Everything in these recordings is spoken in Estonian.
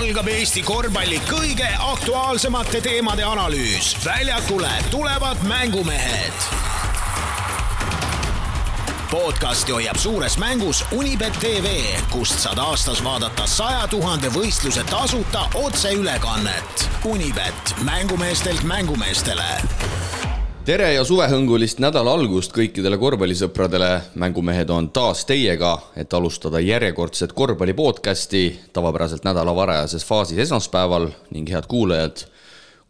algab Eesti korvpalli kõige aktuaalsemate teemade analüüs. Väljakule tulevad mängumehed. Podcasti hoiab suures mängus Unibet TV, kust saad aastas vaadata 100 000 võistluse tasuta otseülekannet. Unibet, mängumeestelt mängumeestele. Tere ja suvehõngulist nädala algust kõikidele korvpallisõpradele. Mängumehed on taas teiega, et alustada järjekordset korvpallipodcasti tavapäraselt nädala varajases faasis esmaspäeval ning head kuulajad.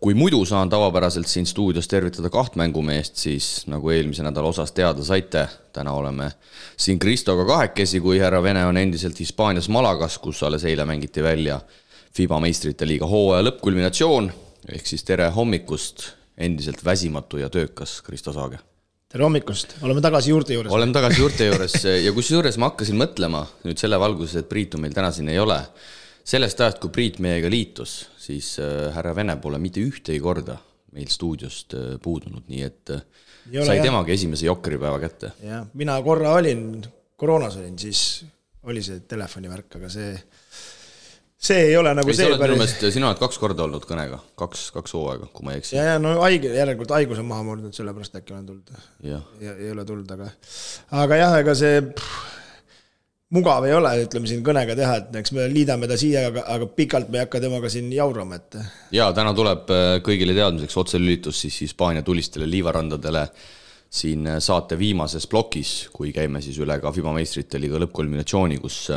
Kui muidu saan tavapäraselt siin stuudios tervitada 2 mängumeest, siis nagu eelmise nädala osas teada saite, täna oleme siin Kristoga kahekesi, kui härra Vene on endiselt Hispaanias Malagas, kus alles eile mängiti välja FIBA meistrite liiga hooaja lõppkulminatsioon, ehk siis tere hommikust, endiselt väsimatu ja töökas Kristo Saage. Tere hommikust, oleme tagasi juurte juures. Oleme tagasi juurte juures ja kusjuures ma hakkasin mõtlema nüüd selle valguses, et Priitu meil täna siin ei ole. Sellest ajast, kui Priit meiega liitus, siis härra Vene pole mitte ühtegi korda meil stuudiost puudunud, nii et sai temagi esimese jokkeripäeva kätte. Ja, mina korra koroonas olin, siis oli see telefonivärk, aga see ei ole nagu see päris. Sina oled 2 korda olnud kõnega, 2 hooaega, kui ma ei eksi. Ja no järelikult haigus on maha murdnud, sellepärast äkki olen tulnud. Ja ei ole tulnud, aga jah, ega see mugav ei ole, ütleme siin kõnega teha, et eks me liidame ta siia, aga pikalt me ei hakka temaga siin jaurama. Ja täna tuleb kõigile teadmiseks otselülitus siis Hispaania tulistele liivarandadele siin saate viimases plokis, kui käime siis üle ka FIBA meistrite liiga lõppkulminatsiooni, kus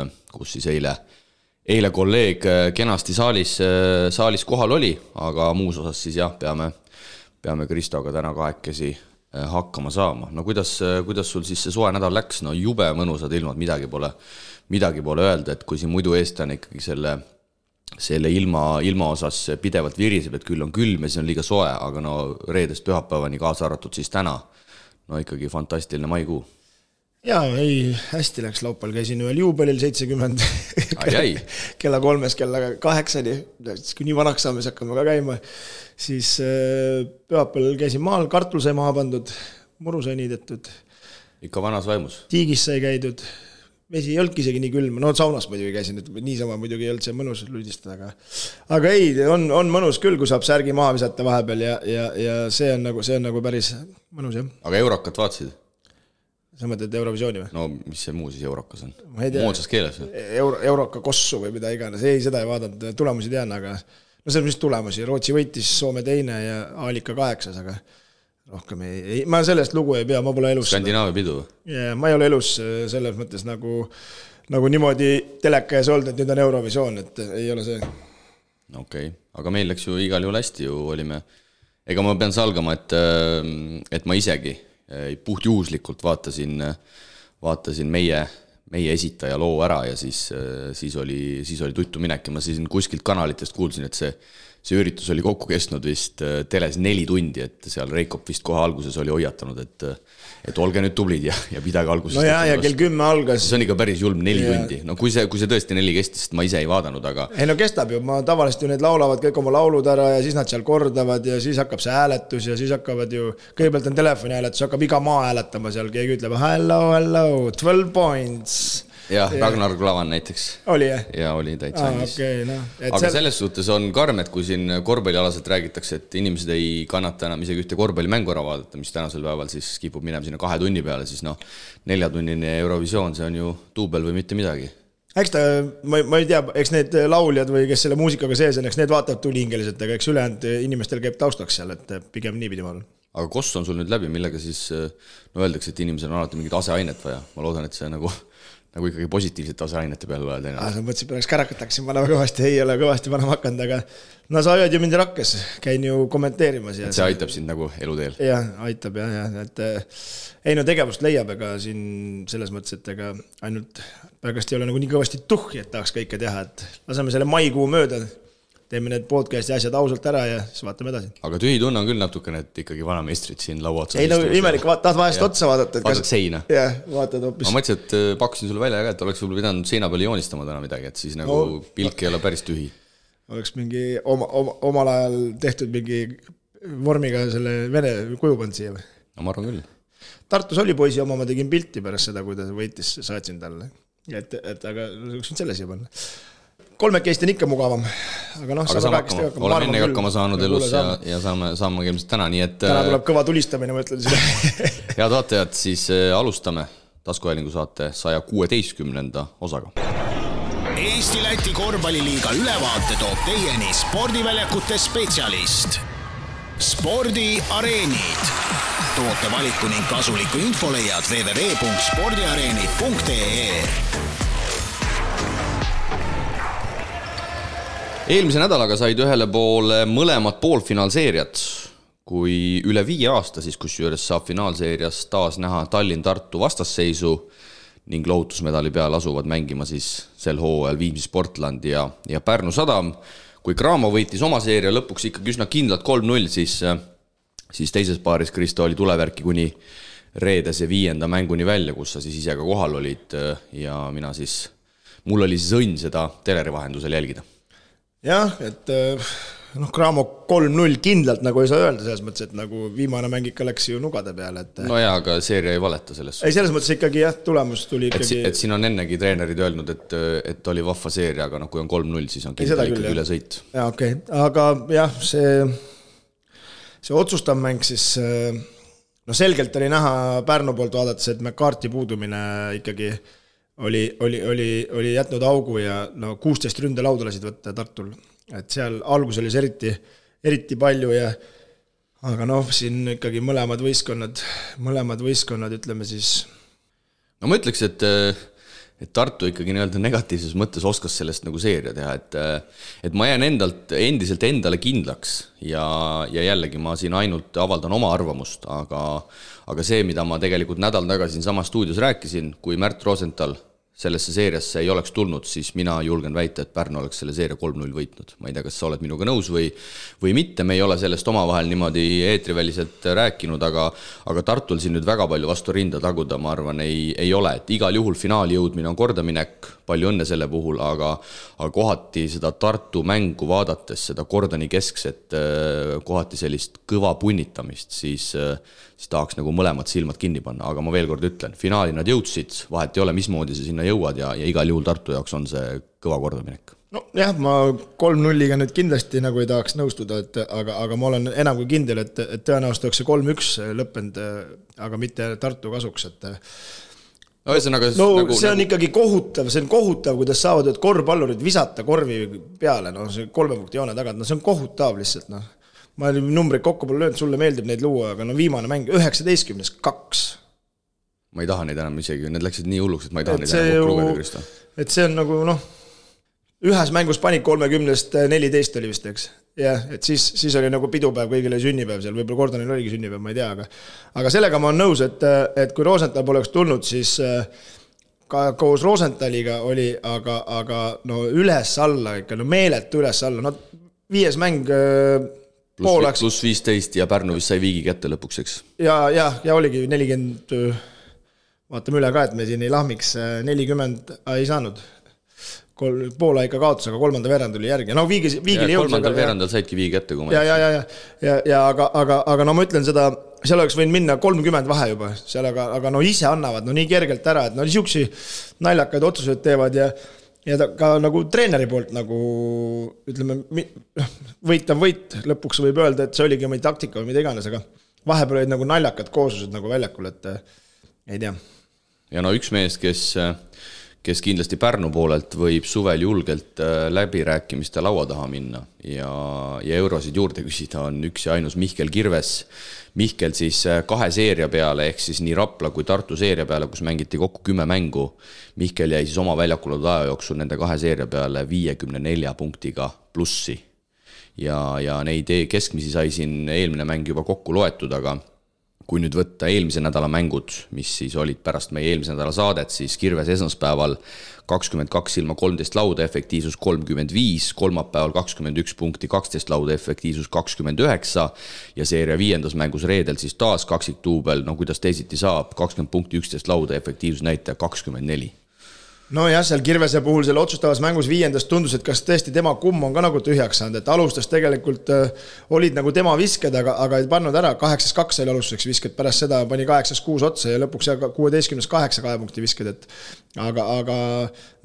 siis eile kolleeg kenasti saalis kohal oli, aga muus osas siis jah, peame Kristoga täna kahekesi hakkama saama. No kuidas sul siis see soe nädal läks? No jube mõnusad ilmad, midagi pole öelda, et kui siin muidu eestlane ikkagi selle ilma osas pidevalt viriseb, et küll on külm ja see on liiga soe, aga no reedest pühapäevani kaasa arvatud siis täna, no ikkagi fantastiline maikuu. Jaa, hästi läks laupäeval, käisin ühel juubelil 70 kella 3, kella 8, kui nii vanaks saame, siis hakkame ka käima, siis pühapäeval käisin maal, kartul sai maha pandud, muru sai niidetud. Ikka vanas vaimus? Tiigis sai käidud, vesi ei olnudki isegi nii külm, no saunas muidugi käisin, et niisama muidugi ei olnud see mõnus lüdistada, aga ei, on mõnus küll, kui saab särgi maha visata vahepeal ja see on nagu päris mõnus, jah. Aga Eurokat vaatasid? Sa mõtled Eurovisiooni või? No mis see muu siis Eurokas on? Moodsas keeles? Euroka kossu või mida iganes. Ei, seda ei vaadanud. Tulemusi tean, aga no see on mis tulemusi. Rootsi võitis, Soome 2 ja Aalika 8, aga rohkem ei. Ma sellest lugu ei pea, ma pole elus. Skandinaavia pidu? Ja, ma ei ole elus selles mõttes nagu niimoodi teleka ees olnud, et nüüd on Eurovisioon, et ei ole see. Okei, aga meil läks ju igal juhul hästi ju olime. Ega ma pean salgama, et ma isegi puhtjuhuslikult vaatasin meie esitaja loo ära ja siis oli tuttu minek ja ma siis kuskilt kanalitest kuulsin, et see üritus oli kokku kestnud vist teles 4 tundi, et seal Reikop vist kohe alguses oli hoiatanud, et olge nüüd tublid ja pidage alguses. No ja kell 10 algas. See on ikka päris julm 4 tundi. No kui see tõesti 4 kestis, ma ise ei vaadanud, aga... Ei no kestab ju, ma tavaliselt ju need laulavad kõik oma laulud ära ja siis nad seal kordavad ja siis hakkab see hääletus ja siis hakkavad ju, kõigepealt on telefoni hääletus, hakkab iga maa hääletama seal, keegi ütleb hello, 12 points. Jah, Ragnar Klavan näiteks. Oli jah? Ja oli täitsa andis. Okay, no. Aga selles suhtes on karm, et kui siin korvpallialaselt räägitakse, et inimesed ei kannata enam isegi ühte korvpallimängu ära vaadata, mis tänasel päeval siis kipub minema sinna 2 tunni peale, siis 4-tunnine Eurovisioon, see on ju duubel või mitte midagi. Eks ma ei tea, eks need lauljad või kes selle muusikaga sees on, eks need vaatavad tulihingeliselt, aga eks ülejäänud inimestel käib taustaks seal, et pigem nii pidi ma olen. Aga koss on sul nüüd läbi, millega siis öeldakse, et inimesel on alati mingid aseainet vaja. Ma loodan, et see nagu ikkagi positiivsete aseainete peale loed. Sa mõtlesid, pärast kärakat hakkasin panema kõvasti, ei ole kõvasti panema hakanud, aga no sa hoiad ju mind rakkes, käin ju kommenteerimas. Et see aitab sind nagu eluteel? Jah, aitab jah, et ei no tegevust leiab, ega siin selles mõttes, et ega ainult pärast ei ole nagu nii kõvasti tuhhi, et tahaks kõike teha, et laseme selle maikuu mööda, teeme need podcasti asjad ausalt ära ja siis vaatame edasi. Aga tühi tunne on küll natukene, et ikkagi vanameistrid siin laua otsa. Ei no imelik, tahad vahest otsa vaadata. Vaatad seina. Jah, vaatad hoopis. Ma mõtlesin, et pakkusin sulle välja, et oleks võib-olla pidanud seina peale joonistama täna midagi, et siis nagu pilk ei ole päris tühi. Oleks mingi omal ajal tehtud mingi vormiga selle Vene kujupand siia või? No ma arvan küll. Tartus oli poisi oma, ma tegin pilti pärast seda, kui ta võitis, saatsin talle. Et aga võiksin selle siia panna. kolmekesti on ikka mugavam. Aga olen ennegi hakkama saanud elus ja saame ilmselt täna, nii et täna tuleb kõva tulistamine, ma ütlen seda. Head vaatajad, siis alustame taskuhäälingu saate 116. osaga. Eesti-Läti korvpalliliiga ülevaate toob teieni spordiväljakute spetsialist. Spordiareenid. Toote valiku ning kasuliku info leiad www.spordiareenid.ee. Eelmise nädalaga said ühele poole mõlemad poolfinaalseeriad, kui üle 5 aasta siis kusjuures saab finaalseerias taas näha Tallinn-Tartu vastasseisu ning lohutusmedali peal asuvad mängima siis sel hooajal Viimsi Sportland ja Pärnu Sadam. Kui Cramo võitis oma seeria lõpuks ikkagi üsna kindlalt 3-0, siis teises paaris Kristo oli tulevärki kuni reedese 5. mänguni välja, kus sa siis ise ka kohal olid ja mul oli siis õnn seda teleri vahendusel jälgida. Jah, et Cramo 3-0 kindlalt nagu ei saa öelda selles mõttes, et nagu viimane mäng ikka läks ju nugade peale. No jaa, aga seeria ei valeta selles. Ei, selles mõttes ikkagi jah, tulemus tuli ikkagi... Et siin on ennegi treenerid öelnud, et oli vahva seeria, aga kui on 3-0, siis on kindlasti ikkagi üle sõit. Jaa, okei. Aga jah, see otsustav mäng siis... selgelt oli näha Pärnu poolt vaadates, et McCarthy puudumine ikkagi oli jätnud augu ja 16 ründe lauda lasid võtta Tartul. Et seal algus oli eriti palju aga siin ikkagi mõlemad võistkonnad ütleme siis... No ma ütleks, et Tartu ikkagi negatiivses mõttes oskas sellest nagu seeria teha, et ma jään endiselt endale kindlaks ja jällegi ma siin ainult avaldan oma arvamust, aga see, mida ma tegelikult nädal tagasi sama stuudios rääkisin, kui Märt Rosenthal sellesse seeriasse ei oleks tulnud, siis mina julgen väita, et Pärnu oleks selle seeria 3-0 võitnud. Ma ei tea, kas sa oled minuga nõus või mitte, me ei ole sellest omavahel niimoodi eetriväliselt rääkinud, aga Tartul siin nüüd väga palju vastu rinda taguda, ma arvan, ei ole. Et igal juhul finaali jõudmine on kordaminek, palju õnne selle puhul, aga kohati seda Tartu mängu vaadates, seda Kordani keskset, kohati sellist kõva punnitamist, siis tahaks nagu mõlemad silmad kinni panna, aga ma veel kord ütlen, finaali nad jõudsid, vahet ei ole, mismoodi see sinna jõuad ja igal juhul Tartu jaoks on see kõva kordaminek. No jah, ma 3-0-ga nüüd kindlasti nagu ei tahaks nõustuda, aga ma olen enam kui kindel, et tõenäoliselt oleks see 3-1 lõppenud, aga mitte Tartu kasuks, et see on ikkagi kohutav, kuidas saavad korvpallurid visata korvi peale, see 3 punkti joone tagant, see on kohutav lihtsalt, Ma olin numbreid kokku pole löönud, sulle meeldib neid luua, aga viimane mäng 19-2. Ma ei taha neid enam isegi, need läksid nii hulluks, et ma ei taha neid enam kokku lugeda, Kristo. Et see on nagu, ühes mängus panik 30-st 14 oli vist, eks. Ja, et siis oli nagu pidupäev, kõigile sünnipäev seal, võib-olla Gordonil oligi sünnipäev, ma ei tea, aga sellega ma olen nõus, et kui Rosenthal poleks tulnud, siis ka koos Rosenthaliga oli, aga üles-alla ikka, meeletu üles-alla, 5 mäng Plus 15 ja Pärnu vist sai viigi kätte lõpuks, eks? Ja oligi 40, vaatame üle ka, et me siin ei lahmiks, 40 ei saanud. Poola ikka kaotus, aga 3. veerand oli järgi. Viigile jõudis. 3. veerandal saidki viigi kätte, kui ma aga ma ütlen seda, seal oleks võinud minna 30 vahe juba, seal aga ise annavad nii kergelt ära, et siuksi naljakaid otsuseid teevad ja ka nagu treeneri poolt nagu ütleme, võitav võit, lõpuks võib öelda, et see oligi oma taktika või mida iganes, aga vahepeal olid nagu naljakad kooslused nagu väljakul, et ei tea. Ja üks mees, kes kindlasti Pärnu poolelt võib suvel julgelt läbirääkimiste laua taha minna ja eurosid juurde küsida, on üks ja ainus Mihkel Kirves. Mihkel siis 2 seeria peale, ehk siis nii Rapla kui Tartu seeria peale, kus mängiti kokku 10 mängu. Mihkel jäi siis oma väljakul aja jooksul nende 2 seeria peale 54 punktiga plussi. Ja neid keskmisi sai siin eelmine mäng juba kokku loetud, aga kui nüüd võtta eelmise nädala mängud, mis siis olid pärast meie eelmise nädala saadet, siis Kirves esmaspäeval 22 ilma 13 lauda, efektiivsus 35, kolmapäeval 21 punkti, 12 lauda, efektiivsus 29 ja seeria 5. mängus reedel siis taas kaksik duubel, kuidas teisiti saab, 20 punkti, 11 lauda, efektiivsus näitaja 24. no jah, seal Kirvese puhul selle otsustavas mängus 5. tundus, et kas tõesti tema kumm on ka nagu tühjaks saanud, et alustas tegelikult olid nagu tema visked, aga ei pannud ära, 8-2 oli alustuseks visked, pärast seda pani 8-6 otsa ja lõpuks 16-8 2 punkti visked, et aga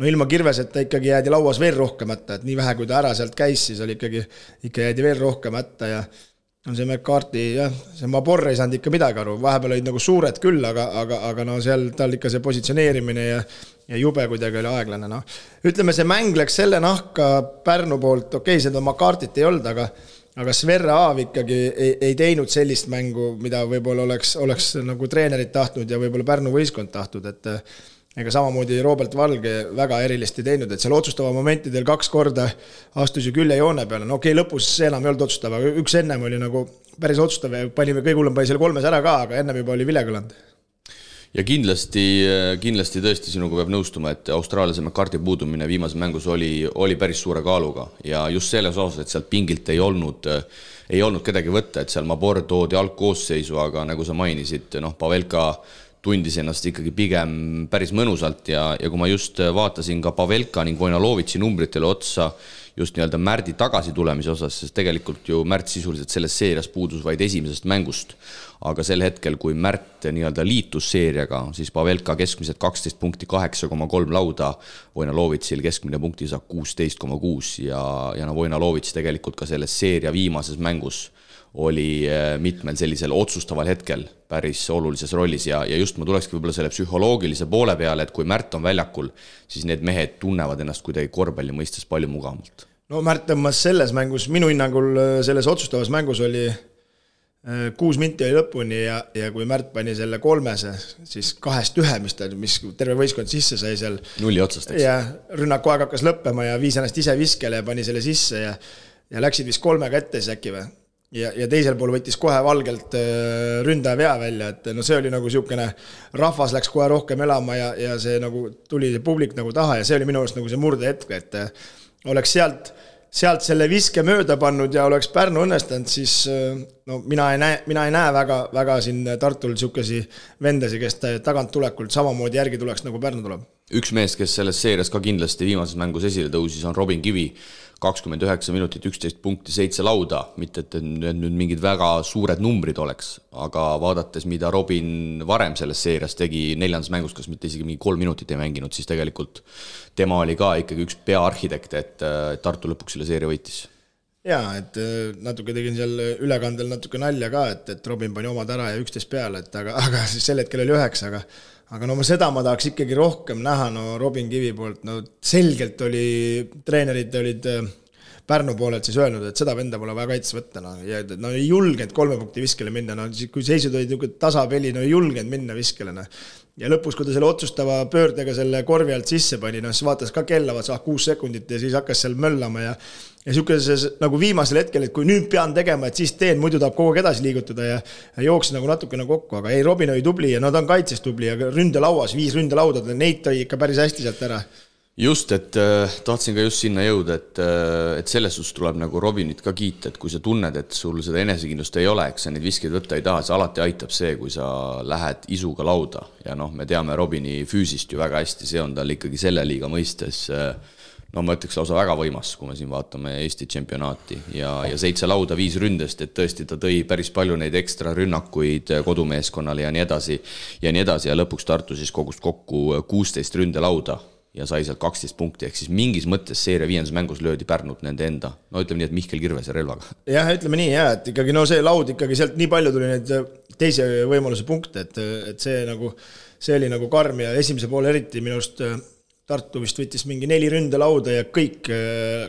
no ilma Kirveseta ikkagi jäädi lauas veel rohkem hätta, et nii vähe kui ta ära sealt käis, siis oli ikka jäädi veel rohkem hätta ja on see McCarthy, jah, see Mabor ei saanud ikka midagi aru, vahepeal olid nagu suured küll, aga no seal tal ikka see positsioneerimine ja jube kuidagi oli aeglane, noh. Ütleme, see mäng läks selle nahka Pärnu poolt, okei, seda McCarthy't ei olnud, aga Sverre Aav ikkagi ei teinud sellist mängu, mida võib-olla oleks nagu treenerid tahtnud ja võib-olla Pärnu võistkond tahtnud, et ega samamoodi Robert Valge väga erilist ei teinud, et seal otsustava momentidel 2 korda astus ju külje joone peale, no okei, lõpus see enam ei olnud otsustava, üks ennem oli nagu päris otsustav ja panime kõige hullem pani selle 3 ära ka, aga ennem juba oli vilegõlanud. Ja kindlasti tõesti sinuga peab nõustuma, et austraaliase McCarthy puudumine viimases mängus oli päris suure kaaluga ja just selles osas, et sealt pingilt ei olnud kedagi võtta, et seal Mabor toodi algkoosseisu, aga nagu sa mainisid, Pavelka tundis ennast ikkagi pigem päris mõnusalt ja kui ma just vaatasin ka Pavelka ning Vojnalovitši numbritele otsa just nii-öelda Märdi tagasi tulemise osas, sest tegelikult ju Märt sisuliselt selles seerias puudus vaid esimesest mängust, aga sel hetkel, kui Märt nii-öelda liitus seeriaga, siis Pavelka keskmiselt 12 punkti 8,3 lauda, Vojnalovitšil keskmine punkti saab 16,6 ja Vojnalovitš tegelikult ka selles seeria viimases mängus oli mitmel sellisel otsustaval hetkel päris olulises rollis ja just ma tulekski võib-olla selle psühholoogilise poole peale, et kui Märt on väljakul, siis need mehed tunnevad ennast kuidagi korvpalli mõistes palju mugavamalt. No Märt tõmmas selles mängus, minu hinnangul selles otsustavas mängus oli 6 minti oli lõpuni ja kui Märt pani selle 3, siis 2-1, mis terve võistkond sisse sai seal. 0 otsast, eks? Ja rünnaku aeg hakkas lõppema ja viis ennast ise viskele ja pani selle sisse ja läksid vist 3 ette siis äkki või? Ja teisel pool võttis kohe Valgelt ründaja vea välja, et no see oli nagu siukene, rahvas läks kohe rohkem elama ja see nagu tuli publik nagu taha ja see oli minu arust nagu see murdehetk, et oleks sealt selle viske mööda pannud ja oleks Pärnu õnnestanud, siis no mina ei näe väga siin Tartul siukesi vendasi, kes tagant tulekult samamoodi järgi tuleks nagu Pärnu tuleb. Üks mees, kes selles seerias ka kindlasti viimases mängus esile tõusis, on Robin Kivi, 29 minutit, 11 punkti, 7 lauda, mitte et nüüd mingid väga suured numbrid oleks, aga vaadates, mida Robin varem selles seerias tegi 4. mängus, kas mitte isegi mingi 3 minutit ei mänginud, siis tegelikult tema oli ka ikkagi üks peaarhitekt, et Tartu lõpuks selle seeria võitis. Jaa, et natuke tegin seal ülekandel natuke nalja ka, et Robin pani omad ära ja 11 peale, et aga siis sel hetkel oli 9, aga no seda ma tahaks ikkagi rohkem näha, no Robin Kivi poolt, no selgelt treenerid olid Pärnu poolelt siis öelnud, et seda venda pole vaja kaitse võtta, ja ei julgenud 3 punkti viskele minna, kui seisud olid tasapeli, ei julgenud minna viskele. Ja lõpus, kui ta selle otsustava pöördega selle korvi alt sisse pani, siis vaatas ka kella, 6 sekundit ja siis hakkas seal möllama ja siukeses nagu viimasel hetkel, et kui nüüd pean tegema, et siis teen, muidu tahab kogu aeg edasi liigutada ja jooksin nagu natukene kokku, aga ei, Robin oli tubli ja ta on kaitses tubli ja ründelauas, 5 ründelauda, neid tõi ikka päris hästi sealt ära. Just, et tahtsin ka just sinna jõuda, et selles suhtes tuleb nagu Robinit ka kiita, et kui sa tunned, et sul seda enesekindlust ei ole, eks sa neid viskeid võtta ei taha, see alati aitab see, kui sa lähed isuga lauda ja me teame Robini füüsist ju väga hästi, see on tal ikkagi selle liiga mõistes ma ütleks lausa väga võimas, kui me siin vaatame Eesti tšempionaati ja 7 lauda 5 ründest, et tõesti ta tõi päris palju neid ekstra rünnakuid kodumeeskonnale ja nii edasi ja lõpuks Tartu siis kogus kokku 16 ründelauda ja sai sealt 12 punkti, ehk siis mingis mõttes seeria 5. mängus löödi Pärnut nende enda, ütleme nii, et Mihkel Kirvese relvaga. Jah, ütleme nii, et ikkagi see laud ikkagi sealt nii palju tuli neid teise võimaluse punkte, et see oli nagu karm ja esimese poole eriti minust Tartu vist võttis mingi 4 ründelauda ja kõik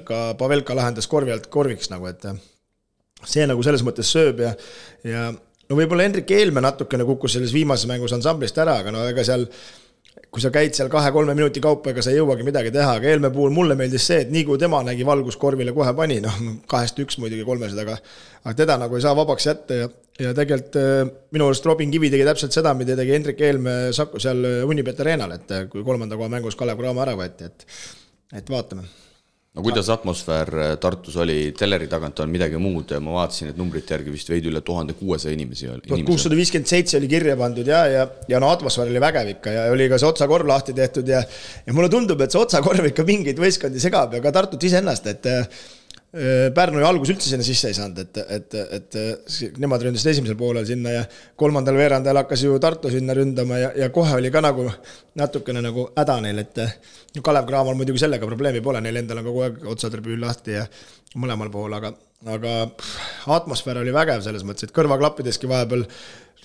ka Pavelka lahendas korvi alt korviks et see nagu selles mõttes sööb ja võib-olla Hendrik Eelme natukene kukkus selles viimases mängus ansamblist ära, aga ega seal kui sa käid seal 2-3 minuti kaupa, ega sa ei jõuagi midagi teha, aga Eelme puhul mulle meeldis see, et nii kui tema nägi valgus korvile kohe pani, 2-1 muidugi 300, aga teda nagu ei saa vabaks jätta ja tegelikult minu arust Robin Kivi tegi täpselt seda, mida tegi Hendrik Eelme Saku seal Unibet Arenal, et kui 3. koha mängus Kalev Cramo ära võeti, et vaatame. no kuidas atmosfäär Tartus oli, teleri tagant on midagi muud, ma vaatasin, et numbrite järgi vist veidi üle 1600 inimesi. 1657 oli kirja pandud ja no atmosfäär oli vägev ikka ja oli ka see otsakorv lahti tehtud ja mulle tundub, et see otsakorv ikka mingeid võistkondi segab ja ka Tartut iseennast, et Pärnu ju algus üldse sinna sisse ei saanud, et nemad ründasid esimesel poolel sinna ja kolmandal veerandajal hakkas ju Tartu sinna ründama ja kohe oli ka nagu natukene nagu häda neil, et Kalev Cramal muidugi sellega probleemi pole, neil endal on kogu aeg otsatribüün lahti ja mõlemal pool, aga atmosfäär oli vägev selles mõttes, et kõrvaklappideski vahepeal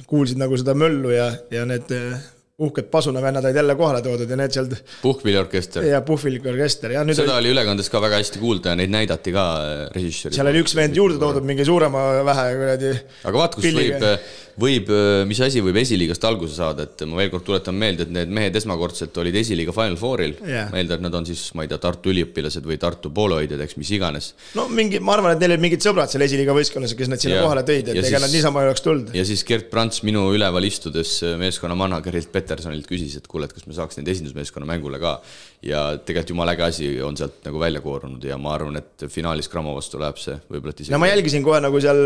kuulsid nagu seda möllu ja need uhked pasunavennad olid jälle kohale toodud ja need sealt Puhkpilliorkester. Ja Puhkpilliorkester. Ja seda oli ülekandes ka väga hästi kuulda ja neid näidati ka režissööri. Seal oli üks vend juurde toodud mingi suurema vähe kuradi. Aga vaat, kus võib, mis asi võib esiliigast alguse saada, et ma veel kord tuletan meelde, et need mehed esmakordselt olid esiliiga Final Fouril. Meelde, et nad on siis, ma ei tea, Tartu üliõpilased või Tartu pooloidjad, eks mis iganes. No ma arvan, et neil olid mingid sõbrad seal esiliiga võistkonnas, kes nad sinna kohale tõid, et ega nad niisama ei oleks tulnud. Ja siis Gert Prants minu üleval istudes meeskonna managerilt Petersonilt küsis, et kuule, et kas me saaks neid esindusmeeskonna mängule ka. Ja tegelikult jumala äge asi on sealt nagu välja koorunud ja ma arvan, et finaalis Cramo vastu läheb see võib-olla no ma jälgisin kohe nagu seal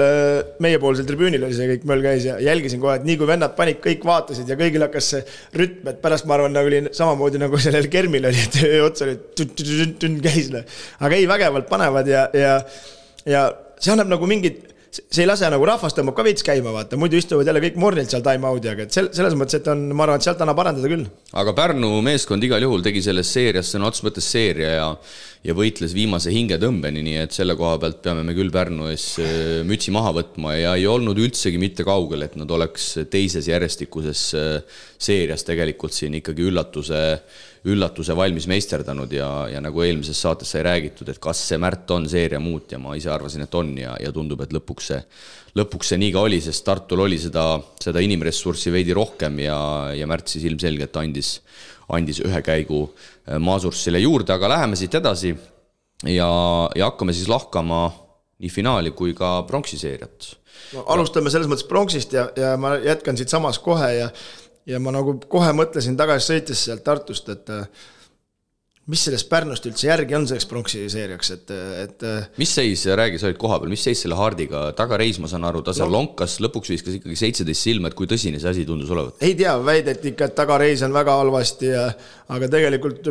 meiepoolsel tribüünil oli see kõik möll käis ja jälgisin kohe, et nii kui vennad panid, kõik vaatasid ja kõigil hakkas see rütm, et pärast ma arvan, nagu oli samamoodi nagu sellel Kermil oli, et ots oli käis. Aga ei, vägevalt panevad ja see annab nagu mingid see ei lase nagu rahvast tõmbab ka veits käima, vaata, muidu istuvad jälle kõik mornilt seal time-out'i, aga selles mõttes, et ma arvan, et sealt annab parandada küll. Aga Pärnu meeskond igal juhul tegi selles seerias, see on otsus mõttes seeria ja võitles viimase hingetõmbeni, nii et selle koha pealt peame me küll Pärnu ees mütsi maha võtma ja ei olnud üldsegi mitte kaugel, et nad oleks teises järjestikuses seerias tegelikult siin ikkagi üllatuse valmis meisterdanud ja nagu eelmises saates sai räägitud, et kas see Märt on seeria muut ja ma ise arvasin, et on ja tundub, et lõpuks see nii ka oli, sest Tartul oli seda inimressurssi veidi rohkem ja Märt siis ilmselgelt andis ühe käigu Maasurssile juurde, aga läheme siit edasi ja hakkame siis lahkama nii finaali kui ka pronksiseeriat. No, alustame selles mõttes pronksist ja ma jätkan siit samas kohe ja ma nagu kohe mõtlesin tagasi sõites sealt Tartust, et mis sellest Pärnust üldse järgi on selleks pronksiseeriaks, et mis seis, räägi, sa olid koha peal, mis seis selle Hardiga, tagareis ma saan aru, ta seal lonkas, lõpuks viiskas ikkagi 17 silma, et kui tõsine see asi tundus olevat? Ei tea, väideti ikka, et tagareis on väga halvasti, aga tegelikult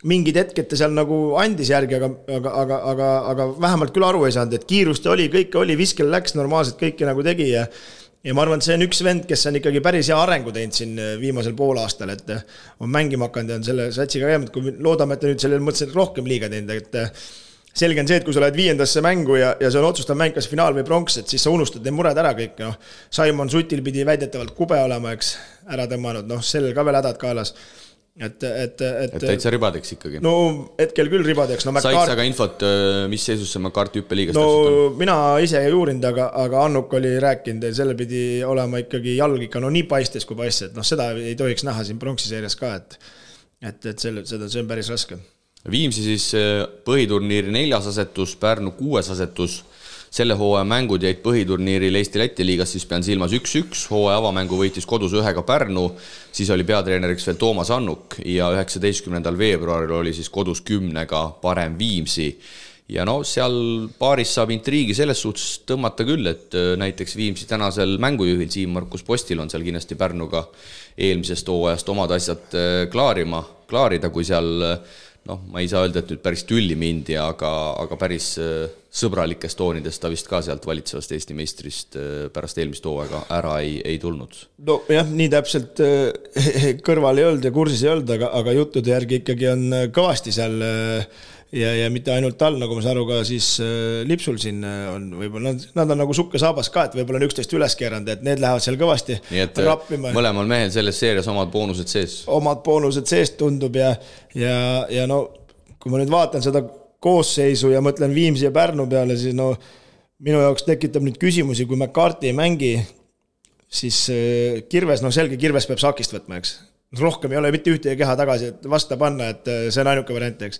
mingid hetked ta seal nagu andis järgi, aga vähemalt küll aru ei saanud, et kiirust oli, kõike oli, viskel läks normaalselt, kõike nagu tegi ja ma arvan, et see on üks vend, kes on ikkagi päris hea arengu teinud siin viimasel poolaastal, et on mängima hakanud ja on selle satsiga käinud, kui loodame, et ta nüüd sellel mõttes rohkem liiga teinud, et selge on see, et kui sa lähed 5. mängu ja see on otsustav mäng, kas finaal või pronks, et siis sa unustad need mured ära kõik, Simon Sutil pidi väidetavalt kube olema, eks, ära tõmmanud, sellel ka veel hädad kaelas. Et täitsa ribadeks ikkagi. No hetkel küll ribadeks. Said sa ka infot, mis seisus see McCarthy hüppeliigast täpselt on? Mina ise ei uurinud, aga Annuk oli rääkinud, et selle pidi olema ikkagi jalg ikka nii paistes kui paistes, et seda ei tohiks näha siin pronksiseerias ka, et see on päris raske. Viimsi siis põhiturniiri 4. asetus, Pärnu 6. asetus. Selle hooaja mängud jäid põhiturniiril Eesti-Läti liigas, siis pean silmas 1-1, hooaja avamängu võitis kodus 1 Pärnu, siis oli peatreeneriks veel Toomas Annuk ja 19. veebruaril oli siis kodus 10 parem Viimsi. Ja seal paaris saab intriigi selles suhtes tõmmata küll, et näiteks Viimsi tänasel mängujuhil Siim-Markus Postil on seal kindlasti Pärnuga eelmisest hooajast omad asjad klaarida, kui seal ma ei saa öelda, et nüüd päris tülli mindi, aga päris sõbralikest toonidest ta vist ka sealt valitsevast Eesti meistrist pärast eelmist hooaega ära ei tulnud. No jah, nii täpselt kõrval ei olnud ja kursis ei olnud, aga juttude järgi ikkagi on kõvasti seal ja mitte ainult tal, nagu ma saan aru ka siis Lipsul siin on võib-olla, nad on nagu sukke saabas ka, et võib-olla on 11 üles keeranud, et need lähevad seal kõvasti rappima. Mõlemal mehel selles seerias omad boonused sees. Omad boonused sees tundub ja kui ma nüüd vaatan seda koosseisu ja mõtlen Viimsi ja Pärnu peale, siis minu jaoks tekitab nüüd küsimusi, kui McCarthy ei mängi, siis Kirves, selge Kirves peab sakist võtma, eks. Rohkem ei ole mitte ühte keha tagasi, et vasta panna, et see on ainuke variant, eks.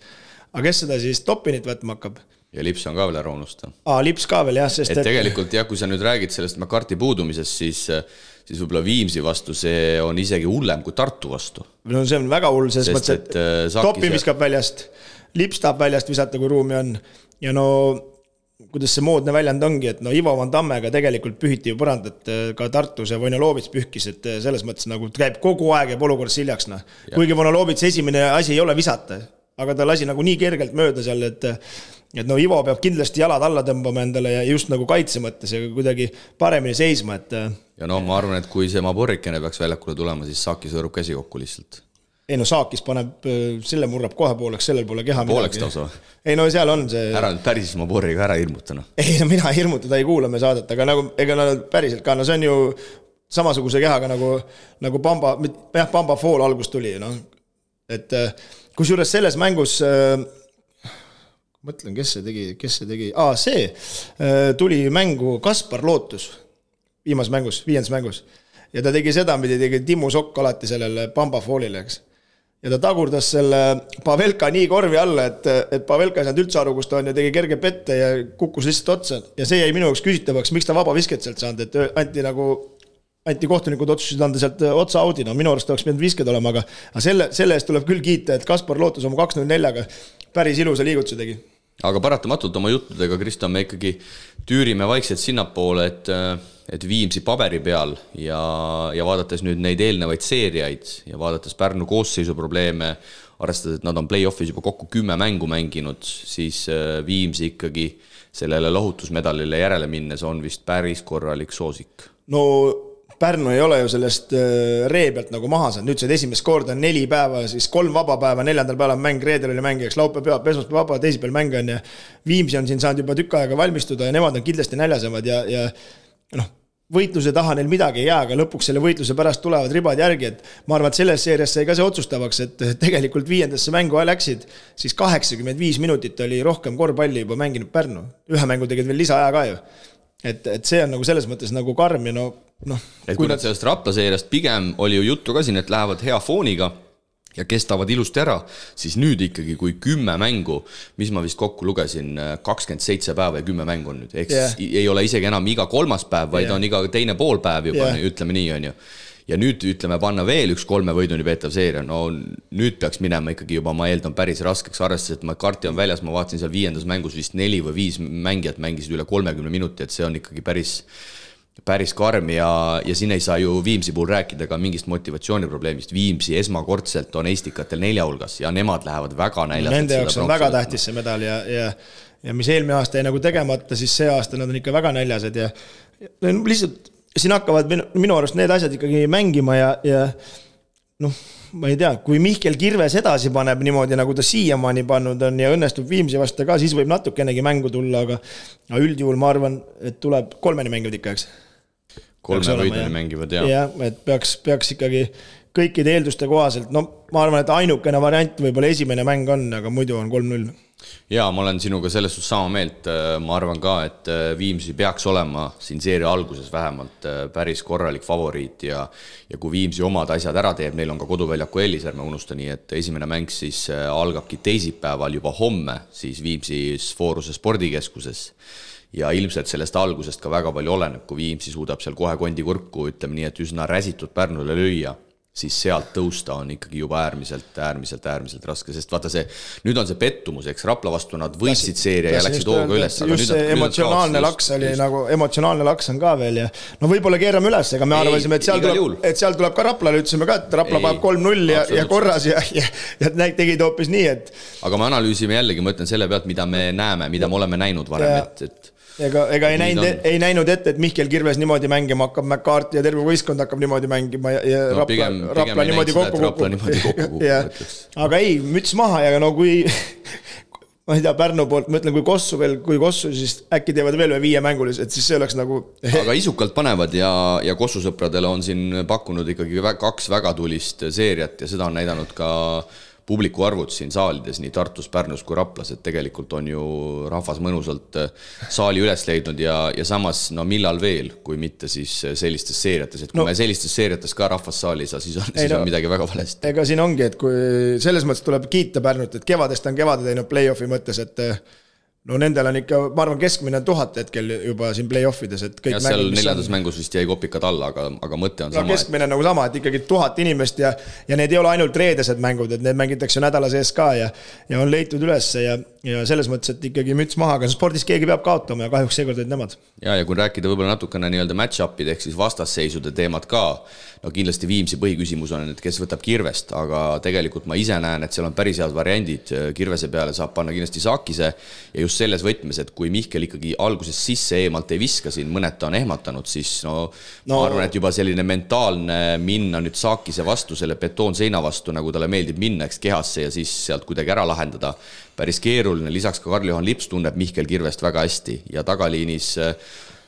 Aga kes seda siis Topinit võtma hakkab? Ja Lips on ka veel ära unusta. Lips ka veel, jah, sest et tegelikult, kui sa nüüd räägid sellest McCarthy puudumisest, siis võib-olla Viimsi vastu see on isegi hullem kui Tartu vastu. No see on väga hull, selles mõttes, et Topi viskab väljast, Lips tahab väljast visata, kui ruumi on. Ja no kuidas see moodne väljend ongi, et no Ivo Van Tammega tegelikult pühiti ju põrand, et ka Tartus ja Vonolovits pühkis, et selles mõttes nagu käib kogu aeg ja olukorras hiljaks. No. Kuigi Vonolovits esimene asi ei ole visata, aga ta lasi nagu nii kergelt mööda seal, et no Ivo peab kindlasti jalad alla tõmbama endale ja just nagu kaitse mõttes ja kuidagi paremini seisma. Et... Ja no ma arvan, et kui see Maborikene peaks väljakule tulema, siis Saaki sõõrub käsi kokku lihtsalt. Ei no Saakis paneb, selle murrab kohe pooleks, sellel pole keha pooleks tausa. Ei no seal on see... Ära nüüd päris Maboriga ära hirmutana. Ei no mina hirmutada ei kuula me saadet, aga nagu, ega päriselt ka, no see on ju samasuguse kehaga nagu Pamba Fall algus tuli. No. Et kus juures selles mängus, mõtlen, kes see tegi? See tuli mängu Kaspar Lootus viiendas mängus. Ja ta tegi seda, mida tegi Timmu Sokk alati sellele Pamba Fallile, eks. Ja ta tagurdas selle Pavelka nii korvi alla, et Pavelka ei saanud üldse aru, kus ta on ja tegi kerge pette ja kukkus lihtsalt otsa. Ja see jäi minu jaoks küsitavaks, miks ta vaba visket sealt saanud, et anti kohtunikud otsusid anda sealt otsa audi. No minu arust oleks pidanud visked olema, aga selle eest tuleb küll kiita, et Kaspar Lootus oma 2-0-4-ga päris ilusa liigutuse tegi. Aga paratamatult oma juttudega, Kristjan, me ikkagi tüürime vaikselt sinnapoole, et Viimsi paberi peal ja vaadates nüüd neid eelnevaid seeriaid ja vaadates Pärnu koosseisu probleeme, arvestades, et nad on play-offis juba kokku 10 mängu mänginud, siis Viimsi ikkagi sellele lohutusmedalile järele minnes on vist päris korralik soosik. No Pärnu ei ole ju sellest ree pealt nagu maha saanud. Nüüd see esimest korda on 4 päeva, siis 3 vaba päeva, 4. päeval on mäng, reedel oli mäng, eks laupäev, esmaspäev vaba, teisipäeval mäng on ja Viimsi on siin saanud juba tükk aega valmistuda ja nemad on kindlasti näljasemad ja noh, võitluse taha neil midagi ei jää, aga lõpuks selle võitluse pärast tulevad ribad järgi, et ma arvan, et selles seerias sai ka see otsustavaks, et tegelikult 5. mängu läksid, siis 85 minutit oli rohkem korvpalli juba mänginud Pärnu. Ühe mängu tegid veel lisaaja ka ju. Et see on nagu selles mõttes nagu karm ja no... Et kui nad sellest Rapla seeriast pigem oli ju juttu ka siin, et lähevad hea fooniga ja kestavad ilusti ära, siis nüüd ikkagi kui 10 mängu, mis ma vist kokku lugesin, 27 päeva ja 10 mängu on nüüd. Eks ei ole isegi enam iga 3. päev, vaid on iga teine pool päev juba, ütleme nii on ju. Ja nüüd ütleme panna veel üks 3 võiduni peetav seeria, no nüüd peaks minema ikkagi juba, ma eeldan päris raskeks arvestades, et Karti on väljas, ma vaatasin seal 5. mängus vist 4 või 5 mängijat mängisid üle 30 minuti, et see on ikkagi päris karm ja siin ei saa ju Viimsi puhul rääkida ka mingist motivatsiooniprobleemist. Viimsi esmakordselt on eestikatel 4 hulgas ja nemad lähevad väga näljast. Nende jaoks on väga tähtis see medal ja mis eelmine aasta ei nagu tegemata, siis see aasta nad on ikka väga näljased ja lihtsalt siin hakkavad minu arust need asjad ikkagi mängima ja noh, ma ei tea, kui Mihkel Kirves edasi paneb niimoodi, nagu ta siiamaani pannud on ja õnnestub Viimsi vastu ka, siis võib natukenegi mängu tulla, aga üldjuhul ma arvan, et tuleb 3 mängivad ikka, eks? 3 võiduni mängivad, jah. Ja, et peaks ikkagi kõikide eelduste kohaselt, no ma arvan, et ainukene variant võib-olla esimene mäng on, aga muidu on 3-0. Jaa, ma olen sinuga selles suhtes sama meelt, ma arvan ka, et Viimsi peaks olema siin seeria alguses vähemalt päris korralik favoriit ja kui Viimsi omad asjad ära teeb, neil on ka koduväljaku eelis, ärme unusta nii, et esimene mäng siis algabki teisipäeval juba homme siis Viimsis Fooruse spordikeskuses ja ilmselt sellest algusest ka väga palju oleneb, kui Viimsi suudab seal kohe kondikurku, ütleme nii, et üsna räsitud Pärnule lüüa, siis sealt tõusta on ikkagi juba äärmiselt raske, sest vaata see, nüüd on see pettumus, eks Rapla vastu nad võitsid seeria ja läksid hooga üles. Just see emotsionaalne laks oli nagu, emotsionaalne laks on ka veel ja no võib-olla keerame üles, ega me arvasime, et seal tuleb ka Raplale, ütlesime ka, et Rapla paneb 3-0 ja korras ja tegid hoopis nii, et aga me analüüsime jällegi, ma ütlen selle pealt, mida me näeme, mida me oleme näinud varem, et Ega ei näinud ette, et Mihkel Kirves niimoodi mängima hakkab, McCarthy ja terve võistkond hakkab niimoodi mängima ja Rapla niimoodi kokku. Aga ei, müts maha ja no kui ma ei tea, Pärnu poolt, ma ütlen, kui Kossu, siis äkki teevad veel 5 mängulis, et siis see oleks nagu aga isukalt panevad ja Kossu sõpradele on siin pakkunud ikkagi 2 väga tulist seeriat ja seda on näidanud ka publiku arvud siin saalides, nii Tartus, Pärnus kui Raplas, et tegelikult on ju rahvas mõnusalt saali üles leidnud ja samas, no millal veel, kui mitte siis sellistes seeriates, et kui me sellistes seeriates ka rahvas saali ei saa, siis on midagi väga valesti. Ega siin ongi, et kui selles mõttes tuleb kiita Pärnut, et kevadest on kevade teinud play-offi mõttes, et no nendel on ikka, ma arvan, keskmine 1000 hetkel juba siin play-offides, et kõik ja seal 4. mängus vist jäi kopikad alla, aga mõte on sama. Keskmine nagu sama, et ikkagi 1000 inimest ja need ei ole ainult reedesed mängud, et need mängitakse nädala sees ka ja on leitud üles ja selles mõttes, et ikkagi müts maha, aga spordis keegi peab kaotama ja kahjuks seekord olid nemad. Ja kui rääkida võib-olla natukene nii-öelda match-upid ehk siis vastasseisude teemad ka, no kindlasti Viimsi põhiküsimus on, et kes võtab Kirvest, aga tegelikult ma ise näen, et seal on päris head variandid, Kirvese peale saab panna kindlasti Saakise ja just selles võtmes, et kui Mihkel ikkagi alguses sisse eemalt ei viska siin, mõned ta on ehmatanud, siis ma arvan, et juba selline mentaalne minna nüüd Saakise vastu, selle betoonseina vastu, nagu talle meeldib minna kehasse ja siis sealt kuidagi ära lahendada, päris keeruline, lisaks ka Karl-Johan Lips tunneb Mihkel Kirvest väga hästi ja tagaliinis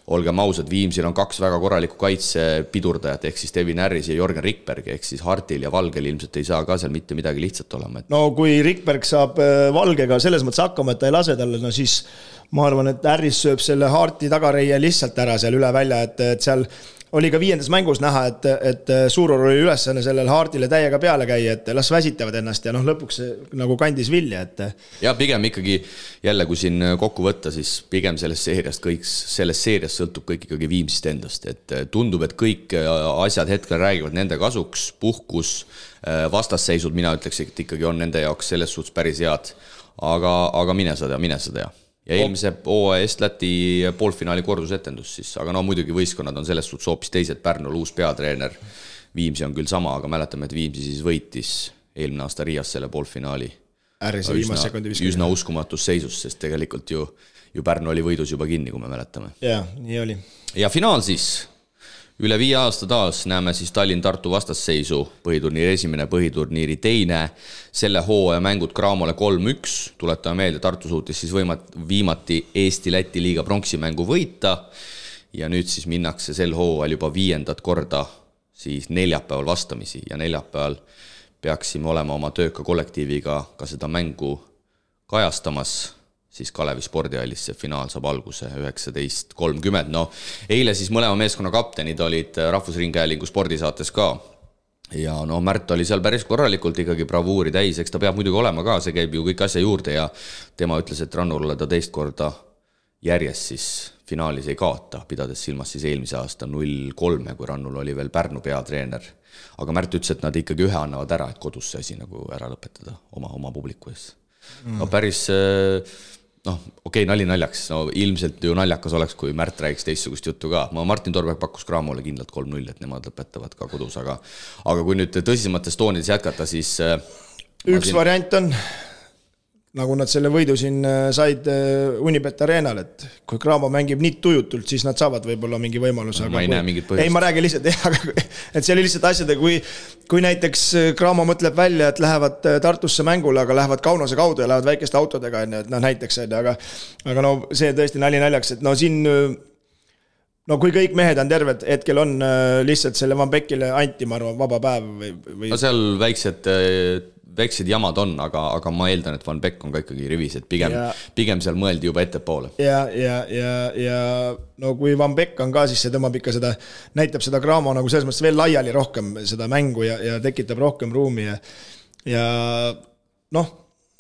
olgem ausad, Viimsil on 2 väga korralikku kaitsepidurdajat, ehk siis Devin Harris ja Jorgen Rikberg, ehk siis Hartil ja Valgel ilmselt ei saa ka seal mitte midagi lihtsalt olema. No kui Rikberg saab Valgega selles mõttes hakkama, et ta ei lase talle, no siis ma arvan, et Harris sööb selle Harti tagareie lihtsalt ära seal üle välja, et seal oli ka 5. mängus näha, et Suuror oli ülesanne sellel Hartile täiega peale käia, et las väsitavad ennast ja lõpuks nagu kandis vilja. Ja pigem ikkagi jälle, kui siin kokku võtta, siis pigem sellest seeriast sõltub kõik ikkagi Viimsist endast. Et tundub, et kõik asjad hetkel räägivad nende kasuks, puhkus, vastasseisud, mina ütleks, et ikkagi on nende jaoks selles suhtes päris head. Aga mine sa tea. Ja eelmise Est-Läti poolfinaali kordusetendus siis, aga muidugi võistkonnad on selles suhtes hoopis teised, Pärnul uus peatreener, Viimsi on küll sama, aga mäletame, et Viimsi siis võitis eelmine aasta Riias selle poolfinaali. Üsna uskumatus seisus, sest tegelikult ju Pärnu oli võidus juba kinni, kui me mäletame. Ja, nii oli. Ja finaal siis. Üle 5 aasta taas näeme siis Tallinn-Tartu vastasseisu, põhiturniiri esimene, põhiturniiri teine, selle hooaja mängud Cramole 3-1, tuletame meelde, Tartu suutis siis viimati Eesti-Läti liiga pronksimängu võita ja nüüd siis minnakse sel hooajal juba 5. korda siis neljapäeval vastamisi ja neljapäeval peaksime olema oma tööka kollektiiviga ka seda mängu kajastamas, siis Kalevi spordihallis see finaal saab alguse 19.30. Eile siis mõlema meeskonna kaptenid olid Rahvusringhäälingu spordisaates ka. Ja Märt oli seal päris korralikult ikkagi bravuuri täis, eks ta peab muidugi olema ka, see käib ju kõik asja juurde ja tema ütles, et Rannurule ta 2 korda järjest siis finaalis ei kaota, pidades silmas siis eelmise aasta 0-3, kui Rannul oli veel Pärnu peatreener. Aga Märt ütles, et nad ikkagi ühe annavad ära, et kodus see asi nagu ära lõpetada oma publiku ees. Päris... okei, nali naljaks, ilmselt ju naljakas oleks, kui Märt räägiks teistsugust juttu ka. Martin Torberg pakkus Cramole kindlalt 3-0, et nemad lõpetavad ka kodus, aga kui nüüd tõsisemates toonides jätkata, siis... Üks variant on, nagu nad selle võidu siin said Unibet Arenal, et kui Cramo mängib nii tujutult, siis nad saavad võib-olla mingi võimaluse. Ma ei näe mingit põhjust. Ei, ma räägin lihtsalt, et see oli lihtsalt asjade, kui näiteks Cramo mõtleb välja, et lähevad Tartusse mängule, aga lähevad Kaunase kaudu ja lähevad väikeste autodega, näiteks, aga see tõesti naljaks, et siin, kui kõik mehed on terved, hetkel on lihtsalt selle Van Beckile anti, ma arvan, vaba päev või... Seal väiksed jamad on, aga ma eeldan, et Van Beck on ka ikkagi rivis, et pigem seal mõeldi juba ettepoole. Ja kui Van Beck on ka, siis see tõmbab ikka seda, näitab seda Cramo nagu selles mõttes veel laiali rohkem seda mängu ja tekitab rohkem ruumi ja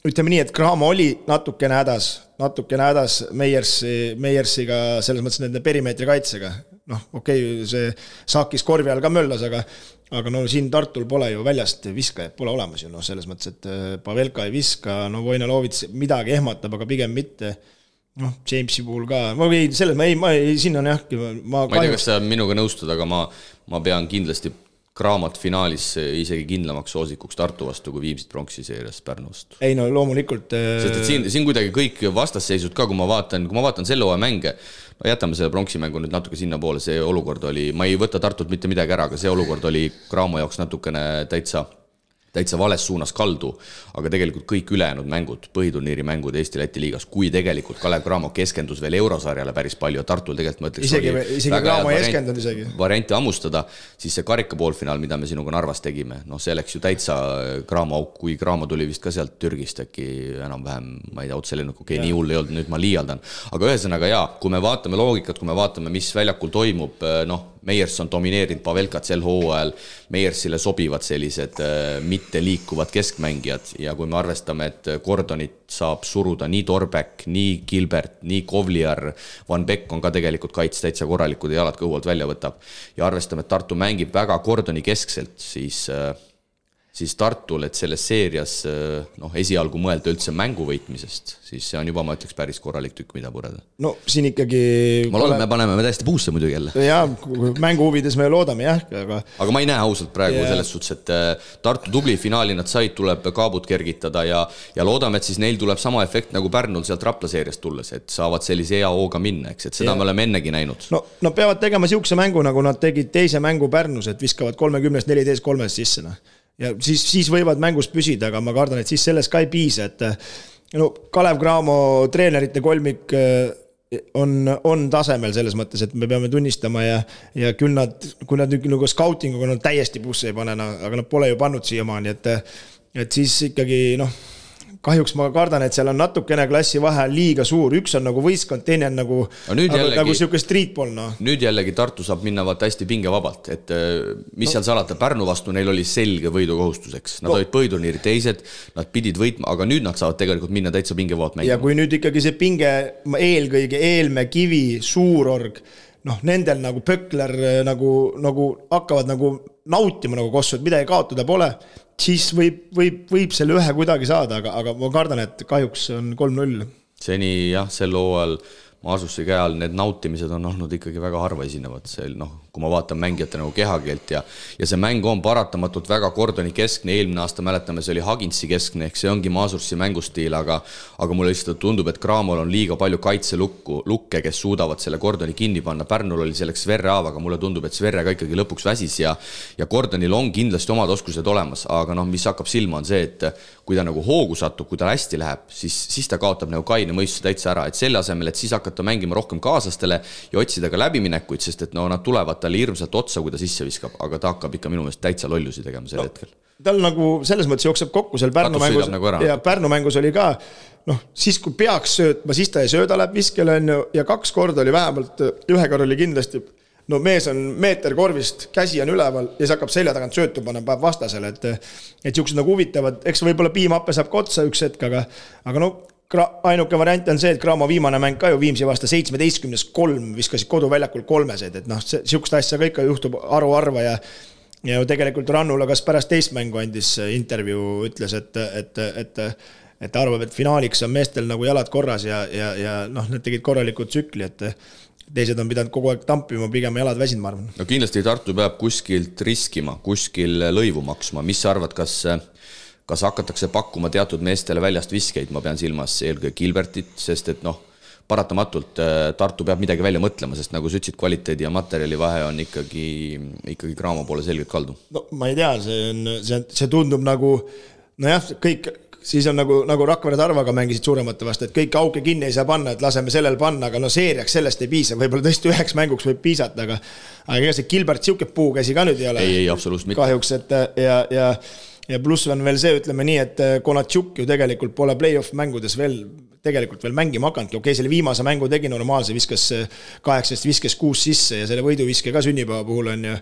ütleme nii, et Cramo oli natukene hädas Meiersiga selles mõttes nende perimeetri kaitsega. Okei, see saakis korvi all ka möllas, aga siin Tartul pole ju väljast viskajad, pole olemas ju, selles mõttes, et Pavelka ei viska, Vojnalovits midagi ehmatab, aga pigem mitte, Jamesi puhul ka, siin on jah, ma ei tea, kas sa minuga nõustud, aga ma pean kindlasti Cramot finaalis isegi kindlamaks soosikuks Tartu vastu, kui Viimsit pronksi seerias Pärnu vastu. Ei, loomulikult. Sest et siin kuidagi kõik vastasseisud ka, kui ma vaatan selle hooaja mänge, jätame selle pronksimängu nüüd natuke sinna poole, see olukord oli, ma ei võta Tartut mitte midagi ära, aga see olukord oli Cramo jaoks natukene täitsa vales suunas kaldu, aga tegelikult kõik ülejäänud mängud, põhiturniiri mängud Eesti-Läti liigas, kui tegelikult Kalev Cramo keskendus veel eurosarjale päris palju ja Tartul tegelikult ma ütleks isegi Cramo ei eskendunud isegi. Varianti ammustada, siis see karika poolfinaal, mida me sinuga Narvas tegime, see läks ju täitsa Cramo auk, kui Cramo tuli vist ka sealt Türgist äkki enam-vähem, ma ei tea, otselennuk, nii hull ei olnud, nüüd ma liialdan. Aga ühesõnaga kui me vaatame loogikat, kui me vaatame, mis väljakul toimub, Meiers on domineerinud Pavelkat sel hooajal, Meiersile sobivad sellised mitte liikuvad keskmängijad ja kui me arvestame, et Gordonit saab suruda nii Torbeck, nii Gilbert, nii Kovliar, Van Beck on ka tegelikult kaits täitsa korralikud ja jalad kõhualt välja võtab ja arvestame, et Tartu mängib väga Gordoni keskselt, siis Tartul, et selles seerias esialgu mõelda üldse mängu võitmisest, siis see on juba, ma ütleks, päris korralik tükk, mida pureda. No siin ikkagi... Ma loodan, me paneme täiesti puusse muidugi jälle. Jaa, mängu huvides me loodame, jah. Aga ma ei näe ausalt praegu selles suhtes, et Tartu tubli finaali nad said, tuleb kaabut kergitada ja loodame, et siis neil tuleb sama efekt nagu Pärnul sealt Rapla seeriast tulles, et saavad sellise hea hooga minna, eks, et seda me oleme ennegi näinud. No peavad tegema siukse mängu, nagu nad tegid teise mängu Pärnus, et viskavad 30-14-3 sisse. Ja siis võivad mängus püsida, aga ma kardan, et siis selles ka ei piisa, et Kalev Cramo treenerite kolmik on tasemel selles mõttes, et me peame tunnistama ja küll kui nad nagu scoutinguga nad täiesti busse ei pane, aga nad pole ju pannud siiamaani, et siis ikkagi kahjuks ma kardan, et seal on natukene klassi vahe liiga suur, üks on nagu võistkond, teine on nagu siuke streetball. Nüüd jällegi Tartu saab minna hästi pingevabalt, et mis seal salata, Pärnu vastu neil oli selge võidukohustuseks, nad olid põhiturniiri teised, nad pidid võitma, aga nüüd nad saavad tegelikult minna täitsa pingevabalt mängima. Ja kui nüüd ikkagi see pinge eelkõige Eelme, Kivi, Suurorg, nendel nagu Pökler nagu hakkavad nagu nautima nagu kossu, et midagi kaotada pole, siis võib selle ühe kuidagi saada, aga ma kardan, et kahjuks on 3-0. Seni jah, sel hooajal Maasussi käal need nautimised on olnud ikkagi väga harva esinevad. Kui ma vaatan mängijate nagu kehakeelt ja see mäng on paratamatult väga Gordoni keskne, eelmine aasta mäletame, see oli Haginsi keskne, ehk see ongi Maasussi mängustiil, aga mulle lihtsalt tundub, et Cramol on liiga palju kaitselukke, kes suudavad selle Gordoni kinni panna. Pärnul oli selleks Sverre Aava, aga mulle tundub, et Sverre ka ikkagi lõpuks väsis ja Gordonil on kindlasti omad oskused olemas, aga mis hakkab silma on see, et kui ta nagu hoogu satub, kui ta hästi läheb, siis ta kaotab nagu kaine mõistuse täitsa ära, et selle asemel, et siis hakata mängima rohkem kaaslastele ja otsida ka läbiminekuid, sest et nad tulevad talle hirmsalt otsa, kui ta sisse viskab, aga ta hakkab ikka minu meelest täitsa lollusi tegema sel hetkel. Tal nagu selles mõttes jookseb kokku seal Pärnu mängus nagu ja Pärnu mängus oli ka, siis kui peaks söötma, siis ta ei sööda, läheb viskele ja 2 korda oli vähemalt, ühe korra oli kindlasti, mees on meeter korvist, käsi on üleval ja siis hakkab selja tagant söötu panna päev vastasele, et siuksed nagu huvitavad, eks võibolla Piimappe saab ka otsa üks hetk, aga ainuke variant on see, et Cramo viimane mäng ka ju Viimsi vasta 17-3 viskasid koduväljakul 3, et siukest asja ka ikka juhtub arva ja tegelikult Rannula kas pärast teist mängu andis intervjuu, ütles, et arvab, et finaaliks on meestel nagu jalad korras ja need tegid korralikud tsükli, et teised on pidanud kogu aeg tampima, pigem jalad väsinud, ma arvan. No kindlasti Tartu peab kuskilt riskima, kuskil lõivu maksma, mis sa arvad, kas hakatakse pakkuma teatud meestele väljast viskeid, ma pean silmas eelkõige Gilbertit, sest et paratamatult Tartu peab midagi välja mõtlema, sest nagu sa ütlesid, kvaliteedi ja materjali vahe on ikkagi Cramo poole selgelt kaldu. Ma ei tea, see tundub nagu, kõik, siis on nagu Rakvere Tarvaga mängisid suuremate vastu, et kõik auke kinni ei saa panna, et laseme sellel panna, aga seeriaks sellest ei piisa, võib-olla tõesti 9 mänguks võib piisata, aga ega see Gilbert siuke puukäsi ka nüüd ei ole. Ei, absoluutselt mitte. Kahjuks, ja pluss on veel see, ütleme nii, et Konatšuk ju tegelikult pole play-off mängudes veel mängima hakanud. Okei, selle viimase mängu tegi normaalse, viskas 8, viskas 6 sisse ja selle võiduviske ka sünnipäeva puhul on ju.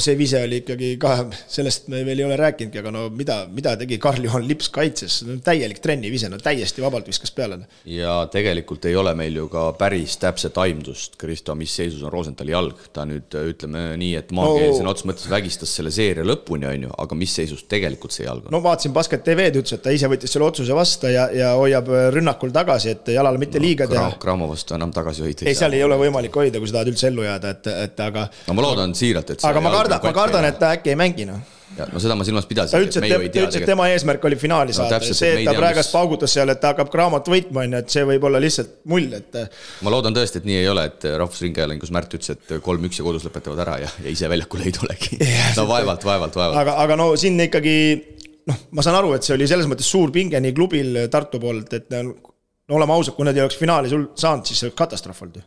See vise oli ikkagi ka, sellest me veel ei ole rääkinudki, aga mida tegi Karl-Johan Lips kaitses? Täielik trenni vise, täiesti vabalt viskas peale. Ja tegelikult ei ole meil ju ka päris täpset aimdust, Kristo, mis seisus on Rosenthali jalg. Ta nüüd ütleme nii, et maakeelisen ots mõttes vägistas selle seeria lõpuni, on ju, aga mis seisus tegelikult see jalg on? Vaatasin Basket TV-d, ütles, et ta ise võttis selle otsuse vasta ja hoiab rünnakul tagasi, et jalale mitte liiga teha. Cramo vastu enam tagasi hoida. Ei, seal ei ole võimalik hoida, kui sa tahad üldse ellu jääda, aga... ma loodan siiralt, et... Aga ma kardan, et ta äkki ei mängi, seda ma silmas pidasin. Ta ütles, et tema eesmärk oli finaali saada. See, et ta praegast paugutas seal, et ta hakkab Cramot võitma, et see võib olla lihtsalt mull. Ma loodan tõesti, et nii ei ole, et Rahvusringhäälingus Märt ütles, et 3-1 ja kodus lõpetavad ära ja ise väljakule ei tulegi. Vaevalt. Aga siin ikkagi, ma saan aru, et see oli selles mõttes suur pinge nii klubil Tartu poolt, et oleme ausad, kui nad ei oleks finaali sul saanud, siis see oleks katastroof olnud.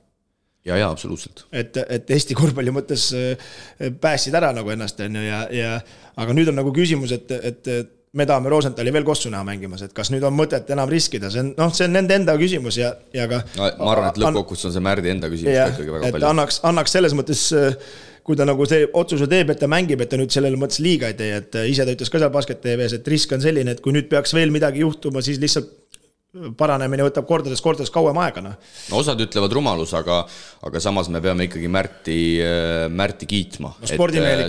Ja, absoluutselt. Et Eesti korvpalli mõttes pääsid ära nagu ennast, aga nüüd on nagu küsimus, et me tahame Rosenthali veel kossu näha mängimas, et kas nüüd on mõtet enam riskida, see on nende enda küsimus ja ka... ma arvan, et lõppkokkuvõttes on see Märdi enda küsimus ikkagi väga palju. Annaks selles mõttes kui ta nagu see otsuse teeb, et ta mängib, et ta nüüd sellele mõttes liiga ei tee, et ise ta ütles ka seal Basket TV-s, et risk on selline, et kui nüüd peaks veel midagi juhtuma, siis lihtsalt paranemine võtab kordades kauem aega. No, osad ütlevad rumalus, aga samas me peame ikkagi Märti kiitma. No,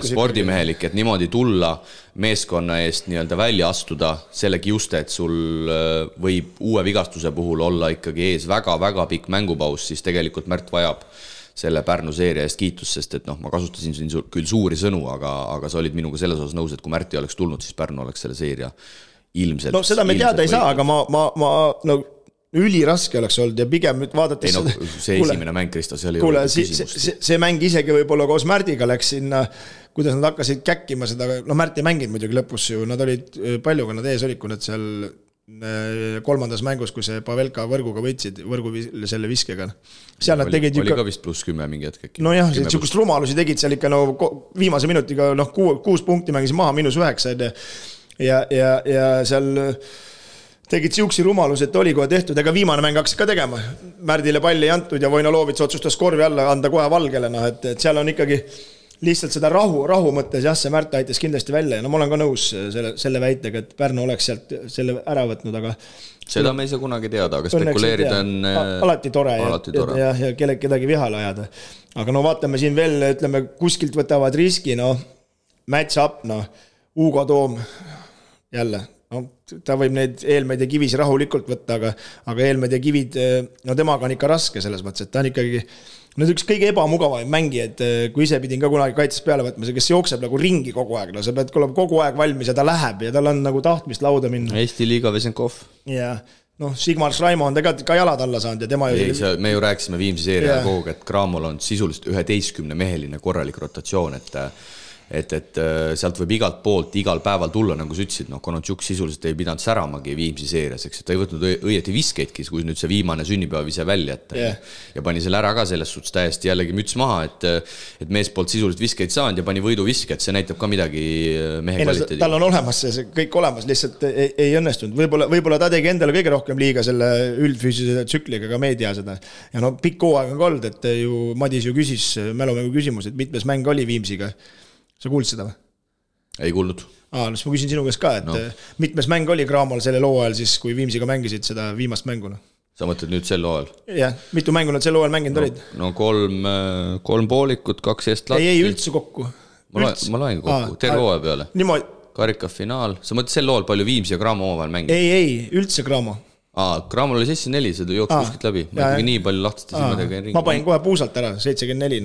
spordimehelik, et niimoodi tulla meeskonna eest nii-öelda välja astuda selle kiuste, et sul võib uue vigastuse puhul olla ikkagi ees väga-väga pikk mängupaus, siis tegelikult Märt vajab selle Pärnu seeria eest kiitus, sest et ma kasutasin siin küll suuri sõnu, aga sa olid minuga selles osas nõus, et kui Märti oleks tulnud, siis Pärnu oleks selle seeria ilmselt. No seda me teada ei saa, aga ma üliraske oleks olnud ja pigem nüüd vaadates see esimene mäng, Kristo, see oli see mäng isegi võib-olla koos Märdiga läks sinna, kuidas nad hakkasid käkkima seda, Märt ei mänginud muidugi lõpus ju, nad olid palju, kui nad ees olid, kui nad seal kolmandas mängus, kui see Pavelka võrguga võitsid, selle viskega. Seal nad tegid oli ka vist +10 mingi hetk äkki. No jah, niisugust rumalusi tegid seal ikka viimase minutiga 6 punkti mängisid maha, -9 ja seal tegid siuksi rumalus, et oli kohe tehtud, ega viimane mäng hakkas ka tegema. Märdile palli ei antud ja Vojnolovits otsustas korvi alla anda kohe Valgele, et seal on ikkagi lihtsalt seda rahu mõttes, jah, see Märt aitas kindlasti välja ja ma olen ka nõus selle väitega, et Pärnu oleks sealt selle ära võtnud, aga seda me ei saa kunagi teada, aga spekuleerida on alati tore ja kedagi vihale ajada. Aga vaatame siin veel, ütleme, kuskilt võtavad riski, match up, Hugo Toom jälle, ta võib neid Eelmed ja Kivis rahulikult võtta, aga Eelmed ja Kivid, temaga on ikka raske selles mõttes, et ta on ikkagi üks kõige ebamugavaid mängi, et kui ise pidin ka kunagi kaitses peale võtma, kes jookseb nagu ringi kogu aeg, sa pead kogu aeg valmis ja ta läheb ja tal on nagu tahtmist lauda minna. Eesti liiga Vesenkov. Ja, Sigmar Schraimo on tegelikult ka jalad alla saanud ja tema me ju rääkisime Viimsi seeria kogu, et Cramol on sisuliselt 11-meheline korralik rotatsioon, et sealt võib igalt poolt igal päeval tulla, nagu sa ütlesid, Konotšuk sisuliselt ei pidanud säramagi Viimsi seerias, eks, et ta ei võtnud õieti viskeidki, kui nüüd see viimane sünnipäev ise välja, ja pani selle ära ka selles suhtes täiesti jällegi müts maha, et mees poolt sisuliselt viskeid saanud ja pani võiduviske, et see näitab ka midagi mehe kvaliteedi. Tal on olemas see kõik olemas, lihtsalt ei õnnestunud. Võib-olla ta tegi endale kõige rohkem liiga selle üldfüüsilise tsükliga ka meedia seda. Ja pikk hooaeg on olnud, et ju Madis ju küsis mälumängu küsimus, et mitmes mäng oli Viimsiga. Sa kuulsid seda või? Ei kuulnud. Siis ma küsin sinu käest ka, et mitmes mäng oli Cramol selle loo ajal siis, kui Viimsiga mängisid seda viimast mänguna? Sa mõtled nüüd sel loo ajal? Jah, mitu mängu nad sel loo ajal mänginud olid? 3 poolikut, 2 eestlatti. Ei, üldse kokku. Ma loen kokku, terve hooaja peale. Karika finaal. Sa mõtled sel loo ajal palju Viimsi ja Cramo omavahel mängid? Ei, üldse Cramo. Cramol oli 74, see jooks kuskilt läbi. Ma ikkagi nii palju lahtiste silmadega ringi. Ma panin kohe puusalt ära, 74.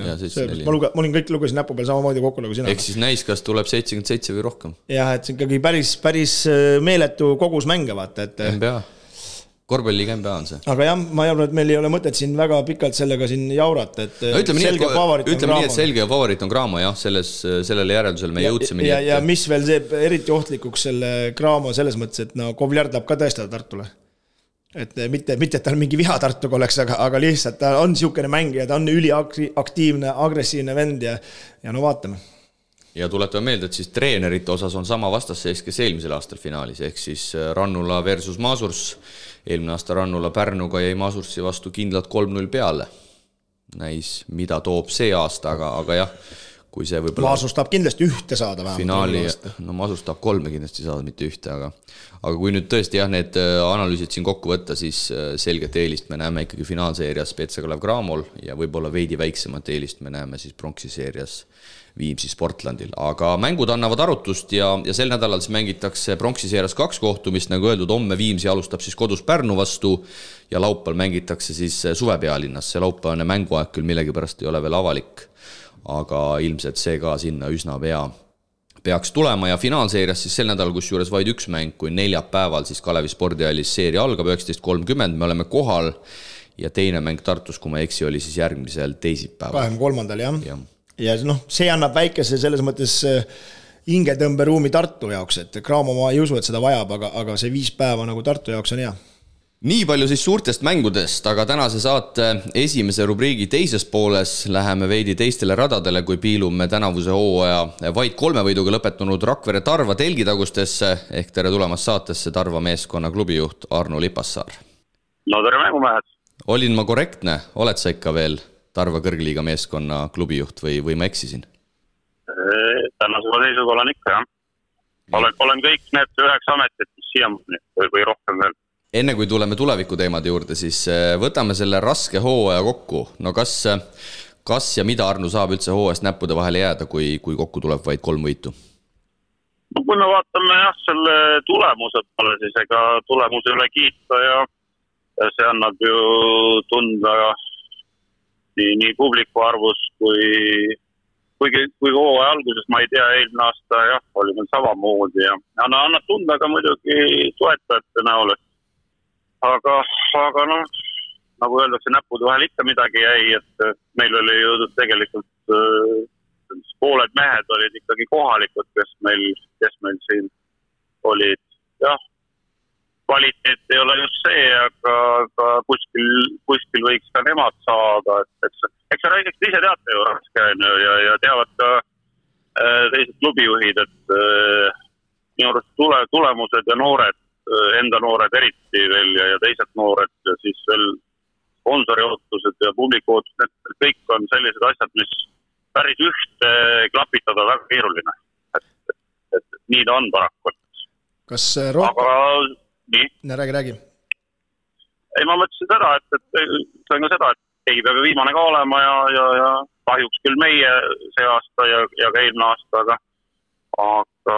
Ma olin kõik lugesin näpu peal samamoodi kokku nagu sina. Ehk siis näis, kas tuleb 77 või rohkem. Jah, et see ikkagi päris meeletu kogus mänge vaata. NBA. Korvpalliga NBA on see. Aga jah, ma arvan, et meil ei ole mõtet siin väga pikalt sellega siin jaurata, et ütleme nii, et selge favoriit on Cramo, jah, sellele järeldusele me jõudsime. Ja mis veel teeb eriti ohtlikuks selle Cramo selles mõttes, et Kovljard tahab ka tõestada Tartule. Et mitte, et tal mingi viha Tartuga oleks, aga lihtsalt ta on siukene mängija, ta on üliaktiivne, agressiivne vend ja vaatame. Ja tuletame meelde, et siis treenerite osas on sama vastasseis, kes eelmisel aastal finaalis, ehk siis Rannula versus Masurs. Eelmine aasta Rannula Pärnuga jäi Masursi vastu kindlalt 3-0 peale. Näis, mida toob see aasta, aga jah, kui see võib-olla Masurs tahab kindlasti ühte saada vähemalt. Finaali, Masurs tahab 3 kindlasti saada, mitte ühte, aga kui nüüd tõesti need analüüsid siin kokku võtta, siis selget eelist me näeme ikkagi finaalseerias Petsakalev Cramol ja võib-olla veidi väiksemat eelist me näeme siis pronksi seerias Viimsi Sportlandil. Aga mängud annavad arutust ja sel nädalal siis mängitakse pronksi seerias 2 kohtumist, nagu öeldud, homme Viimsi alustab siis kodus Pärnu vastu ja laupäeval mängitakse siis Suvepealinnas. See laupäevane mänguaeg küll millegipärast ei ole veel avalik, aga ilmselt see ka sinna üsna peaks tulema ja finaalseerias siis sel nädalal, kus juures vaid 1 mäng, kui neljapäeval siis Kalevi spordihallis seeria algab 19.30, me oleme kohal ja teine mäng Tartus, kui ma eksi, oli siis järgmisel teisipäeval. 23. jah. Ja see annab väikese selles mõttes hingetõmberuumi Tartu jaoks, et Cramo ma ei usu, et seda vajab, aga see 5 päeva nagu Tartu jaoks on hea. Nii palju siis suurtest mängudest, aga tänase saate esimese rubriigi teises pooles läheme veidi teistele radadele, kui piilume tänavuse hooaja vaid 3 võiduga lõpetanud Rakvere Tarva telgitagustesse, ehk tere tulemast saatesse Tarva meeskonna klubijuht Arno Lipassaar. No tere mängumehed. Olin ma korrektne? Oled sa ikka veel Tarva kõrgliiga meeskonna klubijuht või ma eksisin? Tänasega seisuga olen ikka, jah. Olen kõik need 9 ametit, mis siiamaani või rohkem veel. Enne kui tuleme tuleviku teemade juurde, siis võtame selle raske hooaja kokku. No kas ja mida Arnu saab üldse hooajast näppude vahele jääda, kui kokku tuleb vaid 3 võitu? No kui me vaatame selle tulemuse peale, siis ega tulemuse üle kiita ja see annab ju tunda nii publiku arvus kui hooaja alguses, ma ei tea, eelmine aasta jah, oli meil samamoodi ja annab tunda ka muidugi toetajate näol. Aga noh, nagu öeldakse, näppude vahel ikka midagi jäi, et meil oli ju tegelikult pooled mehed olid ikkagi kohalikud, kes meil siin olid. Jah, kvaliteet ei ole just see, aga kuskil võiks ka nemad saada. Eks räägiks ise teate ju raske ja teavad ka teised klubijuhid, et minu arust tulemused ja noored, enda noored eriti veel ja teised noored ja siis veel sponsori ootused ja publiku ootused, need kõik on sellised asjad, mis päris ühte klapitada väga keeruline. Et nii ta on paraku. Kas rohkem? Aga nii? Räägi. Ei, ma mõtlesin seda, et sain ka seda, et ei peab viimane ka olema ja kahjuks küll meie see aasta ja ka eelmine aasta, aga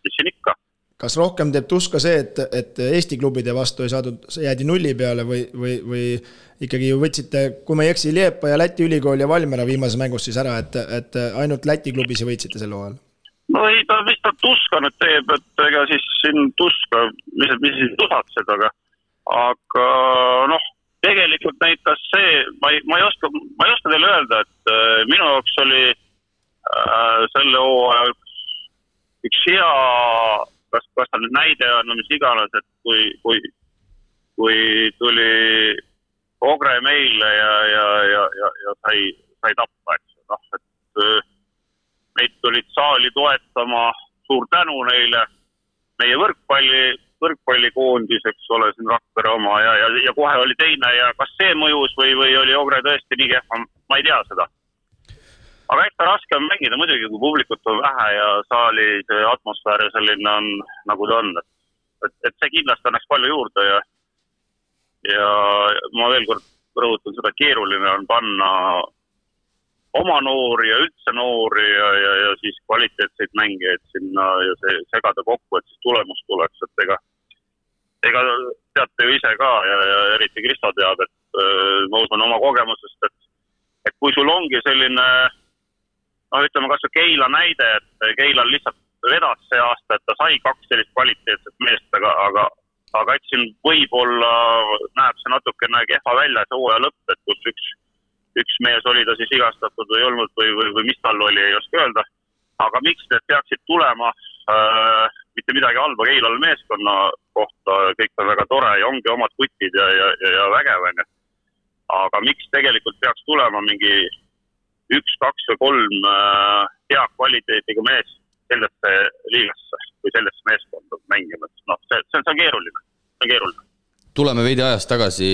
mis siin ikka. Kas rohkem teeb tuska see, et Eesti klubide vastu ei saadud, jäädi nulli peale või ikkagi ju võtsite, kui ma ei eksi, Liepa ja Läti ülikool ja Valmera viimases mängus siis ära, et ainult Läti klubisi võitsite sel hooajal? No ei, mis ta tuska nüüd teeb, et ega siis siin tuska, mis siis tusatsed, aga noh, tegelikult näitas see, ma ei oska teile öelda, et minu jaoks oli selle hooaja üks hea, kas ta nüüd näide on, mis iganes, et kui tuli Ogre meile ja sai tappa, eks. Noh, et meid tulid saali toetama, suur tänu neile, meie võrkpallikoondis, eks ole, siin Rakvere oma ja kohe oli teine ja kas see mõjus või oli Ogre tõesti nii kehva, ma ei tea seda. Aga ikka raske on mängida muidugi, kui publikut on vähe ja saali atmosfäär selline on, nagu ta on. Et see kindlasti annaks palju juurde ja ma veel kord rõhutan seda, keeruline on panna oma noori ja üldse noori ja siis kvaliteetseid mängijaid sinna ja segada kokku, et siis tulemus tuleks, et ega teate ju ise ka ja eriti Kristo teab, et ma usun oma kogemusest, et kui sul ongi selline, ütleme kas Keila näide, et Keilal lihtsalt vedas see aasta, et ta sai 2 sellist kvaliteetset meest, aga eks siin võib-olla näeb see natukene kehva välja see hooaja lõpp, et kus üks mees oli ta siis igastatud või olnud või mis tal oli, ei oska öelda. Aga miks need peaksid tulema, mitte midagi halba Keilal meeskonna kohta, kõik on väga tore ja ongi omad kutid ja vägev. Aga miks tegelikult peaks tulema mingi 1, 2 või 3 hea kvaliteetiga mees sellesse liigasse või sellesse meeskonda mängima? No, see on keeruline. Tuleme veidi ajast tagasi,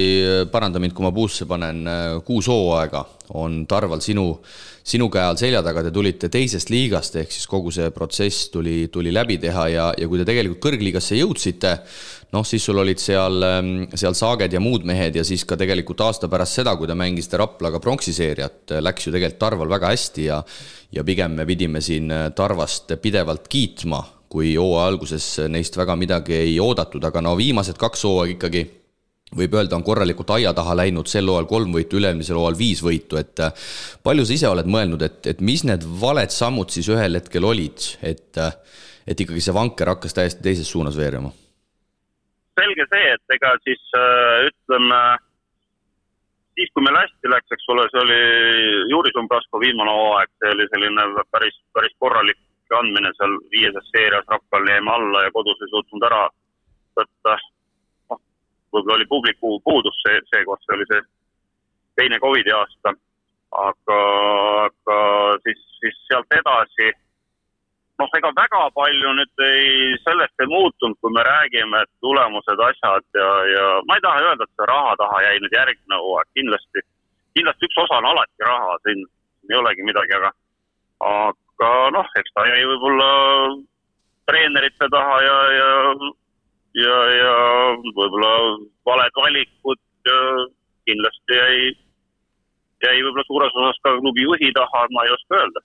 paranda mind, kui ma puusse panen, 6 hooaega on Tarval sinu käe all selja taga, te tulite teisest liigast, ehk siis kogu see protsess tuli läbi teha ja kui te tegelikult kõrgliigasse jõudsite, siis sul olid seal Saaged ja muud mehed ja siis ka tegelikult aasta pärast seda, kui te mängisite Raplaga pronksiseeriat, läks ju tegelikult Tarval väga hästi ja pigem me pidime siin Tarvast pidevalt kiitma, kui hooaja alguses neist väga midagi ei oodatud, aga viimased 2 hooaeg ikkagi võib öelda on korralikult aia taha läinud, sel hooajal 3 võitu, ülemisel hooajal 5 võitu, et palju sa ise oled mõelnud, et mis need valed sammud siis ühel hetkel olid, et ikkagi see vanker hakkas täiesti teises suunas veerema? Selge see, et ega siis ütleme, siis kui meil hästi läks, eks ole, see oli Juri Sumbrasko viimane hooaeg, see oli selline päris korralik andmine seal 5. seerias Rakkal jäime alla ja kodus ei suutnud ära võtta. Võib-olla oli publiku puudus seekord, see oli see teine COVID aasta, aga siis sealt edasi, ega väga palju nüüd sellest ei muutunud, kui me räägime, et tulemused, asjad ja ma ei taha öelda, et see raha taha jäi nüüd järgmine hooaeg, kindlasti üks osa on alati raha, siin ei olegi midagi, aga aga eks ta jäi võib-olla treenerite taha ja võib-olla valed valikud ja kindlasti jäi võib-olla suures osas ka klubi juhi taha, ma ei oska öelda.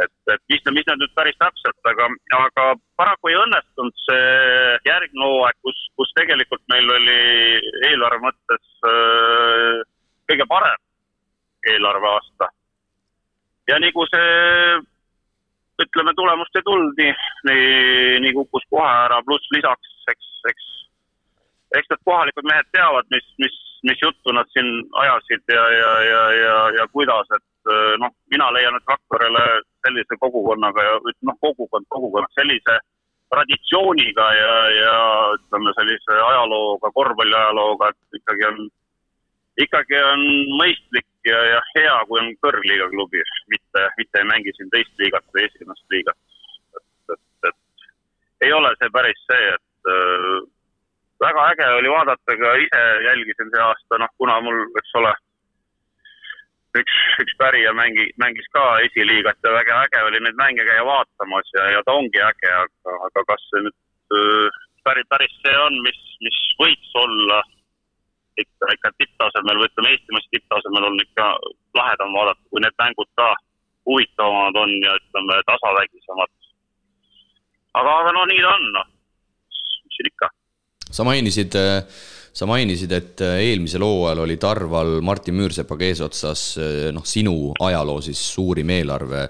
Et mis need nüüd päris täpselt, aga paraku ei õnnestunud see järgne hooaeg, kus tegelikult meil oli eelarve mõttes kõige parem eelarve aasta. Ja nii kui see, ütleme, tulemust ei tulnud, nii kukkus kohe ära, pluss lisaks, eks need kohalikud mehed teavad, mis juttu nad siin ajasid ja kuidas, et mina leian, et Rakverele sellise kogukonnaga ja kogukond sellise traditsiooniga ja ütleme sellise ajalooga, korvpalliajalooga, et ikkagi on mõistlik ja hea, kui on kõrgliiga klubi, mitte ei mängi siin teist liigat või esimest liigat. Et ei ole see päris see, et väga äge oli vaadata, ka ise jälgisin see aasta, kuna mul, eks ole, üks pärija mängis ka esiliigat ja väga äge oli neid mänge käia vaatamas ja ta ongi äge, aga kas see nüüd päris see on, mis võiks olla ikka tipptasemel või ütleme Eestimaas tipptasemel on ikka lahedam vaadata, kui need mängud ka huvitavamad on ja ütleme tasavägisemad. Aga nii ta on, mis siin ikka. Sa mainisid, et eelmisel hooajal oli Tarval Martin Müürsepaga eesotsas sinu ajaloo siis suurim eelarve.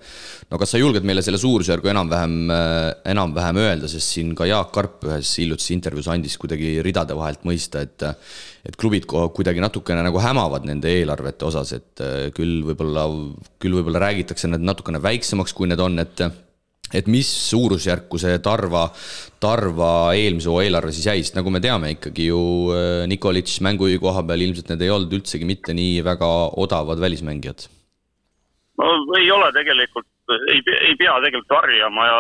Kas sa julged meile selle suurusjärgu enam-vähem öelda, sest siin ka Jaak Karp ühes hiljutises intervjuus andis kuidagi ridade vahelt mõista, et klubid kuidagi natukene nagu hämavad nende eelarvete osas, et küll võib-olla räägitakse need natukene väiksemaks, kui need on, et mis suurusjärku see Tarva eelmise eelarve siis jäi, sest nagu me teame ikkagi ju Nikolits mängujuhi koha peal ilmselt need ei olnud üldsegi mitte nii väga odavad välismängijad. Ei ole tegelikult, ei pea tegelikult varjama ja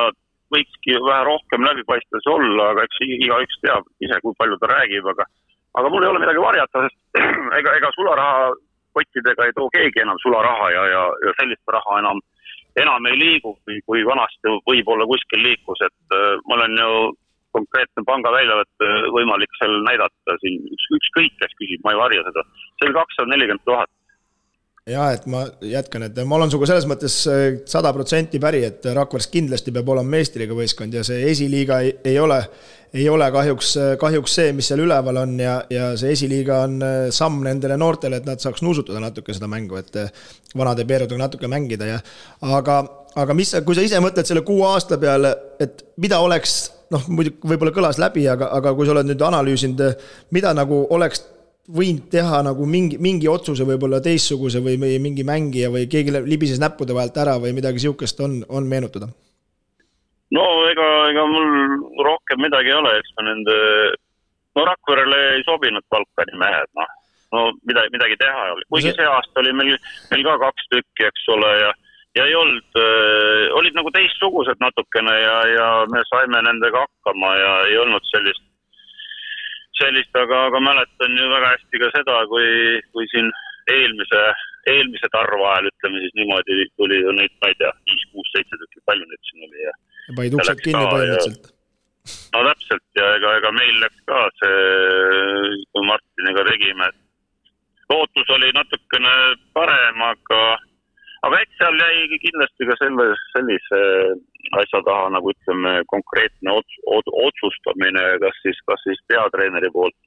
võikski vähe rohkem läbipaistvus olla, aga eks igaüks teab ise, kui palju ta räägib, aga mul ei ole midagi varjata, sest ega sularaha kottidega ei too keegi enam sularaha ja sellist raha enam ei liigu, kui vanasti võib-olla kuskil liikus, et mul on ju konkreetne panga väljavõtt võimalik seal näidata siin ükskõik, kes küsib, ma ei varja seda. See on 240 000. Ja, et ma jätkan, et ma olen suga selles mõttes 100% päri, et Rakveres kindlasti peab olema meistriga võistkond ja see esiliiga ei ole kahjuks see, mis seal üleval on ja see esiliiga on samm nendele noortele, et nad saaks nuusutada natuke seda mängu, et vanade peerudega natuke mängida. Aga kui sa ise mõtled selle 6 aasta peale, et mida oleks, võib-olla kõlas läbi, aga kui sa oled nüüd analüüsinud, mida nagu oleks võinud teha nagu mingi otsuse võib-olla teistsuguse või mingi mängija või keegi libises näppude vahelt ära või midagi siukest on meenutada? Ega mul rohkem midagi ei ole, eks ma nende Rakverele ei sobinud Balkani mehed, midagi teha oli. Kuigi see aasta oli meil ka 2 tükki, eks ole, ja ei olnud, olid nagu teistsugused natukene ja me saime nendega hakkama ja ei olnud sellist, aga mäletan ju väga hästi ka seda, kui siin eelmise Tarva ajal, ütleme siis niimoodi, tuli ju neid, ma ei tea, 5, 6, 7 tükki, palju neid siin oli. Ja paid uksed kinni põhimõtteliselt. Täpselt, ja ega meil läks ka see, kui Martiniga tegime, lootus oli natukene parem, aga eks seal jäi kindlasti ka sellise asja taha, nagu ütleme, konkreetne otsustamine, kas siis peatreeneri poolt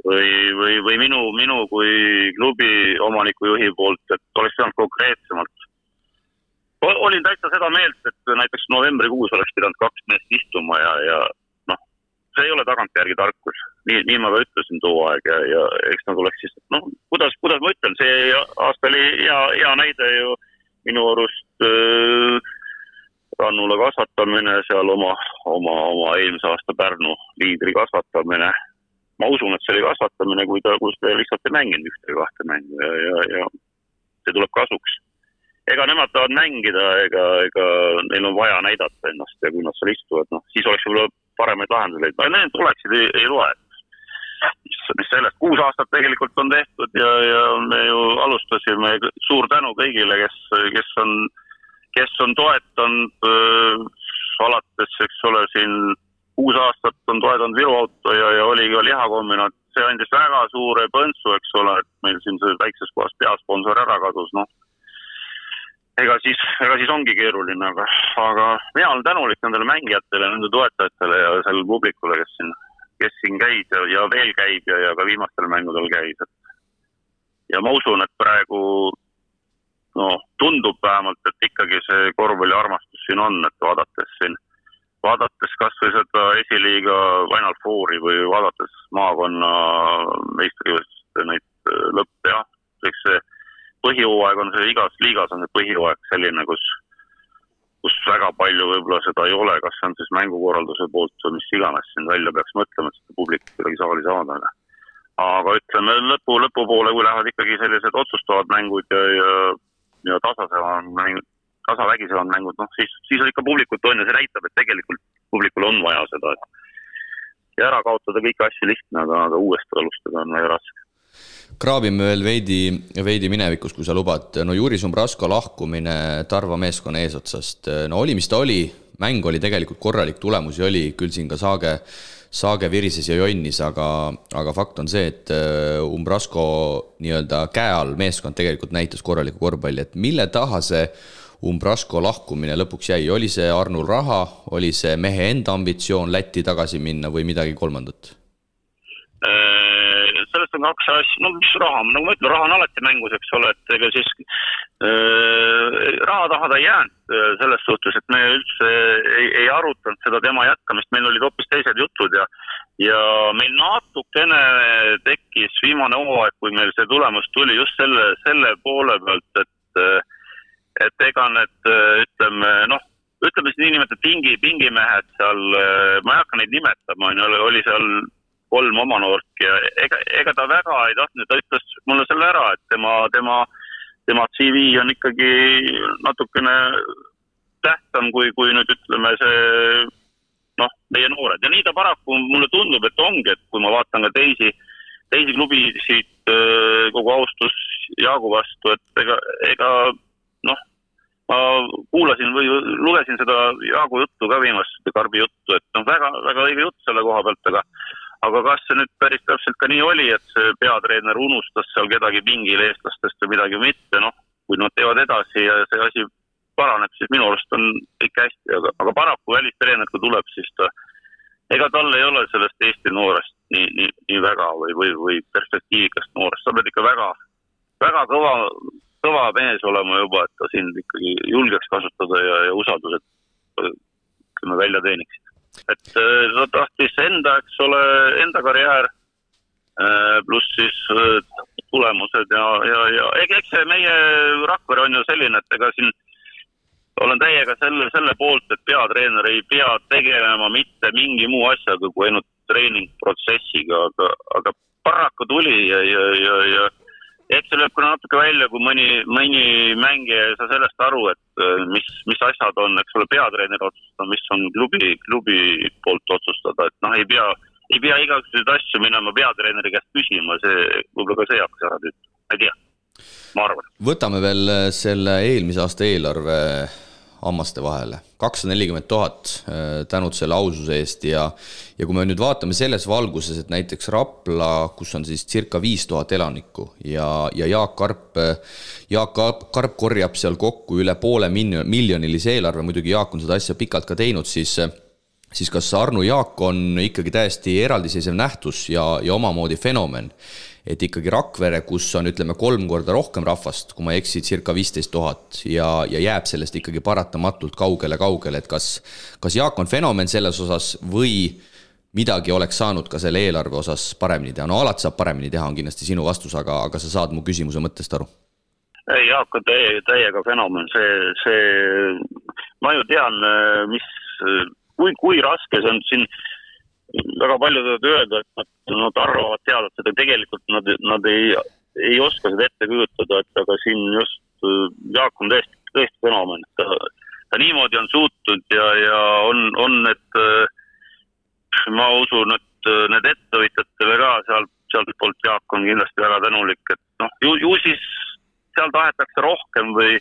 või minu kui klubi omanikujuhi poolt, et oleks pidanud konkreetsemalt. Olin täitsa seda meelt, et näiteks novembrikuus oleks pidanud 2 meest istuma ja see ei ole tagantjärgi tarkus. Nii ma ka ütlesin too aeg ja eks nad oleks siis, kuidas ma ütlen, see aasta oli hea näide ju minu arust Rannula kasvatamine, seal oma eelmise aasta Pärnu liidri kasvatamine. Ma usun, et see oli kasvatamine, kui ta lihtsalt ei mänginud 1-2 mängu ja see tuleb kasuks. Ega nemad tahavad mängida, ega neil on vaja näidata ennast ja kui nad seal istuvad, siis oleks võib-olla paremaid lahenduseid. Need tuleksid ei loe. Mis sellest 6 aastat tegelikult on tehtud ja me ju alustasime, suur tänu kõigile, kes on kes on toetanud alates, eks ole, siin 6 aastat on toetanud Viru Auto ja oli ka lihakombinaat. See andis väga suure põntsu, eks ole, et meil siin see väikses kohas peasponsor ära kadus, noh. Ega siis ongi keeruline, aga mina olen tänulik nendele mängijatele, nende toetajatele ja sellele publikule, kes siin käis ja veel käib ja ka viimastel mängudel käis. Ja ma usun, et praegu tundub vähemalt, et ikkagi see korvpalli armastus siin on, et vaadates kas või seda esiliiga Final Fouri või vaadates maakonna meistrivõistluste neid lõppe, jah, eks see põhihooaeg on see igas liigas on see põhihooaeg selline, kus väga palju võib-olla seda ei ole, kas see on siis mängukorralduse poolt või mis iganes siin välja peaks mõtlema, et seda publik kuidagi saali saada. Aga ütleme lõpupoole, kui lähevad ikkagi sellised otsustavad mängud ja tasavägisevad mängud, siis on ikka publikut on ja see näitab, et tegelikult publikul on vaja seda. Ja ära kaotada kõiki asju lihtne, aga uuesti alustada on väga raske. Kraabime veel veidi minevikus, kui sa lubad. Juri Zumbrasko lahkumine Tarva meeskonna eesotsast. Oli, mis ta oli. Mäng oli tegelikult korralik, tulemusi oli. Küll siin ka Saage virises ja jonnis, aga fakt on see, et Zumbrasko nii-öelda käe all meeskond tegelikult näitas korraliku korvpalli. Et mille taha see Zumbrasko lahkumine lõpuks jäi? Oli see Arnul raha? Oli see mehe enda ambitsioon Lätti tagasi minna või midagi kolmandat? Sellest on 2 asja, mis raha, nagu ma ütlen, raha on alati mängus, eks ole, et ega siis raha taha ta jäänud selles suhtes, et me üldse ei arutanud seda tema jätkamist, meil olid hoopis teised jutud ja meil natukene tekkis viimane hooaeg, kui meil see tulemus tuli just selle poole pealt, et ega need, ütleme siis niinimetatud pingimehed seal, ma ei hakka neid nimetama, oli seal 3 oma noork ja ega ta väga ei tahtnud, ta ütles mulle selle ära, et tema CV on ikkagi natukene tähtsam kui nüüd ütleme see meie noored. Ja nii ta paraku mulle tundub, et ongi, et kui ma vaatan ka teisi klubisid kogu austus Jaagu vastu, et ega ma kuulasin või lugesin seda Jaagu juttu ka viimast Karbi juttu, et väga, väga õige jutt selle koha pealt, aga kas see nüüd päris täpselt ka nii oli, et see peatreener unustas seal kedagi pingil eestlastest või midagi mitte, kui nad teevad edasi ja see asi paraneb, siis minu arust on ikka hästi, aga paraku välistreener, kui tuleb, siis ega tal ei ole sellest Eesti noorest nii väga või perspektiivikast noorest, sa pead ikka väga, väga kõva mees olema juba, et ta siin ikkagi julgeks kasutada ja usaldused välja teeniksid. Et ta tahtis enda karjäär pluss siis tulemused ja eks see meie Rakvere on ju selline, et ega siin olen täiega selle poolt, et peatreener ei pea tegelema mitte mingi muu asjaga kui ainult treeningprotsessiga, aga paraku tuli ja eks see lööb kuna natuke välja, kui mõni mängija ei saa sellest aru, et mis asjad on, eks ole, peatreener otsustada, mis on klubi poolt otsustada, et ei pea igasuguseid asju minema peatreeneri käest küsima, see võib-olla ka see hakkas ära tüüta, ei tea, ma arvan. Võtame veel selle eelmise aasta eelarve hammaste vahele. 240 000 tänud selle aususe eest ja kui me nüüd vaatame selles valguses, et näiteks Rapla, kus on siis circa 5000 elanikku ja Jaak Karp korjab seal kokku üle $500,000 eelarve, muidugi Jaak on seda asja pikalt ka teinud, siis kas Arnu Jaak on ikkagi täiesti eraldiseisev nähtus ja omamoodi fenomen, et ikkagi Rakvere, kus on, ütleme, 3 korda rohkem rahvast, kui ma eksi, circa 15 000 ja jääb sellest ikkagi paratamatult kaugele, et kas Jaak on fenomen selles osas või midagi oleks saanud ka selle eelarve osas paremini teha? Alati saab paremini teha, on kindlasti sinu vastus, aga sa saad mu küsimuse mõttest aru. Ei, Jaak on täiega fenomen, ma ju tean, kui raske see on siin. Väga palju tahavad öelda, et nad arvavad teada, et seda tegelikult nad ei oska seda ette kujutada, aga siin just Jaak on tõesti fenomen. Ta niimoodi on suutnud ja on need, ma usun, et need ettevõtjatele ka sealt poolt Jaak on kindlasti väga tänulik, et ju siis seal tahetakse rohkem või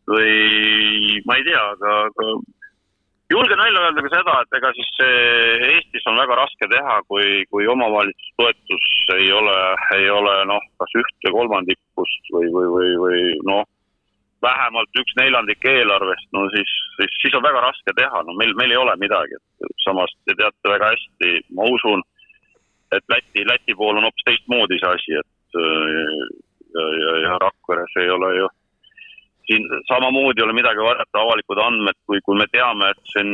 või ma ei tea, aga julgen välja öelda ka seda, et ega siis Eestis on väga raske teha, kui omavalitsustoetus ei ole kas 1/3 või vähemalt 1/4 eelarvest, siis on väga raske teha, meil ei ole midagi. Samas te teate väga hästi, ma usun, et Läti pool on hoopis teistmoodi see asi, et ja Rakveres ei ole ju siin samamoodi ei ole midagi varjata avalikud andmed, kui me teame, et siin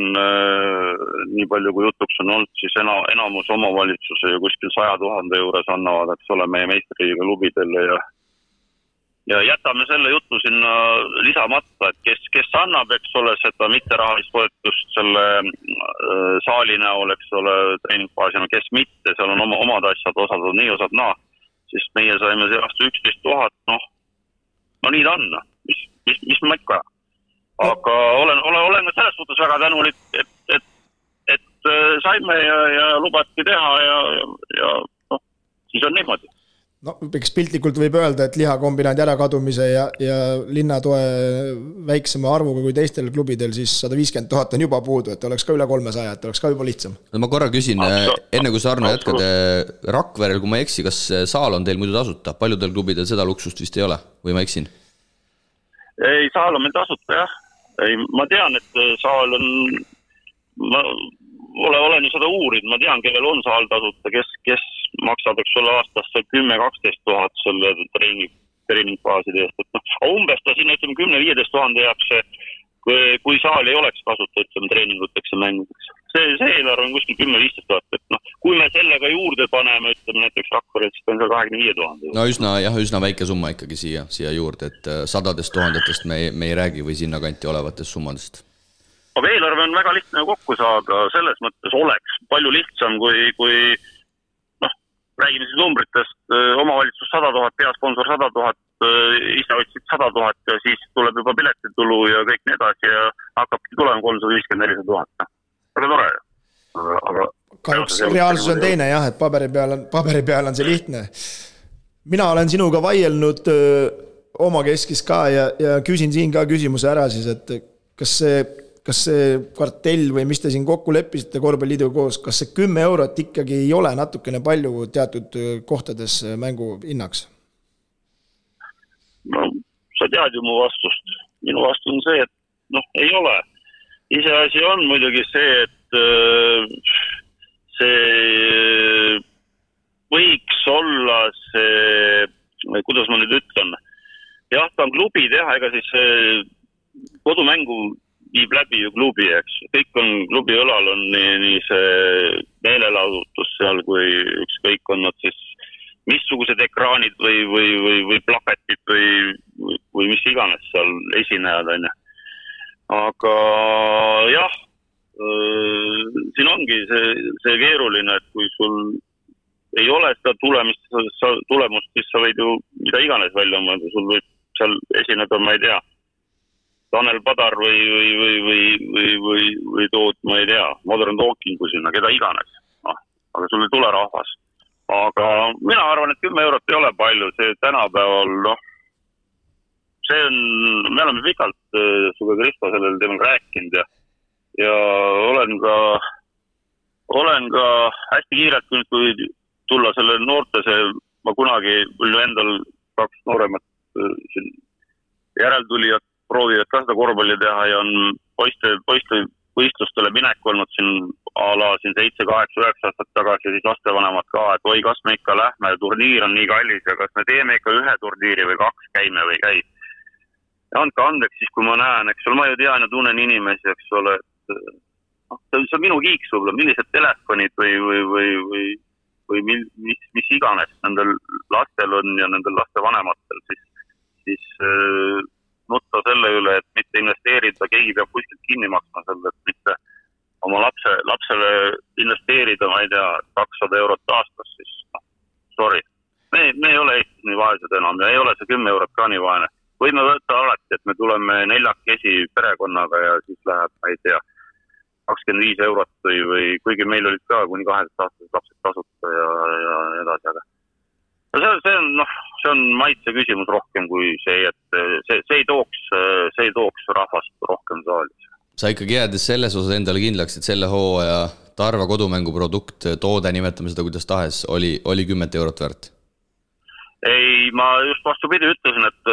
nii palju kui jutuks on olnud, siis enamus omavalitsuse ju kuskil 100 000 juures annavad, eks ole, meie meistriliiga klubidele ja jätame selle jutu sinna lisamata, et kes annab, eks ole, seda mitterahalist toetust selle saali näol, eks ole, treeningbaasina, kes mitte, seal on omad asjad, osad on nii, osad naa, siis meie saime see aasta 11 000, no nii ta on, mis ma ikka. Aga olen ka selles suhtes väga tänulik, et saime ja lubati teha ja siis on niimoodi. No, eks piltlikult võib öelda, et lihakombinaadi ärakadumise ja linnatoe väiksema arvuga kui teistel klubidel, siis 150 000 on juba puudu, et oleks ka üle 300, et oleks ka juba lihtsam. No ma korra küsin, enne kui sa Arno jätkad, Rakverel, kui ma eksi, kas saal on teil muidu tasuta? Paljudel klubidel seda luksust vist ei ole, või ma eksin? Ei, saal on meil tasuta, jah. Ma tean, et saal on... Olen ju seda uurid, ma tean, kellel on saal tasuta, kes maksab, eks ole, aastasse 10-12 000 selle treeningbaaside eest. Umbes ta sinna 10-15 000 jääb see, kui saal ei oleks kasuta, treeninguteks ja mängudeks. See eelarve on kuskil 10-15 000, et kui me sellega juurde paneme, näiteks Rakveres, siis on seal 25 000. No üsna väike summa ikkagi siia juurde, et 100 000 me ei räägi või sinna kanti olevatest summadest. Aga eelarve on väga lihtne kokku saada, selles mõttes oleks palju lihtsam, kui räägime siis numbritest, omavalitsus 100 000, peasponsor 100 000, ise otsid 100 000 ja siis tuleb juba piletitulu ja kõik nii edasi ja hakkabki tulema 350-400 000. Väga tore. Aga kahjuks reaalsus on teine, jah, et paberi peal on see lihtne. Mina olen sinuga vaielnud oma keskis ka ja küsin siin ka küsimuse ära siis, et kas see kvartell või mis te siin kokku leppisite korvpalliliiduga koos, kas see 10 eurot ikkagi ei ole natukene palju teatud kohtades mängu hinnaks? No, sa tead ju mu vastust. Minu vastus on see, et ei ole. Iseasi on muidugi see, et see võiks olla see, kuidas ma nüüd ütlen, jah, ta on klubi teha, ega siis kodumängu viib läbi ju klubi, eks. Kõik on klubi õlal, on nii see meelelahutus seal, kui ükskõik on nad siis missugused ekraanid või plakatid või mis iganes seal esinejad, on. Aga jah, siin ongi see keeruline, et kui sul ei ole seda tulemust, siis sa võid ju mida iganes välja mõelda, sul võib seal esineda, ma ei tea, Tanel Padar või tood, ma ei tea, Modern Talking kui sinna, keda iganes. Aga sul ei tule rahvas. Aga mina arvan, et 10 eurot ei ole palju. See tänapäeval, see on, me oleme pikalt suga Kristo sellel teemal rääkinud ja olen ka hästi kiirelt, kui tulla selle noorte, ma kunagi endal 2 nooremat järeltulijat proovivad ka seda korvpalli teha ja on poiste võistlustele minek olnud siin siin 7, 8, 9 aastat tagasi ja siis lastevanemad ka, et oi, kas me ikka lähme, turniir on nii kallis ja kas me teeme ikka 1 turniiri või 2 käime või käi. Ja andke andeks siis, kui ma näen, eks ole, ma ju tean ja tunnen inimesi, eks ole, et see on minu kiiks võib-olla, millised telefonid või mis iganes nendel lastel on ja nendel lastevanematel, siis nutta selle üle, et mitte investeerida, keegi peab kuskilt kinni maksma selle, et mitte oma lapsele investeerida, ma ei tea, 200 eurot aastas, siis sorry. Me ei ole Eestis nii vaesed enam ja ei ole see 10 eurot ka nii vaene. Võime võtta alati, et me tuleme 4 perekonnaga ja siis läheb, ma ei tea, 25 eurot või kuigi meil olid ka kuni 12 aastased lapsed tasuta ja edasi, aga see on maitse küsimus rohkem kui see, et see ei tooks rahvast rohkem saali. Sa ikkagi jäädes selles osas endale kindlaks, et selle hooaja Tarva kodumängu produkt, toode, nimetame seda kuidas tahes, oli 10 eurot väärt? Ei, ma just vastupidi ütlesin, et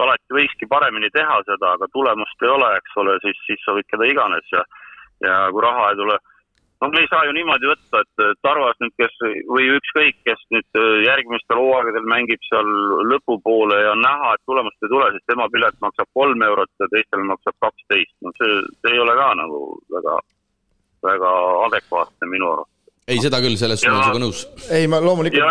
alati võikski paremini teha seda, aga tulemust ei ole, eks ole, siis sa võid keda iganes ja kui raha ei tule. Me ei saa ju niimoodi võtta, et Tarvas nüüd, või ükskõik, kes nüüd järgmistel hooaegadel mängib seal lõpupoole ja näha, et tulemust ei tule, siis tema pilet maksab 3 eurot ja teistel maksab 12. No see ei ole ka nagu väga adekvaatne minu arvates. Ei, seda küll, selles on sinuga nõus. Ei, ma loomulikult... Ja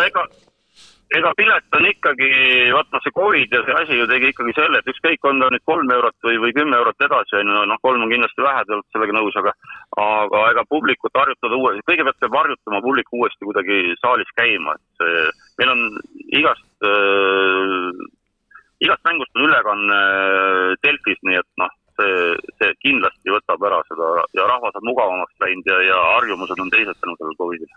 ega pilet on ikkagi, vaata see COVID ja see asi ju tegi ikkagi selle, et ükskõik on ta nüüd 3 eurot või 10 eurot edasi, 3 on kindlasti vähe, te olete sellega nõus, aga ega publikut harjutada uuesti, kõigepealt peab harjutama publiku uuesti kuidagi saalis käima, et meil on igast mängust on ülekanne Delfis, nii et see kindlasti võtab ära seda ja rahvas on mugavamaks läinud ja harjumused on teised tänu sellel COVID-il.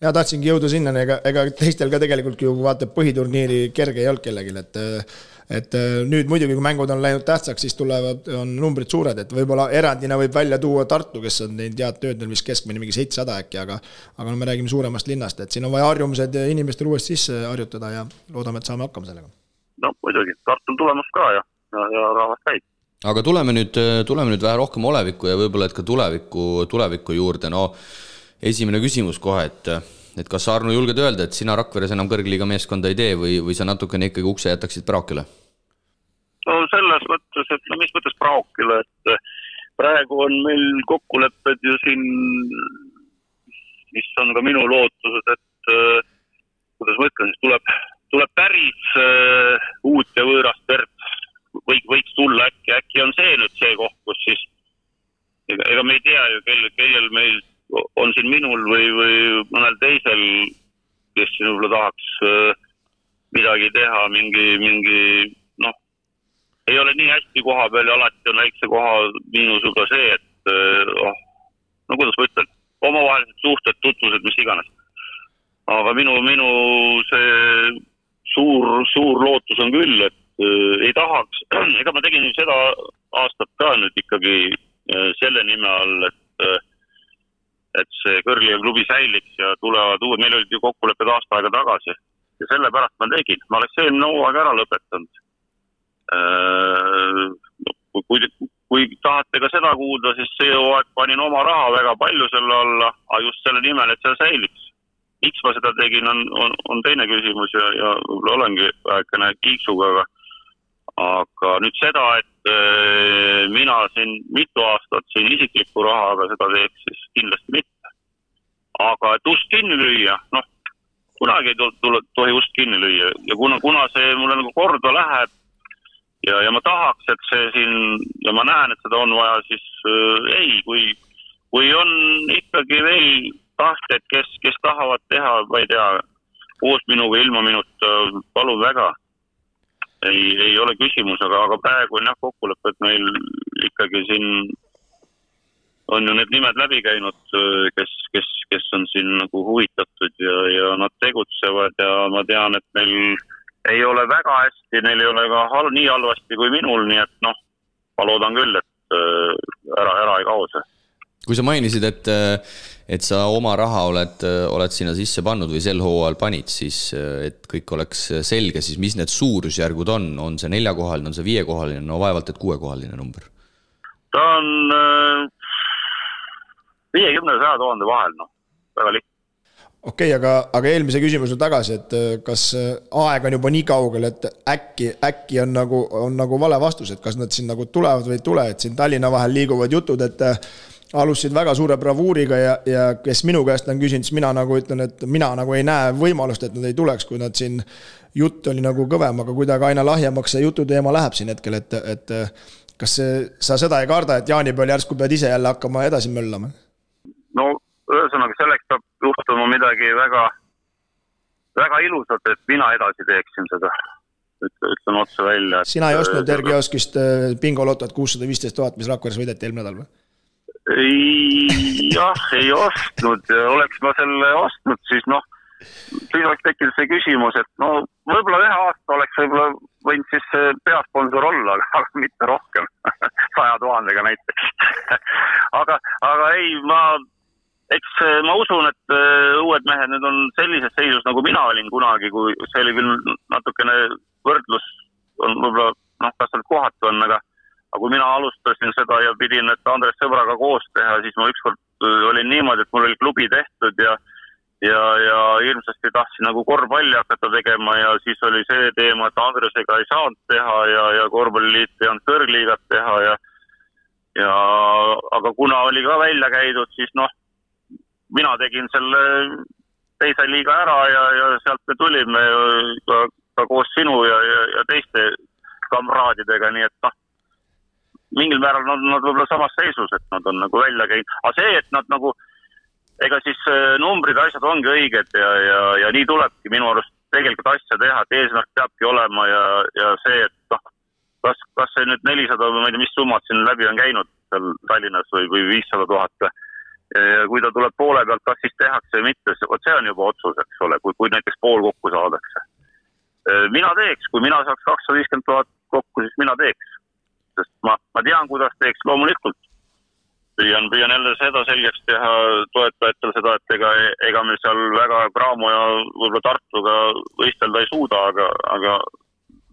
Ja tahtsingi jõuda sinna, ega teistel ka tegelikult ju vaatab põhiturniiri kerge ei olnud kellegil, et nüüd muidugi, kui mängud on läinud tähtsaks, siis on numbrid suured, et võib-olla erandina võib välja tuua Tartu, kes on teinud head tööd, mis keskmine mingi 700 äkki, aga me räägime suuremast linnast, et siin on vaja harjumused inimestel uuesti sisse harjutada ja loodame, et saame hakkama sellega. No muidugi, Tartu on tulemas ka ja rahvas käib. Aga tuleme nüüd vähe rohkem olevikku ja võib-olla et ka tuleviku juurde, esimene küsimus kohe, et kas sa, Arno, julged öelda, et sina Rakveres enam kõrgliiga meeskonda ei tee või sa natukene ikkagi ukse jätaksid Praokile? No selles mõttes, et mis mõttes Praokile, et praegu on meil kokkulepped ju siin, mis on ka minu lootused, et kuidas ma ütlen, siis tuleb päris uut ja võõrast verd, võiks tulla äkki on see nüüd see koht, kus siis ega me ei tea ju, kellel meil on siin minul või mõnel teisel, kes siin võib-olla tahaks midagi teha, mingi ei ole nii hästi koha peal ja alati on väikse koha miinusega see, et kuidas ma ütlen, omavahelised suhted, tutvused, mis iganes. Aga minu see suur lootus on küll, et ei tahaks, ega ma tegin seda aastat ka nüüd ikkagi selle nime all, et see kõrgliiga klubi säiliks ja tulevad uued, meil olid ju kokkulepped aasta aega tagasi ja sellepärast ma tegin. Ma oleks eelmine hooaeg ära lõpetanud. Kui tahate ka seda kuulda, siis see hooaeg panin oma raha väga palju selle alla, aga just selle nimel, et see säiliks. Miks ma seda tegin, on teine küsimus ja võib-olla olengi vähekene kiiksuga, aga nüüd seda, et mina siin mitu aastat siin isiklikku raha, aga seda teeks siis kindlasti mitte. Aga et ust kinni lüüa, kunagi ei tohi ust kinni lüüa ja kuna see mulle nagu korda läheb ja ma tahaks, et see siin ja ma näen, et seda on vaja, siis ei, kui on ikkagi veel tahted, kes tahavad teha, ma ei tea, koos minuga, ilma minuta, palun väga. Ei ole küsimus, aga praegu on kokkulepped meil ikkagi siin on ju need nimed läbi käinud, kes on siin nagu huvitatud ja nad tegutsevad ja ma tean, et neil ei ole väga hästi, neil ei ole ka nii halvasti kui minul, nii et ma loodan küll, et ära ei kao see. Kui sa mainisid, et sa oma raha oled sinna sisse pannud või sel hooajal panid, siis et kõik oleks selge, siis mis need suurusjärgud on? On see 4-kohaline, on see 5-kohaline, vaevalt et 6-kohaline number? Ta on 50-100 000 vahel, väga lihtne. Okei, aga eelmise küsimuse tagasi, et kas aeg on juba nii kaugel, et äkki on nagu vale vastus, et kas nad siin nagu tulevad või ei tule, et siin Tallinna vahel liiguvad jutud, et alustasid väga suure bravuuriga ja kes minu käest on küsinud, siis mina nagu ütlen, et mina nagu ei näe võimalust, et nad ei tuleks, kui nad siin jutt oli nagu kõvem, aga kuidagi aina lahjemaks see jutu teema läheb siin hetkel, et kas sa seda ei karda, et jaanipäeval järsku pead ise jälle hakkama edasi möllama? No ühesõnaga selleks peab juhtuma midagi väga, väga ilusat, et mina edasi teeksin seda. Ütlen otse välja. Sina ei ostnud Ergioskist bingolotot 615 000, mis Rakveres võideti eelmine nädal või? Jah, ei ostnud. Oleks ma selle ostnud, siis siis oleks tekkinud see küsimus, et no võib-olla ühe aasta oleks võib-olla võinud siis peasponsor olla, aga mitte rohkem, 100 000 näiteks. aga ei, eks ma usun, et uued mehed nüüd on sellises seisus, nagu mina olin kunagi, kui see oli küll natukene võrdlus, on võib-olla, kas seal kohatu on, aga kui mina alustasin seda ja pidin, et Andres Sõbraga koos teha, siis ma ükskord olin niimoodi, et mul oli klubi tehtud ja hirmsasti tahtsin nagu korvpalli hakata tegema ja siis oli see teema, et Andresega ei saanud teha ja korvpalliliit ei olnud kõrgliigat teha aga kuna oli ka välja käidud, siis mina tegin selle teise liiga ära ja sealt me tulime ka koos sinu ja teiste kamraadidega, nii et mingil määral nad võib-olla samas seisus, et nad on nagu välja käinud. Aga see, et nad nagu, ega siis numbrid ja asjad ongi õiged ja nii tulebki minu arust tegelikult asja teha, et eesmärk peabki olema ja see, et kas see nüüd 400 või ma ei tea, mis summad siin läbi on käinud seal Tallinnas või 500 000 ja kui ta tuleb poole pealt, kas siis tehakse või mitte, see on juba otsus, eks ole, kui näiteks pool kokku saadakse. Mina teeks, kui mina saaks 250 000 kokku, siis mina teeks. Sest ma tean, kuidas teeks loomulikult. Püüan jälle seda selgeks teha toetajatel seda, et ega me seal väga Graamo ja võib-olla Tartuga võistelda ei suuda, aga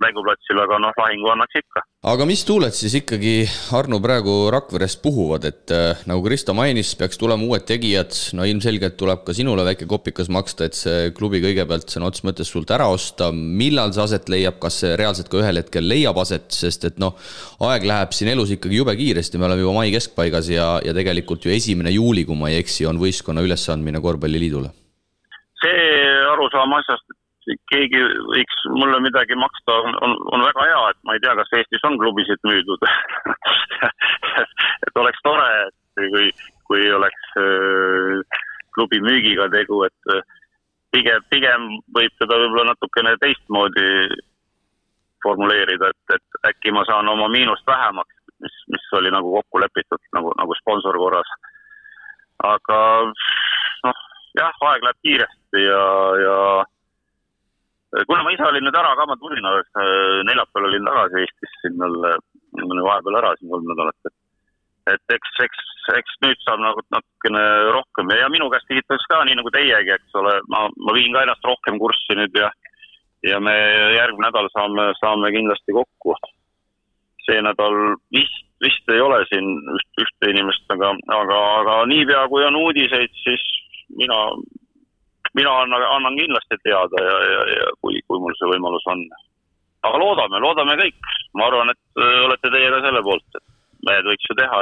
mänguplatsil, aga lahingu annaks ikka. Aga mis tuuled siis ikkagi, Arno, praegu Rakverest puhuvad, et nagu Kristo mainis, peaks tulema uued tegijad, ilmselgelt tuleb ka sinule väike kopikas maksta, et see klubi kõigepealt sõna otseses mõttes sult ära osta. Millal see aset leiab, kas see reaalselt ka ühel hetkel leiab aset, sest et aeg läheb siin elus ikkagi jube kiiresti, me oleme juba mai keskpaigas ja tegelikult ju 1. juuli, kui ma ei eksi, on võistkonna ülesandmine korvpalliliidule. See arusaam asjast, keegi võiks mulle midagi maksta, on väga hea, et ma ei tea, kas Eestis on klubisid müüdud. et oleks tore, et kui oleks klubi müügiga tegu, et pigem võib teda võib-olla natukene teistmoodi formuleerida, et äkki ma saan oma miinust vähemaks, mis oli nagu kokku lepitud, nagu sponsor korras. Aga jah, aeg läheb kiiresti ja kuna ma ise olin nüüd ära, ka ma tulin, neljapäeval olin tagasi Eestis, siin oli vahepeal ära siin 3 nädalat, et eks nüüd saab natukene rohkem ja minu käest küsitakse ka nii nagu teiegi, eks ole, ma viin ka ennast rohkem kurssi nüüd ja me järgmine nädal saame kindlasti kokku. See nädal vist ei ole siin ühte inimest, aga niipea kui on uudiseid, siis mina annan kindlasti teada ja kui mul see võimalus on. Aga loodame kõik. Ma arvan, et olete teie ka selle poolt, et mehed võiks ju teha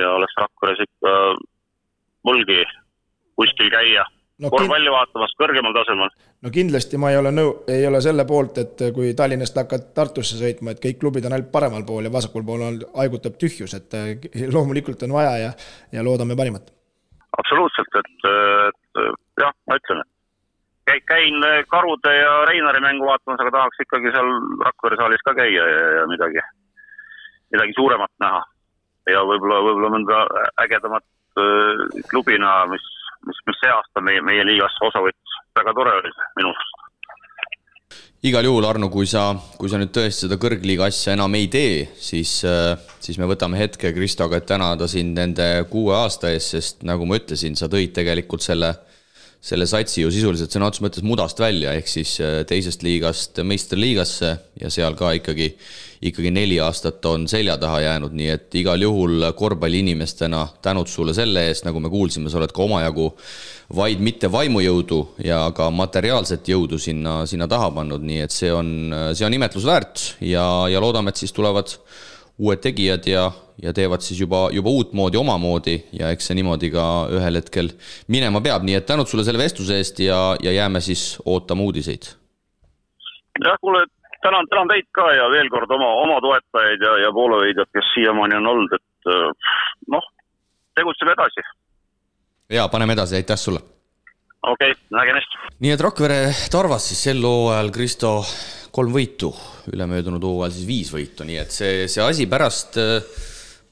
ja oleks Rakveres ikka mulgi kuskil käia. Korvpalli vaatamas kõrgemal tasemel. No kindlasti ma ei ole selle poolt, et kui Tallinnast hakkad Tartusse sõitma, et kõik klubid on ainult paremal pool ja vasakul pool aigutab tühjus, et loomulikult on vaja ja loodame parimat. Absoluutselt, et jah, ma ütlen, et käin Karude ja Reinari mängu vaatamas, aga tahaks ikkagi seal Rakvere saalis ka käia ja midagi suuremat näha ja võib-olla mõnda ägedamat klubi näha, mis see aasta meie liigasse osa võttis. Väga tore oli minust. Igal juhul, Arno, kui sa nüüd tõesti seda kõrgliiga asja enam ei tee, siis me võtame hetke Kristoga, et tänada sind nende 6 aasta ees, sest nagu ma ütlesin, sa tõid tegelikult selle satsi ju sisuliselt sõna otseses mõttes mudast välja, ehk siis teisest liigast meistriliigasse ja seal ka ikkagi 4 aastat on selja taha jäänud, nii et igal juhul korvpalli inimestena tänud sulle selle eest, nagu me kuulsime, sa oled ka omajagu vaid mitte vaimujõudu ja ka materiaalset jõudu sinna taha pannud, nii et see on imetlusväärt ja loodame, et siis tulevad uued tegijad ja teevad siis juba uut moodi, omamoodi ja eks see niimoodi ka ühel hetkel minema peab, nii et tänud sulle selle vestluse eest ja jääme siis ootama uudiseid. Jah, kuule, tänan teid ka ja veel kord oma toetajaid ja poolehoidjad, kes siiamaani on olnud, et tegutseme edasi. Ja, paneme edasi, aitäh sulle. Okei, nägemist. Nii et Rakvere Tarvas siis sel hooajal Kristo 3 võitu, ülemöödunud hooajal siis 5 võitu, nii et see asi pärast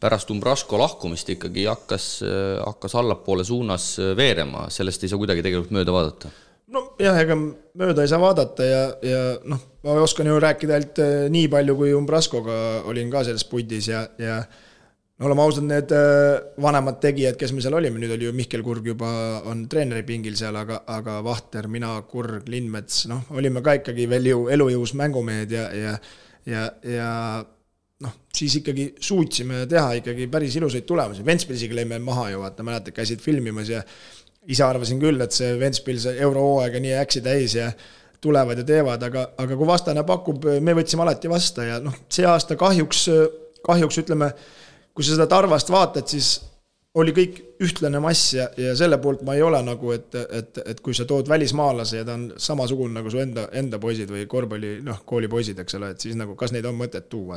pärast Umbrasko lahkumist ikkagi hakkas allapoole suunas veerema, sellest ei saa kuidagi tegelikult mööda vaadata. No jah, ega mööda ei saa vaadata ja noh, ma oskan ju rääkida ainult nii palju, kui Umbraskoga olin ka selles pundis ja no oleme ausad, need vanemad tegijad, kes me seal olime, nüüd oli ju Mihkel Kurg juba on treeneri pingil seal, aga Vahter, mina, Kurg, Lindmets, noh, olime ka ikkagi veel ju elujõus mängumehed ja noh, siis ikkagi suutsime teha ikkagi päris ilusaid tulemusi. Ventspilsiga lõime maha ju, vaata, mäletad, käisid filmimas ja ise arvasin küll, et see Ventspils eurohooaega nii äksi täis ja tulevad ja teevad, aga kui vastane pakub, me võtsime alati vasta ja noh, see aasta kahjuks ütleme, kui sa seda Tarvast vaatad, siis oli kõik ühtlane mass ja selle poolt ma ei ole nagu, et kui sa tood välismaalase ja ta on samasugune nagu su enda poisid või korvpalli, noh, koolipoisid, eks ole, et siis nagu, kas neid on mõtet tuua,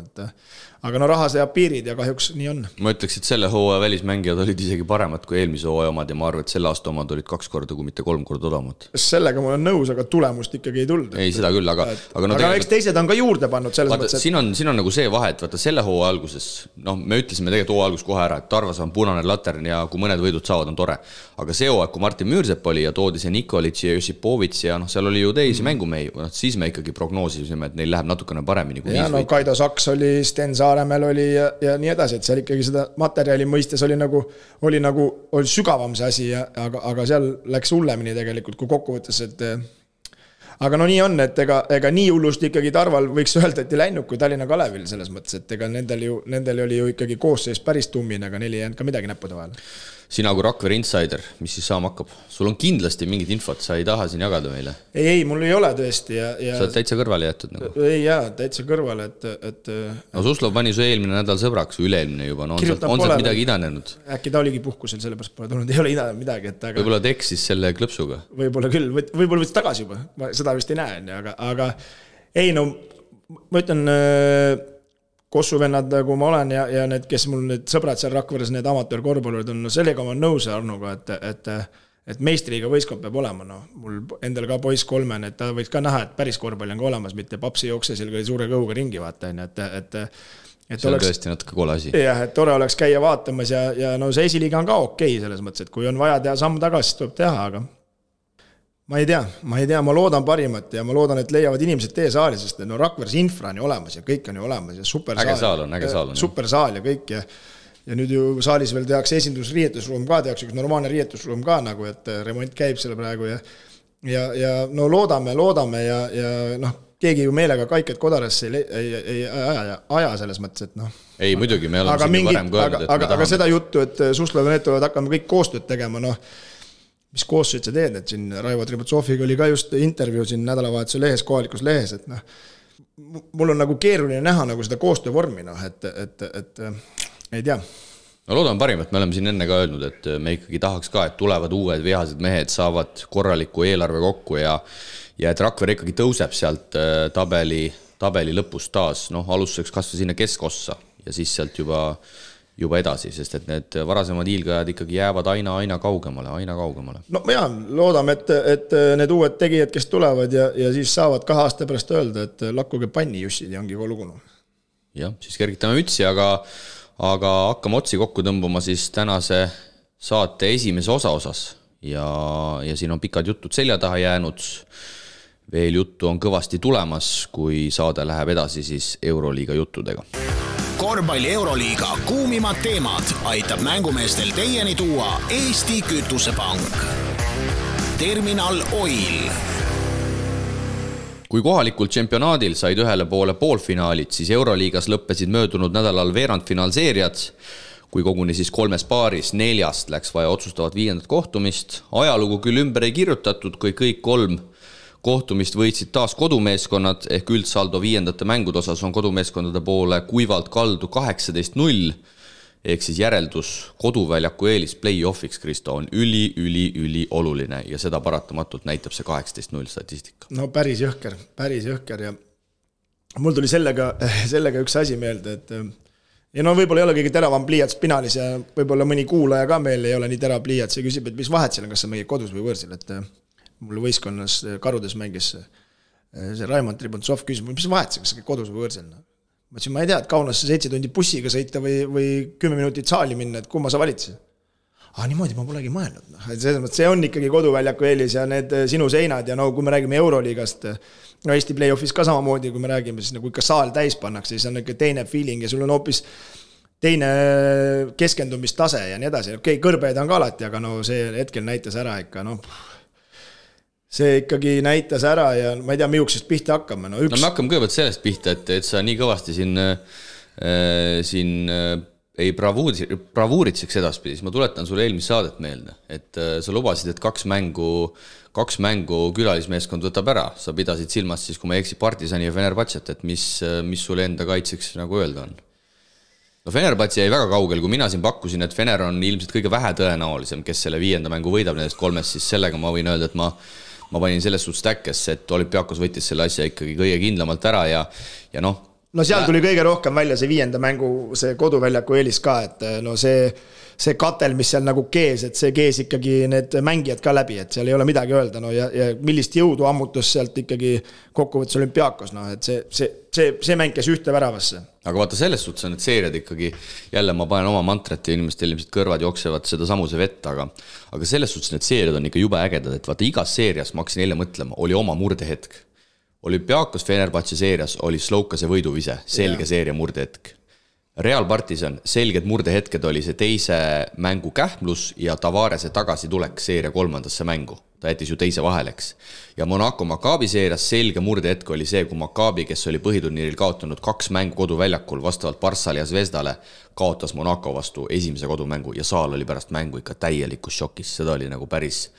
aga no raha seab piirid ja kahjuks nii on. Ma ütleks, et selle hooaja välismängijad olid isegi paremad kui eelmise hooaja omad ja ma arvan, et selle aasta omad olid 2 korda, kui mitte 3 korda odavamad. Sellega ma olen nõus, aga tulemust ikkagi ei tulnud. Ei, seda küll, aga eks teised on ka juurde pannud selles mõttes. Siin on nagu see vahe, et vaata selle hooaja alguses, noh, me ütlesime tegelikult hooaja algus kohe ära, et Tarvas on punane latern ja kui mõned võidud saavad, on tore. Aga see hooaeg, kui Martin Müürsepp oli ja toodi see Nikolitš ja Josipovits ja noh, seal oli ju teisi mängumehi, siis me ikkagi prognoosisime, et neil läheb natukene paremini kui 5 võitu. Kaido Saks oli, Sten Saaremäel oli ja nii edasi, et seal ikkagi seda materjali mõistes oli sügavam see asi, aga seal läks hullemini tegelikult, kui kokkuvõttes, et aga no nii on, et ega nii hullust ikkagi Tarval võiks öelda, et ei läinud kui Tallinna Kalevil selles mõttes, et ega nendel oli ju ikkagi koosseis päris tummine, aga neil ei jäänud ka midagi näppude vahel. Sina kui Rakvere insider, mis siis saama hakkab? Sul on kindlasti mingid infot, sa ei taha siin jagada meile? Ei, mul ei ole tõesti. Sa oled täitsa kõrvale jätud nagu? Ei jaa, täitsa kõrvale, et no Suslov pani su eelmine nädal sõbraks või üle-eelmine juba, no on sealt midagi idanenud? Äkki ta oligi puhkusel, sellepärast pole tulnud, ei ole idanenud midagi. Võib-olla ta eksis selle klõpsuga? Võib-olla küll, võib-olla võttis tagasi juba, ma seda vist ei näe, aga ei no, ma ütlen kossuvennad, kui ma olen ja need, kes mul need sõbrad seal Rakveres, need amatöörkorvpallurid on, no sellega ma nõus Arnuga, et meistriga võistkond peab olema, no mul endal ka poiss 3, et ta võiks ka näha, et päris korvpalli on ka olemas, mitte papsi jookse seal suure kõuga ringi vaata, et see on tõesti natuke kole asi. Jah, et tore oleks käia vaatamas ja no see esiliiga on ka okei selles mõttes, et kui on vaja teha samm tagasi, siis tuleb teha, aga ma ei tea, ma loodan parimat ja ma loodan, et leiavad inimesed tee saali, sest no Rakveres infra on ju olemas ja kõik on ju olemas ja äge saal on. Super saal ja kõik ja nüüd ju saalis veel tehakse esindusriietusruum ka, tehakse üks normaalne riietusruum ka nagu, et remont käib selle praegu ja no loodame ja noh, keegi ju meelega Kaiket Kodarasse ei aja selles mõttes, et noh. Ei, muidugi, me oleme siin varem kõelnud, aga seda juttu, et Suslov ja need tulevad hakkama kõik koostööd tegema, noh, mis koostööd sa teed, et siin Raivo Tributsoviga oli ka just intervjuu siin nädalavahetuse lehes, kohalikus lehes, et noh, mul on nagu keeruline näha nagu seda koostöövormi, noh, et ei tea. No loodan parimat, me oleme siin enne ka öelnud, et me ikkagi tahaks ka, et tulevad uued vihased mehed, saavad korraliku eelarve kokku ja et Rakvere ikkagi tõuseb sealt tabeli lõpust taas, noh, alustuseks kasvõi sinna keskossa ja siis sealt juba edasi, sest et need varasemad hiilgajad ikkagi jäävad aina kaugemale. No jaa, loodame, et need uued tegijad, kes tulevad ja siis saavad 2 aasta pärast öelda, et lakkuge panni jussid ja ongi kolugunu. Jah, siis kergitame mütsi, aga hakkame otsi kokku tõmbama siis tänase saate esimese osas ja siin on pikad jutud selja taha jäänud. Veel juttu on kõvasti tulemas, kui saade läheb edasi siis Euroliiga juttudega. Korvpalli Euroliiga kuumimad teemad aitab mängumeestel teieni tuua Eesti Kütusepank. Terminal Oil. Kui kohalikul čempionaadil said ühele poole poolfinaalid, siis Euroliigas lõppesid möödunud nädalal veerandfinaalseeriad, kui koguni siis 3 paaris 4 läks vaja otsustavat 5. kohtumist. Ajalugu küll ümber ei kirjutatud, kui kõik 3 kohtumist võitsid taas kodumeeskonnad, ehk üldsaldo 5. mängude osas on kodumeeskondade poole kuivalt kaldu 18-0, ehk siis järeldus koduväljaku eelis play-offiks, Kristo, on üli oluline ja seda paratamatult näitab see 18-0 statistika. No päris jõhker ja mul tuli sellega üks asi meelde, et ja no võib-olla ei ole kõige teravam pliiats pinaalis ja võib-olla mõni kuulaja ka meil ei ole nii terav pliiats ja küsib, et mis vahet seal on, kas see meie kodus või võõrsil, et mul võistkonnas Karudes mängis see Raimond Tribuntsov küsib, mis vahet see, kas see kodus või võõrsil. Ma ütlesin, ma ei tea, et Kaunasse 7 tundi bussiga sõita või 10 minutit saali minna, et kumma sa valitsid? Niimoodi ma polegi mõelnud. See on ikkagi koduväljaku eelis ja need sinu seinad ja kui me räägime Euroliigast, Eesti play-offis ka samamoodi, kui me räägime, siis nagu ikka saal täis pannakse, siis on ikka teine feeling ja sul on hoopis teine keskendumistase ja nii edasi. Okei, kõrbeid on ka alati, aga see hetkel näitas ära ikka, see ikkagi näitas ära ja ma ei tea, miuksest pihta hakkame. Me hakkame kõigepealt sellest pihta, et sa nii kõvasti siin ei bravuuritseks edaspidi, siis ma tuletan sulle eelmist saadet meelde, et sa lubasid, et kaks mängu külalismeeskond võtab ära. Sa pidasid silmas siis, kui ma eksi Partisani ja Fenerbahcet, et mis sulle enda kaitseks nagu öelda on? Fenerbahce jäi väga kaugel, kui mina siin pakkusin, et Fener on ilmselt kõige vähe tõenäolisem, kes selle 5. mängu võidab nendest 3, siis sellega ma võin öelda, et ma panin selles suhtes täkkesse, et Olympiakos võttis selle asja ikkagi kõige kindlamalt ära ja seal tuli kõige rohkem välja see 5. mängu, see koduväljaku eelis ka, et see katel, mis seal nagu kees, et see kees ikkagi need mängijad ka läbi, et seal ei ole midagi öelda, ja millist jõudu ammutus sealt ikkagi kokkuvõttes Olympiakos, et see mäng käis ühte väravasse. Aga vaata, selles suhtes on need seeriad ikkagi, jälle ma panen oma mantrat ja inimestel ilmselt kõrvad jooksevad seda samuse vett, aga selles suhtes need seeriad on ikka jube ägedad, et vaata igas seerias, ma hakkasin eile mõtlema, oli oma murdehetk. Olümpiakos Fenerbahce seerias oli Slovkase võiduvise, selge seeria murdehetk. Real Partisan, selged murdehetked oli see teise mängu kähmlus ja Tavarese tagasi tulek seeria 3. mängu. Ta jättis ju teise vaheleks. Ja Monaco Maccabi seerias selge murdehetk oli see, kui Maccabi, kes oli põhiturniiril kaotanud 2 mängu koduväljakul vastavalt Barssale ja Zvezdale, kaotas Monaco vastu esimese kodumängu ja saal oli pärast mängu ikka täielikus šokis. Seda oli nagu päris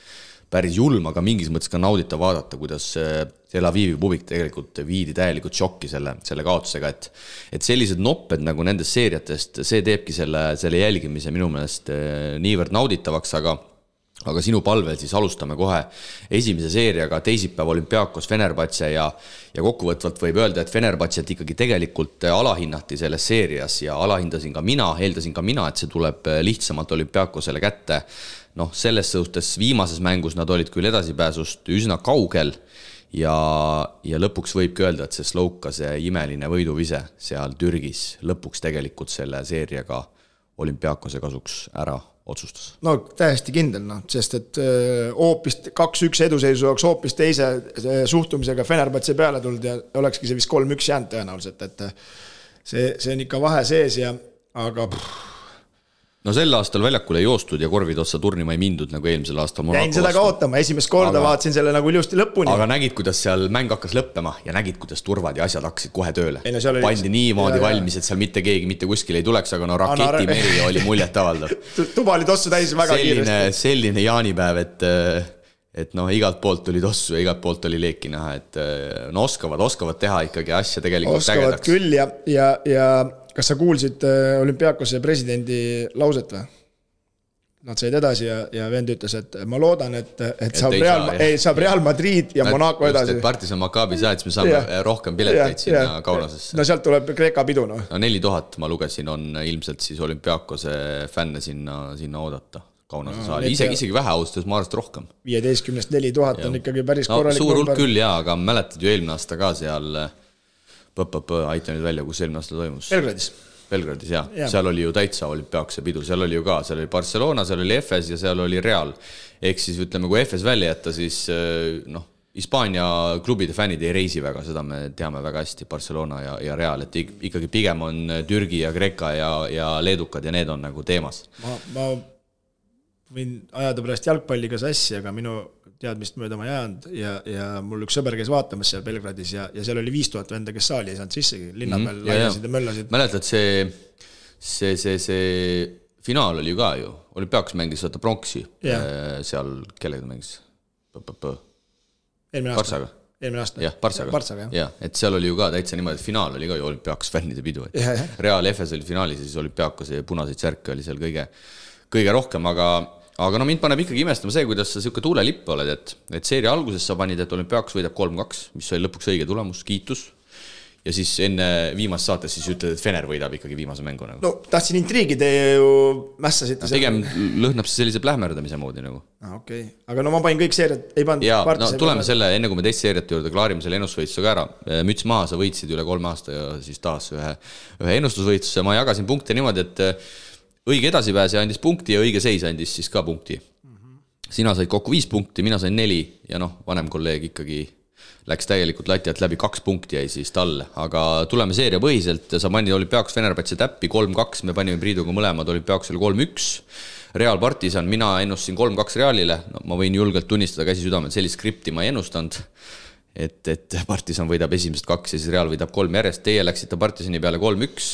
julm, aga mingis mõttes ka naudita vaadata, kuidas Tel Avivi publik tegelikult viidi täielikult šokki selle kaotusega, et sellised nopped nagu nendest seeriatest, see teebki selle jälgimise minu meelest niivõrd nauditavaks, aga sinu palvel siis alustame kohe esimese seeriaga, teisipäev Olympiakos Fenerbahce ja kokkuvõtvalt võib öelda, et Fenerbahcet ikkagi tegelikult alahinnati selles seerias ja alahindasin ka mina, eeldasin ka mina, et see tuleb lihtsamalt Olympiakosele kätte. Selles suhtes viimases mängus nad olid küll edasipääsust üsna kaugel ja lõpuks võibki öelda, et see Slovkase imeline võiduvise seal Türgis lõpuks tegelikult selle seeriaga Olympiakose kasuks ära otsustas. Täiesti kindel, sest et hoopis 2-1 eduseisu oleks hoopis teise suhtumisega Fenerbahce peale tulnud ja olekski see vist 3-1 jäänud tõenäoliselt, et see on ikka vahe sees aga sel aastal väljakule ei joostud ja korvid otsa turnima ei mindud nagu eelmisel aastal. Jäin seda ka ootama, esimest korda vaatasin selle nagu ilusti lõpuni. Aga nägid, kuidas seal mäng hakkas lõppema ja nägid, kuidas turvad ja asjad hakkasid kohe tööle. Pandi niimoodi valmis, et seal mitte keegi mitte kuskil ei tuleks, aga raketimeri oli muljet avaldav. Tuba oli tossu täis väga kiiresti. Selline jaanipäev, et igalt poolt tuli tossu ja igalt poolt oli leeki näha, et oskavad teha ikkagi asja tegelikult oskavad ägedaks. Küll ja kas sa kuulsid Olympiakose presidendi lauset või? Nad said edasi ja vend ütles, et ma loodan, et saab Real Madrid ja Monaco edasi. Partisan Maccabi saad, siis me saame rohkem pileteid sinna Kaunasesse. Sealt tuleb Kreeka pidu. 4000 ma lugesin on ilmselt siis Olympiakose fänne sinna oodata. Kaunase saali. Isegi vähe austas, ma arvast rohkem. 15-st 4000 on ikkagi päris korralik. Suur hulk küll aga mäletad ju eelmine aasta ka seal aita nüüd välja, kus eelmine aasta toimus. Belgradis, jah. Seal oli ju täitsa Olympiakose pidu, seal oli ju ka, seal oli Barcelona, seal oli Efes ja seal oli Real. Ehk siis ütleme, kui Efes välja jätta, siis Hispaania klubide fännid ei reisi väga, seda me teame väga hästi, Barcelona ja Real, et ikkagi pigem on Türgi ja Kreeka ja leedukad ja need on nagu teemas. Ma võin ajada pärast jalgpalliga sassi, aga minu teadmist mööda ma jäänud ja mul üks sõber käis vaatamas seal Belgradis ja seal oli 5000 venda, kes saali ei saanud sissegi, linna peal laiasid ja möllasid. Mäletad, see finaal oli ju ka ju, Olympiakos mängis võtta pronksi seal, kellega mängis? Eelmine aasta. Jah, Partsaga. Ja, et seal oli ju ka täitsa niimoodi, et finaal oli ka ju Olympiakos fännide pidu. Real Efes oli finaalis ja siis Olympiakos ja punaseid särke oli seal kõige rohkem, aga mind paneb ikkagi imestama see, kuidas sa siuke tuulelipp oled, et seeria alguses sa panid, et Olympiakos võidab 3-2, mis oli lõpuks õige tulemus, kiitus. ja siis enne viimast saates siis ütled, et Fener võidab ikkagi viimase mängu nagu. No tahtsin intriigi, te ju mässasite pigem lõhnab see sellise plähmerdamise moodi nagu. Okay. Aga no ma panin kõik seeriad, ei pannud ja, no tuleme selle, enne kui me teist seeriate juurde klaarime selle ennustusvõistusega ära. Müts maha, sa võitsid üle 3 aasta ja siis taas ühe ennustusvõistluse. Ma jagasin punkte niimoodi, et õige edasipääse andis punkti ja õige seis andis siis ka punkti. Sina said kokku 5 punkti, mina sain 4 ja noh, vanem kolleeg ikkagi läks täielikult lati alt läbi, 2 punkti jäi siis talle, aga tuleme seeria põhiselt, sa panid Olümpiakos Fenerbahce täppi 3-2, me panime Priiduga mõlemad Olümpiakosele 3-1, Real Partisan, mina ennustasin 3-2 Realile, no, ma võin julgelt tunnistada käsi südamel, sellist skripti ma ei ennustanud, et Partisan võidab esimesed 2 ja siis Real võidab 3 järjest, teie läksite Partisani peale 3-1,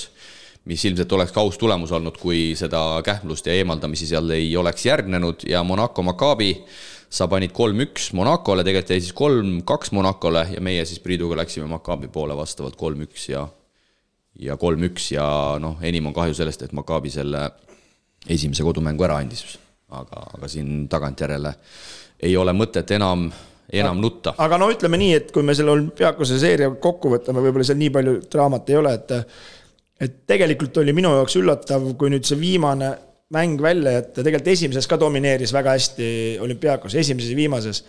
mis ilmselt oleks ka aus tulemus olnud, kui seda kähmlust ja eemaldamisi seal ei oleks järgnenud ja Monaco Maccabi sa panid 3-1 Monacole, tegelikult jäi siis 3-2 Monacole ja meie siis Priiduga läksime Maccabi poole vastavalt 3-1 ja 3-1 ja noh, enim on kahju sellest, et Maccabi selle esimese kodumängu ära andis, aga siin tagantjärele ei ole mõtet enam nutta. Aga no ütleme nii, et kui me selle Olümpiakose seeria kokku võtame, võib-olla seal nii palju draamat ei ole, et tegelikult oli minu jaoks üllatav, kui nüüd see viimane mäng välja, et tegelikult esimeses ka domineeris väga hästi Olümpiakos, esimeses ja viimases.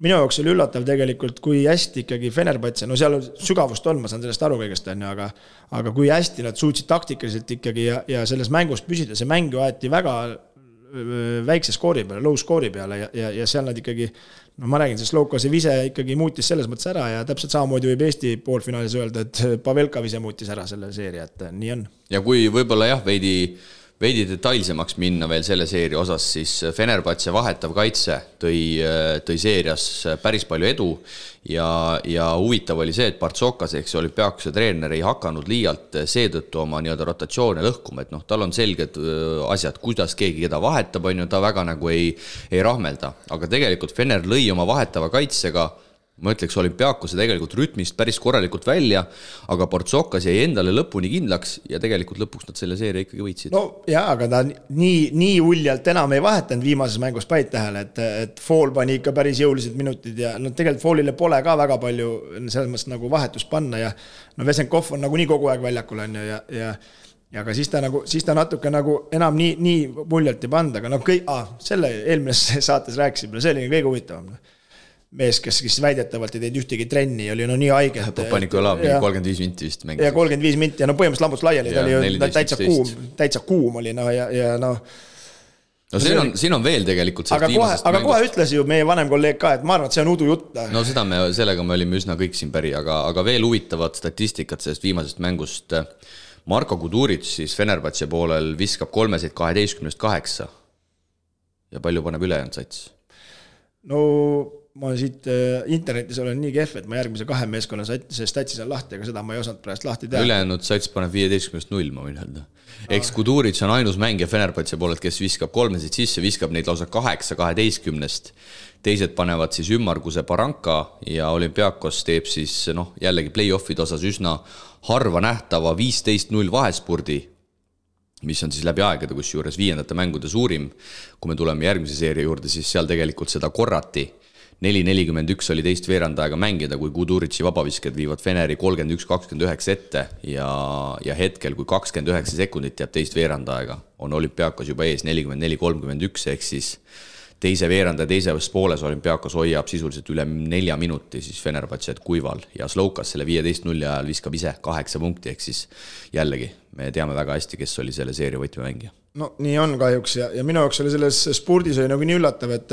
Minu jaoks oli üllatav tegelikult, kui hästi ikkagi Fenerbahce, no seal sügavust on, ma saan sellest aru kõigest, aga kui hästi nad suutsid taktikaliselt ikkagi ja selles mängus püsida, see mäng aeti väga väikse skoori peale, low skoori peale ja seal nad ikkagi, no ma räägin, sest Loukase vise ikkagi muutis selles mõttes ära ja täpselt samamoodi võib Eesti poolfinaalis öelda, et Pavelka vise muutis ära selle seeria, et nii on. Ja kui võib-olla jah, veidi detailsemaks minna veel selle seeria osas, siis Fenerbahce vahetav kaitse tõi seerias päris palju edu ja huvitav oli see, et Partsokas ehk see Olümpiakose treener ei hakanud liialt seetõttu oma nii-öelda rotatsioone lõhkuma, et noh, tal on selged asjad, kuidas keegi keda vahetab, on ju, ta väga nagu ei rahmelda, aga tegelikult Fener lõi oma vahetava kaitsega ma ütleks Olümpiakose tegelikult rütmist päris korralikult välja, aga Partsokas jäi endale lõpuni kindlaks ja tegelikult lõpuks nad selle seeria ikkagi võitsid. No jaa, aga ta nii uljalt enam ei vahetanud viimases mängus päid tähele, et Fool pani ikka päris jõulised minutid ja no tegelikult Foolile pole ka väga palju selles mõttes nagu vahetust panna ja no Vesenkov on nagu nii kogu aeg väljakul on ju ja aga siis ta natuke nagu enam nii muljalt ei panda, aga no selle eelmises saates rääkisime, see oli kõige huvitavam. Mees, kes väidetavalt ei teinud ühtegi trenni, oli no nii haige. Paniku Olav, 35 minti vist mängis. Ja 35 minti ja no põhimõtteliselt lambuts laiali, ta oli täitsa kuum oli ja noh. No siin on veel tegelikult aga kohe ütles ju meie vanem kolleeg ka, et ma arvan, et see on udu jutt. No sellega me olime üsna kõik siin päri, aga veel huvitavat statistikat sellest viimasest mängust. Marko Kuduric siis Fenerbahce poolel viskab 3-12-8 ja palju paneb ülejäänud sats? No ma siit internetis olen nii kehv, et ma järgmise 2 meeskonna statsis on lahti, aga seda ma ei osanud praegu lahti teha. Ülejäänud sats paneb 15-0, ma võin öelda. Eks Kuduric on ainus mängija Fenerbahce poolelt, kes viskab 3 sisse, viskab neid lausa 8-12. Teised panevad siis ümmarguse Baranka ja Olümpiakos teeb siis jällegi play-offide osas üsna harva nähtava 15-0 vahespurdi, mis on siis läbi aegade, kus juures 5. mängude suurim. Kui me tuleme järgmise seeria juurde, siis seal tegelikult seda korrati. 4-41 oli teist veerandaega mängida, kui Kudurici vabavisked viivad Feneri 31-29 ette ja hetkel, kui 29 sekundit jääb teist veerandaega, on Olümpiakos juba ees 44-31, ehk siis teise veeranda ja teises pooles Olümpiakos hoiab sisuliselt üle 4 minuti siis Fenerbahce't kuival ja Slovkas selle 15-0 ajal viskab ise 8 punkti, ehk siis jällegi me teame väga hästi, kes oli selle seeria võtmemängija. No nii on kahjuks ja minu jaoks oli selles spordis oli nagu nii üllatav, et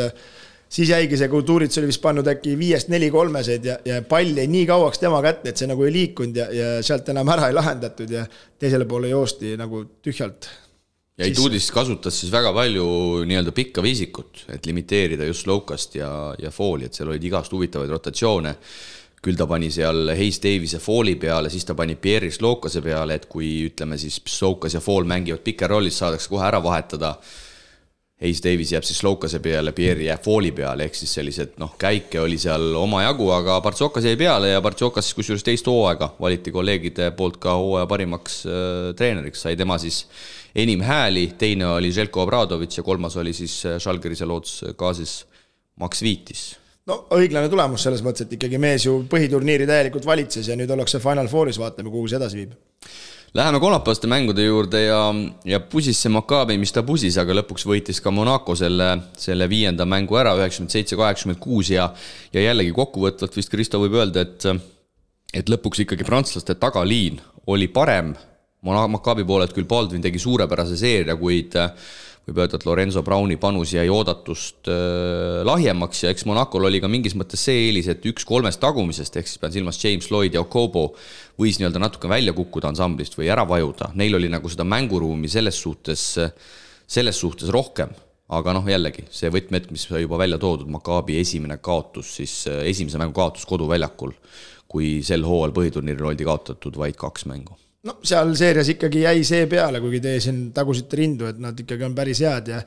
siis jäigi see Kuduric oli vist pannud äkki 5-4-3 ja pall jäi nii kauaks tema kätte, et see nagu ei liikunud ja sealt enam ära ei lahendatud ja teisele poole joosti nagu tühjalt. Ja Ituudis kasutas siis väga palju nii-öelda pikka viisikut, et limiteerida just Slovkast ja Fooli, et seal olid igast huvitavaid rotatsioone. Küll ta pani seal Hayes Davise Fooli peale, siis ta pani Pierre Slovkase peale, et kui ütleme siis Slovkas ja Fool mängivad pikker rollis, saadakse kohe ära vahetada. Hayes Davis jääb siis Slovkase peale, Pierre jääb Fooli peale, ehk siis sellised käike oli seal oma jagu, aga Partsokas jäi peale ja Partsokas kus juures teist hooaega valiti kolleegide poolt ka hooaja parimaks treeneriks, sai tema siis enim hääli, teine oli Željko Obradović ja kolmas oli siis Žalgirise Loots Kaasis Max Viitis. no õiglane tulemus selles mõttes, et ikkagi mees ju põhiturniiri täielikult valitses ja nüüd ollakse Final Fouris, vaatame, kuhu see edasi viib. Läheme kolmapäevaste mängude juurde ja pusis see Maccabi, mis ta pusis, aga lõpuks võitis ka Monaco selle 5. mängu ära, 97-86 ja jällegi kokkuvõtvalt vist Kristo võib öelda, et lõpuks ikkagi prantslaste tagaliin oli parem. Maccabi poolelt küll Baldwin tegi suurepärase seeria, kuid võib öelda, et Lorenzo Browni panus jäi oodatust lahjemaks ja eks Monacol oli ka mingis mõttes see eelis, et 1-3 tagumisest, ehk siis pean silmas James Lloyd ja Okobo võis nii-öelda natuke välja kukkuda ansamblist või ära vajuda. Neil oli nagu seda mänguruumi selles suhtes rohkem, aga jällegi see võtmet, mis juba välja toodud, Maccabi esimene kaotus, siis esimese mängu kaotus koduväljakul, kui sel hooajal põhiturniiril oldi kaotatud vaid 2 mängu. No seal seerias ikkagi jäi see peale, kuigi teie siin tagusite rindu, et nad ikkagi on päris head ja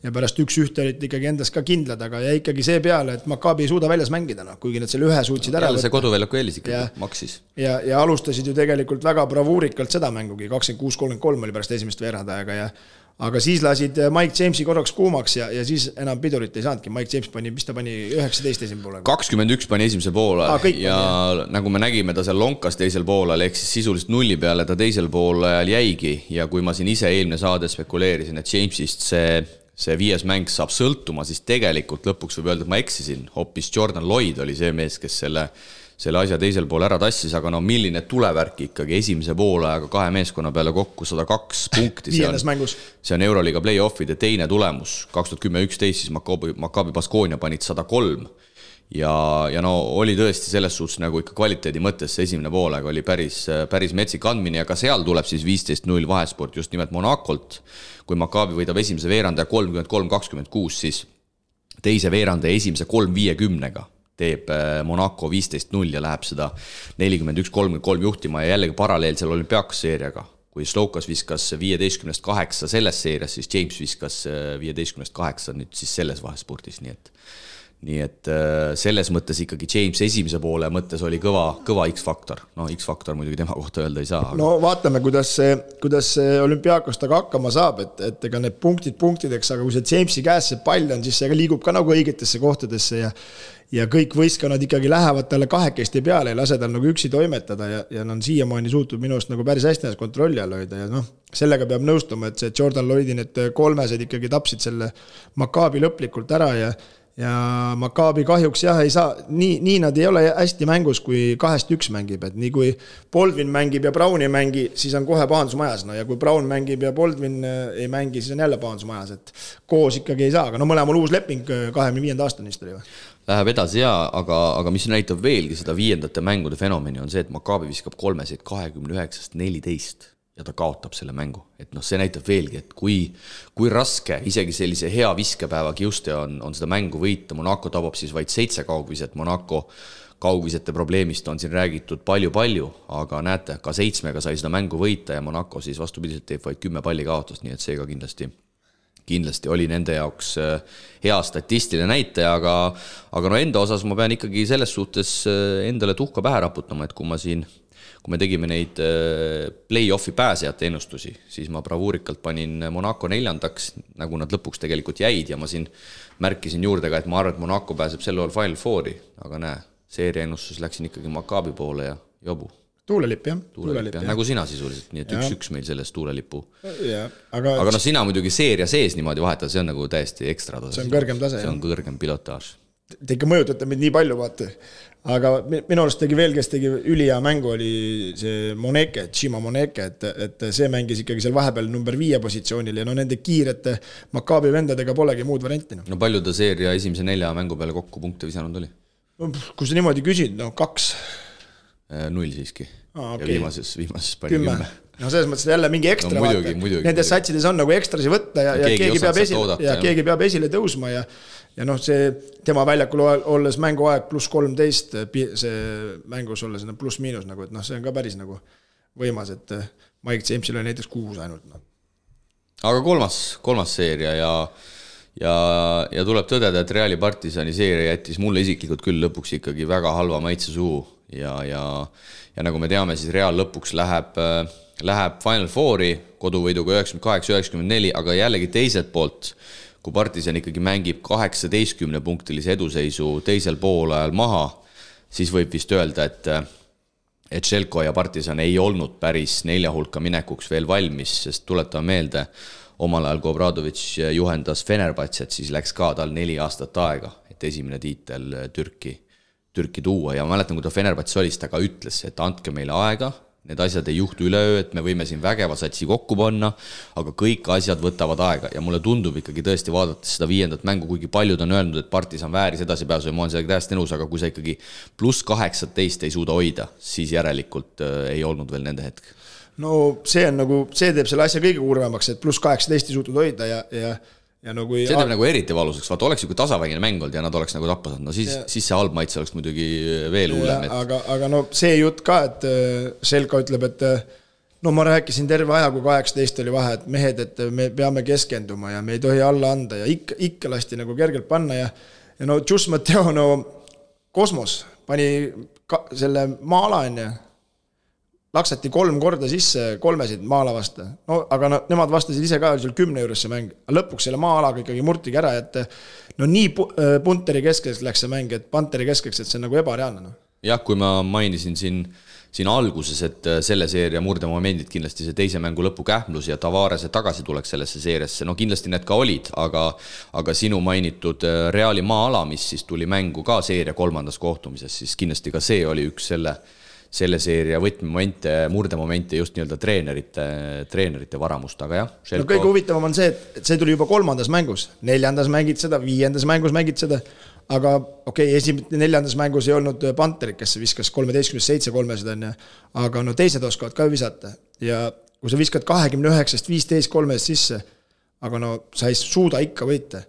pärast 1-1 olid ikkagi endas ka kindlad, aga jäi ikkagi see peale, et Maccabi ei suuda väljas mängida, kuigi nad selle ühe suutsid ära võtta. See koduväljaku eelis ikkagi maksis. Ja alustasid ju tegelikult väga bravuurikalt seda mängugi, 26-33 oli pärast esimest veeradajaga aga siis lasid Mike Jamesi korraks kuumaks ja siis enam pidurit ei saanudki. Mike James pani 19 esimene poole. 21 pani esimese poole ja nagu me nägime, ta seal lonkas teisel poolel, ehk siis sisuliselt nulli peale ta teisel poolel jäigi ja kui ma siin ise eelmine saade spekuleerisin, et Jamesist see 5. mäng saab sõltuma, siis tegelikult lõpuks võib öelda, et ma eksisin. Hoopis Jordan Lloyd oli see mees, kes selle asja teisel pool ära tassis, aga milline tulevärk ikkagi esimese poole aega 2 meeskonna peale kokku 102 punkti. See on Euroliiga play-offide teine tulemus. 2010-11 siis Maccabi Baskonia panid 103 ja oli tõesti selles suhtes nagu ikka kvaliteedi mõttes see esimene pool aega oli päris metsik andmine ja ka seal tuleb siis 15-0 vahesport just nimelt Monacolt. Kui Maccabi võidab esimese veeranda 33-26, siis teise veeranda ja esimese 3-50-ga teeb Monaco 15-0 ja läheb seda 41-33 juhtima ja jällegi paralleelsel olümpiakos seeriaga. Kui Slokas viskas 15-8 selles seerias, siis James viskas 15-8 nüüd siis selles vahespordis, nii et selles mõttes ikkagi James esimese poole mõttes oli kõva X-faktor. X-faktor muidugi tema kohta öelda ei saa. Aga... No vaatame, kuidas see olümpiakos taga hakkama saab, et ega need punktideks, aga kui see Jamesi käes see pall on, siis see liigub ka nagu õigetesse kohtadesse ja kõik võistkonnad ikkagi lähevad talle kahekesti peale ja lase tal nagu üksi toimetada ja on siiamaani suutnud minust nagu päris hästi kontrolli all hoida ja sellega peab nõustuma, et see Jordan Lloydi need 3 ikkagi tapsid selle Maccabi lõplikult ära ja Maccabi kahjuks ei saa, nii nad ei ole hästi mängus, kui 2-1 mängib, et nii kui Baldwin mängib ja Brown ei mängi, siis on kohe pahandusmajas, ja kui Brown mängib ja Baldwin ei mängi, siis on jälle pahandusmajas, et koos ikkagi ei saa, aga mõlemal uus leping 25. aastani vist oli või? Läheb edasi aga mis näitab veelgi seda 5. mängude fenomeni on see, et Maccabi viskab 3-sid 29-14 ja ta kaotab selle mängu. Et see näitab veelgi, et kui raske isegi sellise hea viskepäeva kiuste on seda mängu võita. Monaco tabab siis vaid 7 kaugviset. Monaco kaugvisete probleemist on siin räägitud palju, aga näete, ka 7-ga sai seda mängu võita ja Monaco siis vastupidiselt teeb vaid 10 palli kaotust, nii et see ka kindlasti oli nende jaoks hea statistiline näitaja, aga enda osas ma pean ikkagi selles suhtes endale tuhka pähe raputama, et kui me tegime neid play-offi pääsejate ennustusi, siis ma bravuurikalt panin Monaco 4, nagu nad lõpuks tegelikult jäid ja ma siin märkisin juurde ka, et ma arvan, et Monaco pääseb selle all Final Fouri, aga seeria ennustus läksin ikkagi Maccabi poole ja jobu. Tuulelipp, jah. Nagu sina sisuliselt, nii et 1-1 meil selles tuulelipu. Aga sina muidugi seeria sees niimoodi vahetada, see on nagu täiesti ekstra tase. See on kõrgem tase. See on kõrgem pilotaaž. Te ikka mõjutate meid nii palju, vaata. Aga minu arust tegi veel, kes tegi ülihea mängu, oli see Moneke, Chima Moneke, et see mängis ikkagi seal vahepeal number 5 positsioonil ja nende kiirete Maccabi vendadega polegi muud varianti. No palju ta seeria esimese 4 mängu peale kokku punkte visanud oli? Kui sa niimoodi küsid, 2. 0 siiski. Okay. Ja viimases pani 10. No selles mõttes jälle mingi ekstra muidugi. Nendes satsides on nagu ekstrasi võtta ja keegi peab esile tõusma ja see tema väljakul olles mänguaeg +13 see mängus olles pluss-miinus nagu, et see on ka päris nagu võimas, et Mike Jamesil oli näiteks 6 ainult. Aga kolmas seeria ja tuleb tõdeda, et Reali Partisani seeria jättis mulle isiklikult küll lõpuks ikkagi väga halva maitse suhu ja nagu me teame, siis Real lõpuks läheb Final Fouri koduvõiduga 98-94, aga jällegi teiselt poolt, kui Partisan ikkagi mängib 18-punktilise eduseisu teisel poolajal maha, siis võib vist öelda, et Željko ja Partisan ei olnud päris 4 hulka minekuks veel valmis, sest tuletame meelde, omal ajal, kui Obradovic juhendas Fenerbahcet, siis läks ka tal 4 aastat aega, et esimene tiitel Türki tuua ja ma mäletan, kui ta Fenerbahce oli, ta ka ütles, et andke meile aega, need asjad ei juhtu üleöö, et me võime siin vägeva satsi kokku panna, aga kõik asjad võtavad aega ja mulle tundub ikkagi tõesti vaadates seda 5. mängu, kuigi paljud on öelnud, et Partisan vääris edasi pääsu ja ma olen sellega täiesti nõus, aga kui sa ikkagi plus 18 ei suuda hoida, siis järelikult ei olnud veel nende hetk. No see on nagu, see teeb selle asja kõige kurvemaks, et plus 18 ei suutud hoida ja no kui... See teeb nagu eriti valuseks, vaata oleks ju kui tasavägine mäng olnud ja nad oleks nagu tappa saanud, no siis see halb maitse oleks muidugi veel hullem. Aga no see jutt ka, et Željko ütleb, et no ma rääkisin terve aja, kui 18 oli vahe, et mehed, et me peame keskenduma ja me ei tohi alla anda ja ikka lasti nagu kergelt panna ja no Just Mateo, no Kosmos pani selle maala enne laksati 3 korda sisse, 3 maala vasta. No, aga nemad vastasid ise ka seal 10 juures see mäng. Lõpuks selle maa-alaga ikkagi murtigi ära, et no nii Punteri keskeks läks see mäng, et Panteri keskeks, et see on nagu ebareaalne. No. Jah, kui ma mainisin siin alguses, et selle seeria murdemomendid kindlasti see teise mängu lõpu kähmlus ja Tavarese tagasi tuleks sellesse seeriasse, no kindlasti need ka olid, aga sinu mainitud Reali maa-ala, mis siis tuli mängu ka seeria 3. kohtumises, siis kindlasti ka see oli üks selle seeria võtmemomente, murdemomente just nii-öelda treenerite varamust, aga jah. No kõige huvitavam on see, et see tuli juba 3. mängus, 4. mängid seda, 5. mängus mängid seda, aga okei, 4. mängus ei olnud Panterit, kes viskas 13-7 300 on, aga no teised oskavad ka visata ja kui sa viskad 29-15 3 sisse, aga no sa ei suuda ikka võita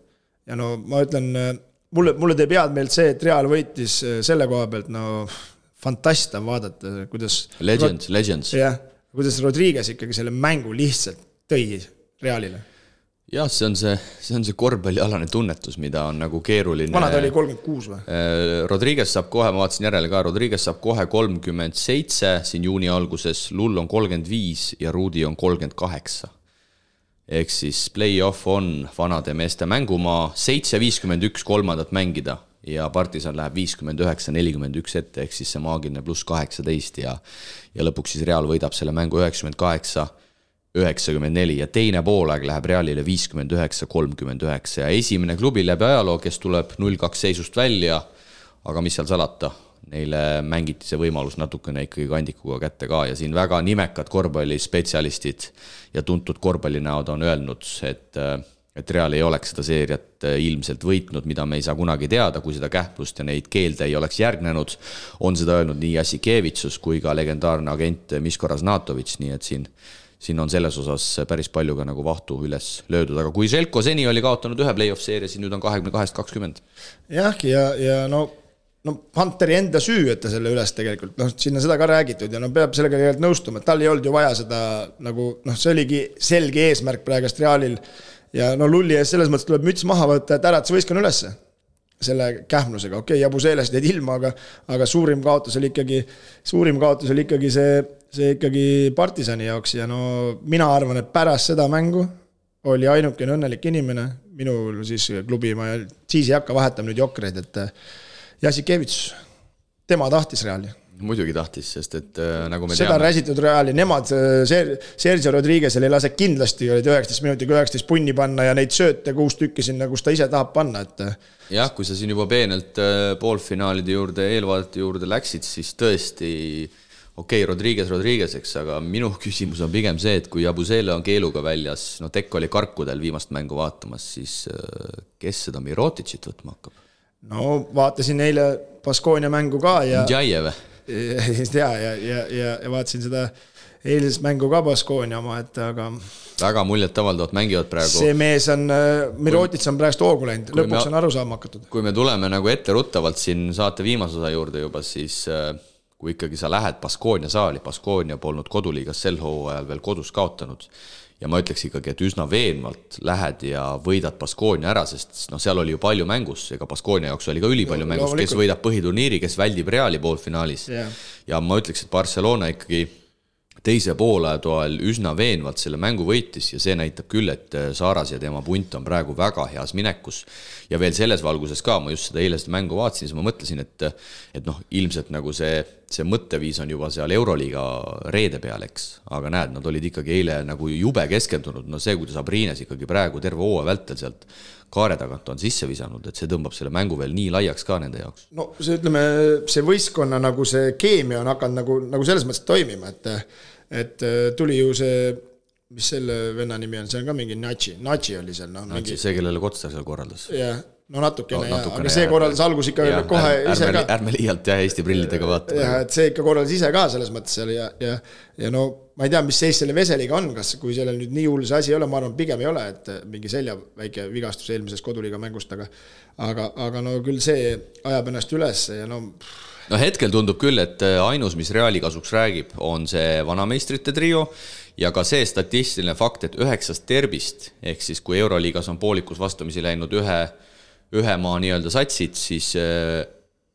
ja no ma ütlen, mulle teeb head meelt see, et Real võitis selle koha pealt, no fantasta vaadata, kuidas... Legends. Jah, kuidas Rodriguez ikkagi selle mängu lihtsalt tõi Realile. Jah, see on see korvpallialane tunnetus, mida on nagu keeruline... Vanad oli 36 või? Rodriguez saab kohe, ma vaatasin järele ka, Rodriguez saab kohe 37 siin juuni alguses, Lull on 35 ja Rudi on 38. Ehk siis play-off on vanade meeste mängumaa, 7-51 kolmandat mängida ja Partisan läheb 59-41 ette, ehk siis see maagiline plus 18 ja lõpuks siis Real võidab selle mängu 98-94 ja teine poolaeg läheb Realile 59-39 ja esimene klubi läbi ajaloo, kes tuleb 0-2 seisust välja, aga mis seal salata, neile mängiti see võimalus natukene ikkagi kandikuga kätte ka ja siin väga nimekad korvpallispetsialistid ja tuntud korvpallinäod on öelnud, et Real ei oleks seda seeriat ilmselt võitnud, mida me ei saa kunagi teada, kui seda kähplust ja neid keelde ei oleks järgnenud. On seda öelnud nii Jasikevitsus kui ka legendaarne agent Miško Raznatovic, nii et siin on selles osas päris palju ka nagu vahtu üles löödud, aga kui Željko seni oli kaotanud ühe play-off seeria, siis nüüd on 22-20. Jah, ja no Panteri enda süü, et ta selle üles tegelikult, sinna seda ka räägitud ja peab sellega tegelikult nõustuma, et tal ei olnud ju vaja seda nagu, see oligi selge eesmärk praegast Realil ja Lulli ees selles mõttes tuleb müts maha võtta, et äratas võiskan ülesse selle kähmlusega. Okei, Jabu Seelest jäid ilma, aga suurim kaotus oli ikkagi see ikkagi Partisani jaoks ja mina arvan, et pärast seda mängu oli ainukene õnnelik inimene, minul siis klubi, ma siis ei hakka vahetama nüüd jokreid, et Jasikevits, tema tahtis Reali. Muidugi tahtis, sest et nagu me seda räsitud Reali, nemad Sergio Rodriguez'el ei lase kindlasti 19 minutiga 19 punni panna ja neid sööte 6 tükki sinna, kus ta ise tahab panna. Jah, kui sa siin juba peenelt poolfinaalide juurde, eelvaadete juurde läksid, siis tõesti okei, Rodriguez'eks, aga minu küsimus on pigem see, et kui Jabusele on keeluga väljas, Tekk oli karkudel viimast mängu vaatamas, siis kes seda Miroticit võtma hakkab? No vaatasin eile Baskonia mängu ka ja... Džajev. Ja vaatasin seda eilses mängu ka Baskonia oma, et aga... Väga muljet avaldavad mängivad praegu. See mees on, Mirotic on praegust hoogu läinud, lõpuks on aru saama hakatud. Kui me tuleme nagu etteruttavalt siin saate viimase osa juurde juba, siis kui ikkagi sa lähed Baskonia saali, Baskonia polnud koduliigas sel hooajal veel kodus kaotanud ja ma ütleks ikkagi, et üsna veenvalt lähed ja võidad Baskonia ära, sest seal oli ju palju mängus, ega Baskonia jaoks oli ka ülipalju mängus, kes võidab põhiturniiri, kes väldib Reali poolfinaalis ja ma ütleks, et Barcelona ikkagi teise poolajatoel üsna veenvalt selle mängu võitis ja see näitab küll, et Saaras ja tema punt on praegu väga heas minekus. Ja veel selles valguses ka, ma just seda eile seda mängu vaatasin, siis ma mõtlesin, et noh, ilmselt nagu see mõtteviis on juba seal Euroliiga reede peal, eks. Aga näed, nad olid ikkagi eile nagu jube keskendunud. No see, kuidas Abriines ikkagi praegu terve hooaja vältel sealt kaare tagant on sisse visanud, et see tõmbab selle mängu veel nii laiaks ka nende jaoks. No see, ütleme, see võistkonna nagu see keemia on hakanud nagu selles mõttes toimima, et tuli ju see, mis selle venna nimi on, see on ka mingi Natsi oli seal. No, Natsi, see, kellele Kotsar seal korraldas. Jah, no natukene, aga see korraldas algus ikka kohe ise ka. Ärme liialt Eesti prillidega vaatama. Ja, et see ikka korraldas ise ka selles mõttes seal ja no ma ei tea, mis seis selle Veseliga on, kas kui sellel nüüd nii hull see asi ei ole, ma arvan, pigem ei ole, et mingi selja väike vigastus eelmises koduliiga mängust, aga no küll see ajab ennast üles ja no hetkel tundub küll, et ainus, mis Reali kasuks räägib, on see vanameistrite trio ja ka see statistiline fakt, et 9 derbist, ehk siis kui Euroliigas on poolikus vastamisi läinud ühe maa nii-öelda satsid, siis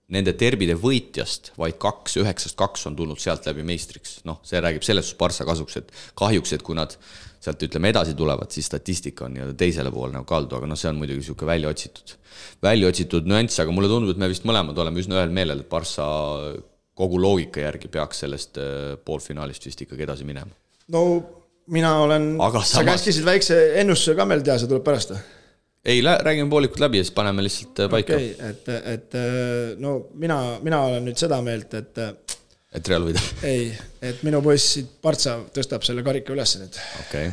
nende derbide võitjast vaid 9-2 on tulnud sealt läbi meistriks. No, see räägib selles Barca kasuks, et kahjuks, et kui nad sealt ütleme edasi tulevad, siis statistika on nii-öelda teisele poole nagu kaldu, aga see on muidugi siuke välja otsitud nüanss, aga mulle tundub, et me vist mõlemad oleme üsna ühel meelel, et Barca kogu loogika järgi peaks sellest poolfinaalist vist ikkagi edasi minema. No mina olen, sa käskisid väikse ennustuse ka meil teha, see tuleb pärast. Ei, räägime poolikut läbi ja siis paneme lihtsalt paika. Et no mina olen nüüd seda meelt, et Real võida. Ei, et minu poiss Partsa tõstab selle karika üles nüüd. Okei.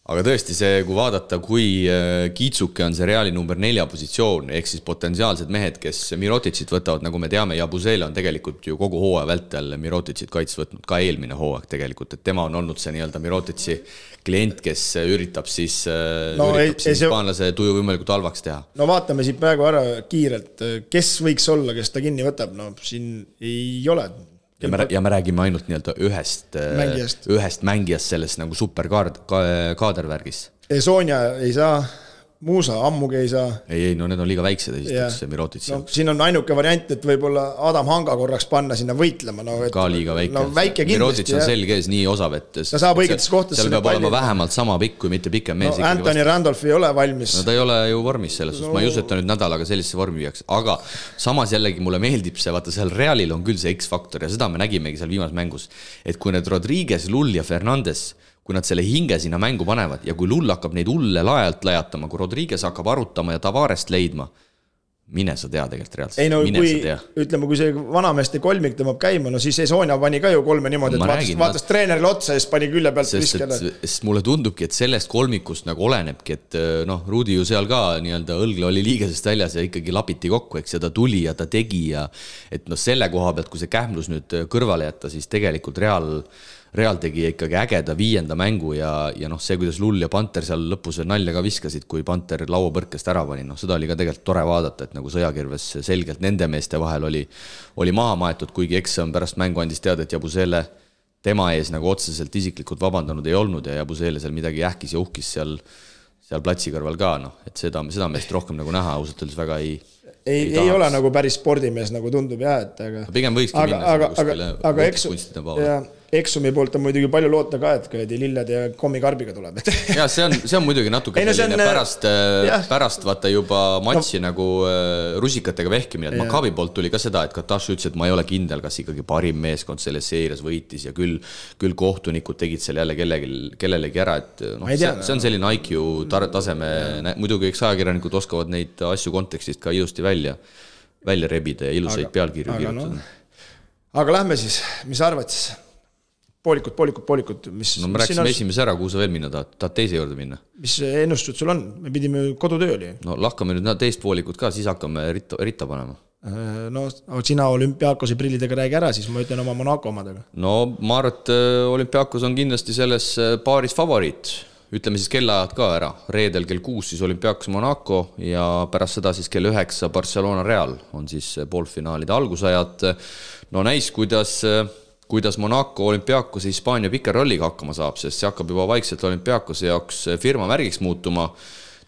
Aga tõesti see, kui vaadata, kui Kiitsuke on see Reali number 4 positsioon, ehk siis potentsiaalsed mehed, kes Miroticit võtavad, nagu me teame, ja Busele on tegelikult ju kogu hooaja vältel Miroticit kaits võtnud, ka eelmine hooaeg tegelikult, et tema on olnud see nii-öelda Mirotici klient, kes üritab siis hispaanlase tuju võimalikult halvaks teha. No vaatame siit praegu ära kiirelt, kes võiks olla, kes ta kinni võtab, no siin ei ole. Ja me räägime ainult nii-öelda ühest mängijast selles nagu superkaadervärgis. Sonja ei saa, Muusa ammugi ei saa. Ei, no need on liiga väiksed esiteks, Mirotic. No, siin on ainuke variant, et võib-olla Adam Hanga korraks panna sinna võitlema. No, et, ka liiga väike. No, väike kindlasti. Mirotic on selge ees nii osav, et ta saab õigetes kohtades. Seal peab olema vähemalt sama pikk, kui mitte pikem mees. No, Anthony Randolph ei ole valmis. No ta ei ole ju vormis selles. Ma ei usu, et ta nüüd nädalaga sellisesse vormi viiaks. Aga samas jällegi mulle meeldib see, vaata seal Realil on küll see X-faktor ja seda me nägimegi seal viimas mängus. Et kui need Rodriguez, Lull ja Fernandes, kui nad selle hinge sinna mängu panevad ja kui Lull hakkab neid hulle laajalt lajatama, kui Rodriguez hakkab arutama ja Tavarest leidma, mine sa tea tegelikult reaalselt. Ei no ütleme, kui see vanameeste kolmik tõmbab käima, no siis Sonja pani ka ju 3 niimoodi, et vaatas treenerile otsa ja siis pani külje pealt viskele. Sest mulle tundubki, et sellest kolmikust nagu olenebki, et noh, Rudi ju seal ka nii-öelda õlgle oli liigesest väljas ja ikkagi lapiti kokku, eks ja ta tuli ja ta tegi ja et noh, selle koha pealt, kui see kähmlus nüüd kõrvale jätta, siis tegelikult Real tegi ikkagi ägeda 5. mängu ja noh, see, kuidas Lull ja Panter seal lõpus nalja ka viskasid, kui Panter lauapõrkest ära pani, noh, seda oli ka tegelikult tore vaadata, et nagu sõjakirves selgelt nende meeste vahel oli maha maetud, kuigi eks on pärast mängu andis teada, et Jabusele tema ees nagu otseselt isiklikult vabandanud ei olnud ja Jabusele seal midagi ähkis ja uhkis seal platsi kõrval ka, noh, et seda meest rohkem nagu näha, ausalt öeldes väga ei ole nagu päris spordimees, nagu tundub jah, et pigem võikski minna aga Eksumi poolt on muidugi palju loota ka, et lilled ja kommikarbiga tuleb. Ja see on muidugi natuke selline pärast vaata juba matši nagu rusikatega vehkimine, et Maccabi poolt tuli ka seda, et Kataš ütles, et ma ei ole kindel, kas ikkagi parim meeskond selles seerias võitis ja küll kohtunikud tegid seal jälle kellelegi ära, et no, see on selline IQ taseme, muidugi eks ajakirjanikud oskavad neid asju kontekstist ka ilusti välja rebida ja ilusaid pealkirju kirjutada. Aga lähme siis, mis arvad siis? Poolikut. No me rääksime esimese ära, kuhu sa veel minna tahad teise juurde minna? Mis ennustused sul on? Me pidime kodutöö oli. No lahkame nüüd teist poolikut ka, siis hakkame ritta panema. No sina Olümpiakose prillidega räägi ära, siis ma ütlen oma Monaco omadega. No ma arvan, et Olümpiakos on kindlasti selles paaris favoriit. Ütleme siis kellaajad ka ära. Reedel kell 6 siis Olümpiakos Monaco ja pärast seda siis kell 9 Barcelona Real on siis poolfinaalide algusajad. No näis, kuidas Monaco Olümpiakos Hispaania pikerolliga hakkama saab, sest see hakkab juba vaikselt Olümpiakose jaoks firma märgiks muutuma.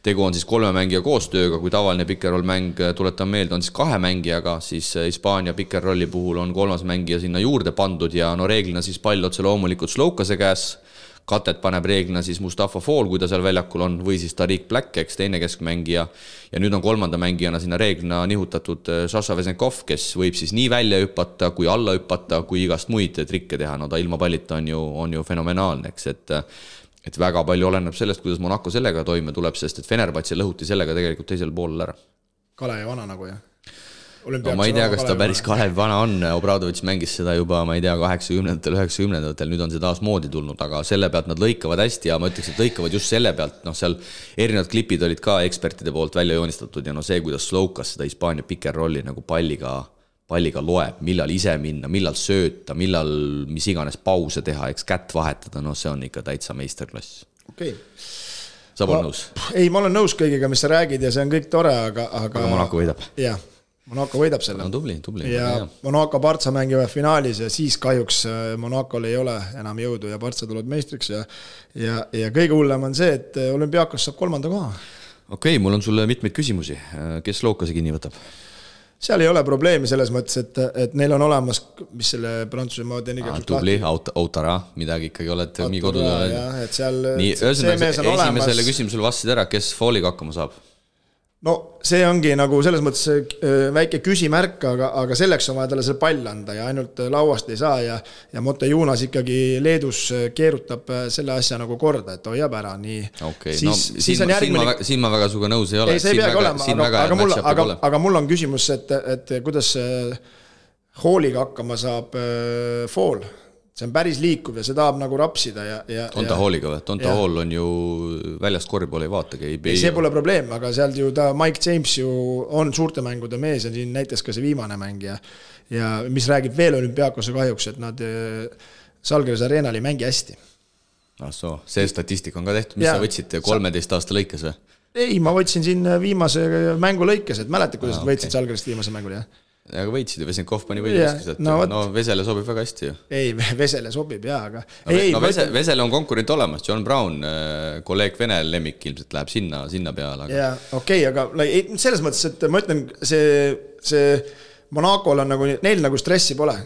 tegu on siis 3 mängija koostööga, kui tavaline pick-and-roll mäng, tuletan meelde, on siis 2 mängijaga, siis Hispaania pick-and-rolli puhul on 3. mängija sinna juurde pandud ja no reeglina siis pall otse loomulikult Slokase käes, katet paneb reeglina siis Mustafa Fall, kui ta seal väljakul on, või siis Tariq Black, eks teine keskmängija, ja nüüd on 3. mängijana sinna reeglina nihutatud Sasha Vesenkov, kes võib siis nii välja hüpata, kui alla hüpata, kui igast muid trikke teha, no ta ilma pallita on ju fenomenaalne, eks, et väga palju oleneb sellest, kuidas Monaco sellega toime tuleb, sest et Fenerbahce lõhuti sellega tegelikult teisel poolel ära. Kalevi vana nagu, jah? No, ma ei tea, kas ta päris Kalevi vana on, Obradovic mängis seda juba, ma ei tea, 80-ndatel, 90-ndatel, nüüd on see taas moodi tulnud, aga selle pealt nad lõikavad hästi ja ma ütleks, et lõikavad just selle pealt, noh, seal erinevad klipid olid ka ekspertide poolt välja joonistatud ja no see, kuidas Slokas seda Hispaania pick-and-rolli nagu palliga loeb, millal ise minna, millal sööta, millal mis iganes pause teha, eks kätt vahetada, no see on ikka täitsa meisterklass. Okei. Sa pole nõus? Ei, ma olen nõus kõigiga, mis sa räägid ja see on kõik tore, aga Monaco võidab. Jah, Monaco võidab selle. No, tubli. Ja Monaco Barca mängivad finaalis ja siis kahjuks Monacol ei ole enam jõudu ja Barca tuleb meistriks ja kõige hullem on see, et Olümpiakos saab 3. koha. Okei, mul on sulle mitmeid küsimusi. Kes Slokase kinni võtab? Seal ei ole probleemi selles mõttes, et neil on olemas, mis selle Prantsuse maad on igaks tubli, Autara, midagi ikkagi oled nii kodud. Et seal nii, esimesele küsimusele vastasid ära, kes Falliga hakkama saab? No see ongi nagu selles mõttes väike küsimärk, aga selleks on vaja talle see pall anda ja ainult lauast ei saa ja Motejunas ikkagi Leedus keerutab selle asja nagu korda, et hoiab ära nii. Okay. Siis on järgmine... Siin ma väga suga nõus ei ole. Ei, see ei peagi olema, aga mul on küsimus, et kuidas Halliga hakkama saab Fall. See on päris liikuv ja see tahab nagu rapsida on ta Halliga või? Tonta Hall on ju väljast korvpalli ei vaatagi. See pole probleem, aga sealt ju ta Mike James ju on suurte mängude mees ja siin näiteks ka see viimane mäng ja mis räägib veel Olümpiakose kahjuks, et nad Salgris Arenal ei mängi hästi. See statistika on ka tehtud, mis sa võtsid 13 aasta lõikes või? Ei, ma võtsin siin viimase mängu lõikes, et mäletad, kuidas võitsid Salgrist viimase mängul, jah? Aga võitsid ja Vesenkov pani võidliskis, et Vesele sobib väga hästi ju. Ei, Vesele sobib, jah, aga... Vesele on konkurent olemas, John Brown, kolleeg Vene lemmik ilmselt läheb sinna peale. Jaa, okei, aga selles mõttes, et ma ütlen, see Monacol on nagu, neil nagu stressi pole.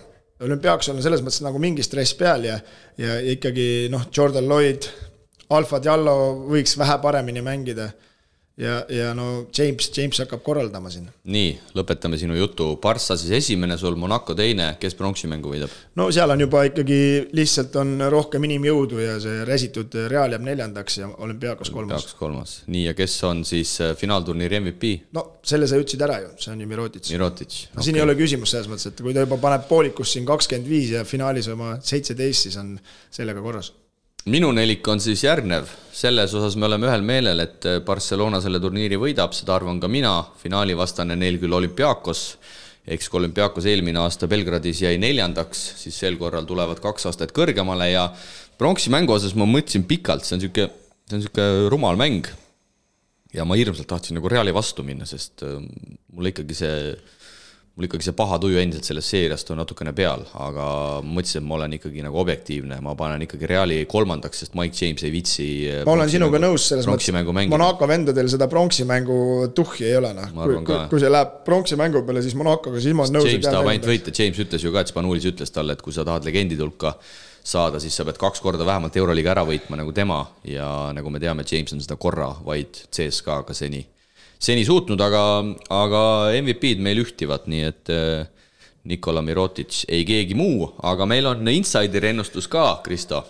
Olümpiaks on selles mõttes nagu mingi stress peal ja ikkagi Jordan Lloyd, Alfa Diallo võiks vähe paremini mängida. Ja no James hakkab korraldama siin. Nii, lõpetame sinu jutu. Barca siis esimene sul, Monaco teine, kes pronksi mängu võidab? No seal on juba ikkagi lihtsalt on rohkem inimjõudu ja see resitud Real jääb 4. ja Olümpiakos 3. Nii, ja kes on siis finaalturniiri MVP? No selle sa ütlesid ära ju, see on ju Mirotic. No, siin ei ole küsimus selles mõttes, et kui ta juba paneb poolikus siin 25 ja finaalis oma 17, siis on sellega korras. Minu nelik on siis järgnev. Selles osas me oleme ühel meelel, et Barcelona selle turniiri võidab, seda arvan ka mina. Finaali vastane neil küll Olümpiakos, eks kui Olümpiakos eelmine aasta Belgradis jäi 4, siis sel korral tulevad 2 aastat kõrgemale ja pronksi mängu osas ma mõtlesin pikalt, see on siuke rumal mäng ja ma hirmsalt tahtsin nagu Reali vastu minna, sest mul ikkagi see paha tuju endiselt sellest seeriast on natukene peal, aga mõtlesin, et ma olen ikkagi nagu objektiivne, ma panen ikkagi Reali 3, sest Mike James ei vitsi ma olen sinuga nõus selles mõttes, Monaco vendadel seda pronksi mängu tuhhi ei ole. Kui see läheb pronksi mängu peale, siis Monacoga siis ma nõus. James tahab ainult võita, James ütles ju ka, et Spanulis ütles talle, et kui sa tahad legendid hulka saada, siis sa pead 2 korda vähemalt Euroliga ära võitma nagu tema ja nagu me teame, James on seda korra vaid CSKA-ga seni suutnud, aga MVP-d meil ühtivad, nii et Nikola Mirotic ei keegi muu, aga meil on insideri ennustus ka, Kristo.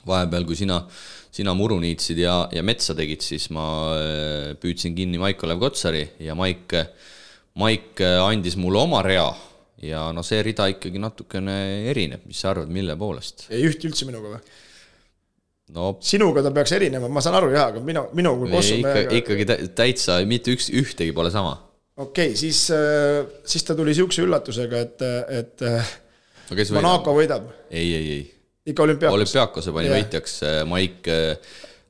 Vahepeal, kui sina muru niitsid ja metsa tegid, siis ma püüdsin kinni Maik-Olev Kotsari ja Maik andis mulle oma rea ja no see rida ikkagi natukene erineb, mis sa arvad, mille poolest? Ei ühti üldse minuga või? No, sinuga ta peaks erinema, ma saan aru jah, aga minu kui Kossumäega... Ikkagi täitsa, mitte ühtegi pole sama. Okei, siis ta tuli siukse üllatusega, et Monaco võidab. Ei. Ikka Olümpiakos. Olümpiakose pani võitjaks Maik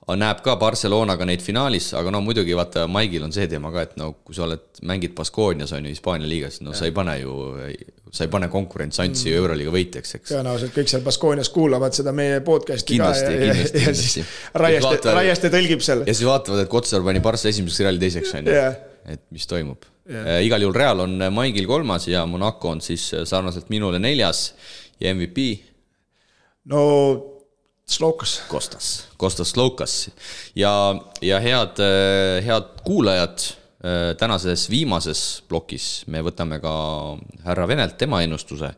näeb ka Barcelonaga neid finaalis, aga no muidugi vaata, Maigil on see teema ka, et no kui sa mängid Baskoonias on ju Hispaania liigas, no sa ei pane konkurentsantsi Euroliiga võitjaks, eks. Tõenäoliselt kõik seal Baskoonias kuulavad seda meie podcasti kindlasti, ja siis Raieste tõlgib seal. Ja siis vaatavad, et Kotsar pani Barca esimeseks, Reali teiseks on ju, et mis toimub. Igal juhul Real on Maigil 3. ja Monaco on siis sarnaselt minule 4. ja MVP? No Kostas Sloukas ja head kuulajad, tänases viimases plokis me võtame ka härra Venelt tema ennustuse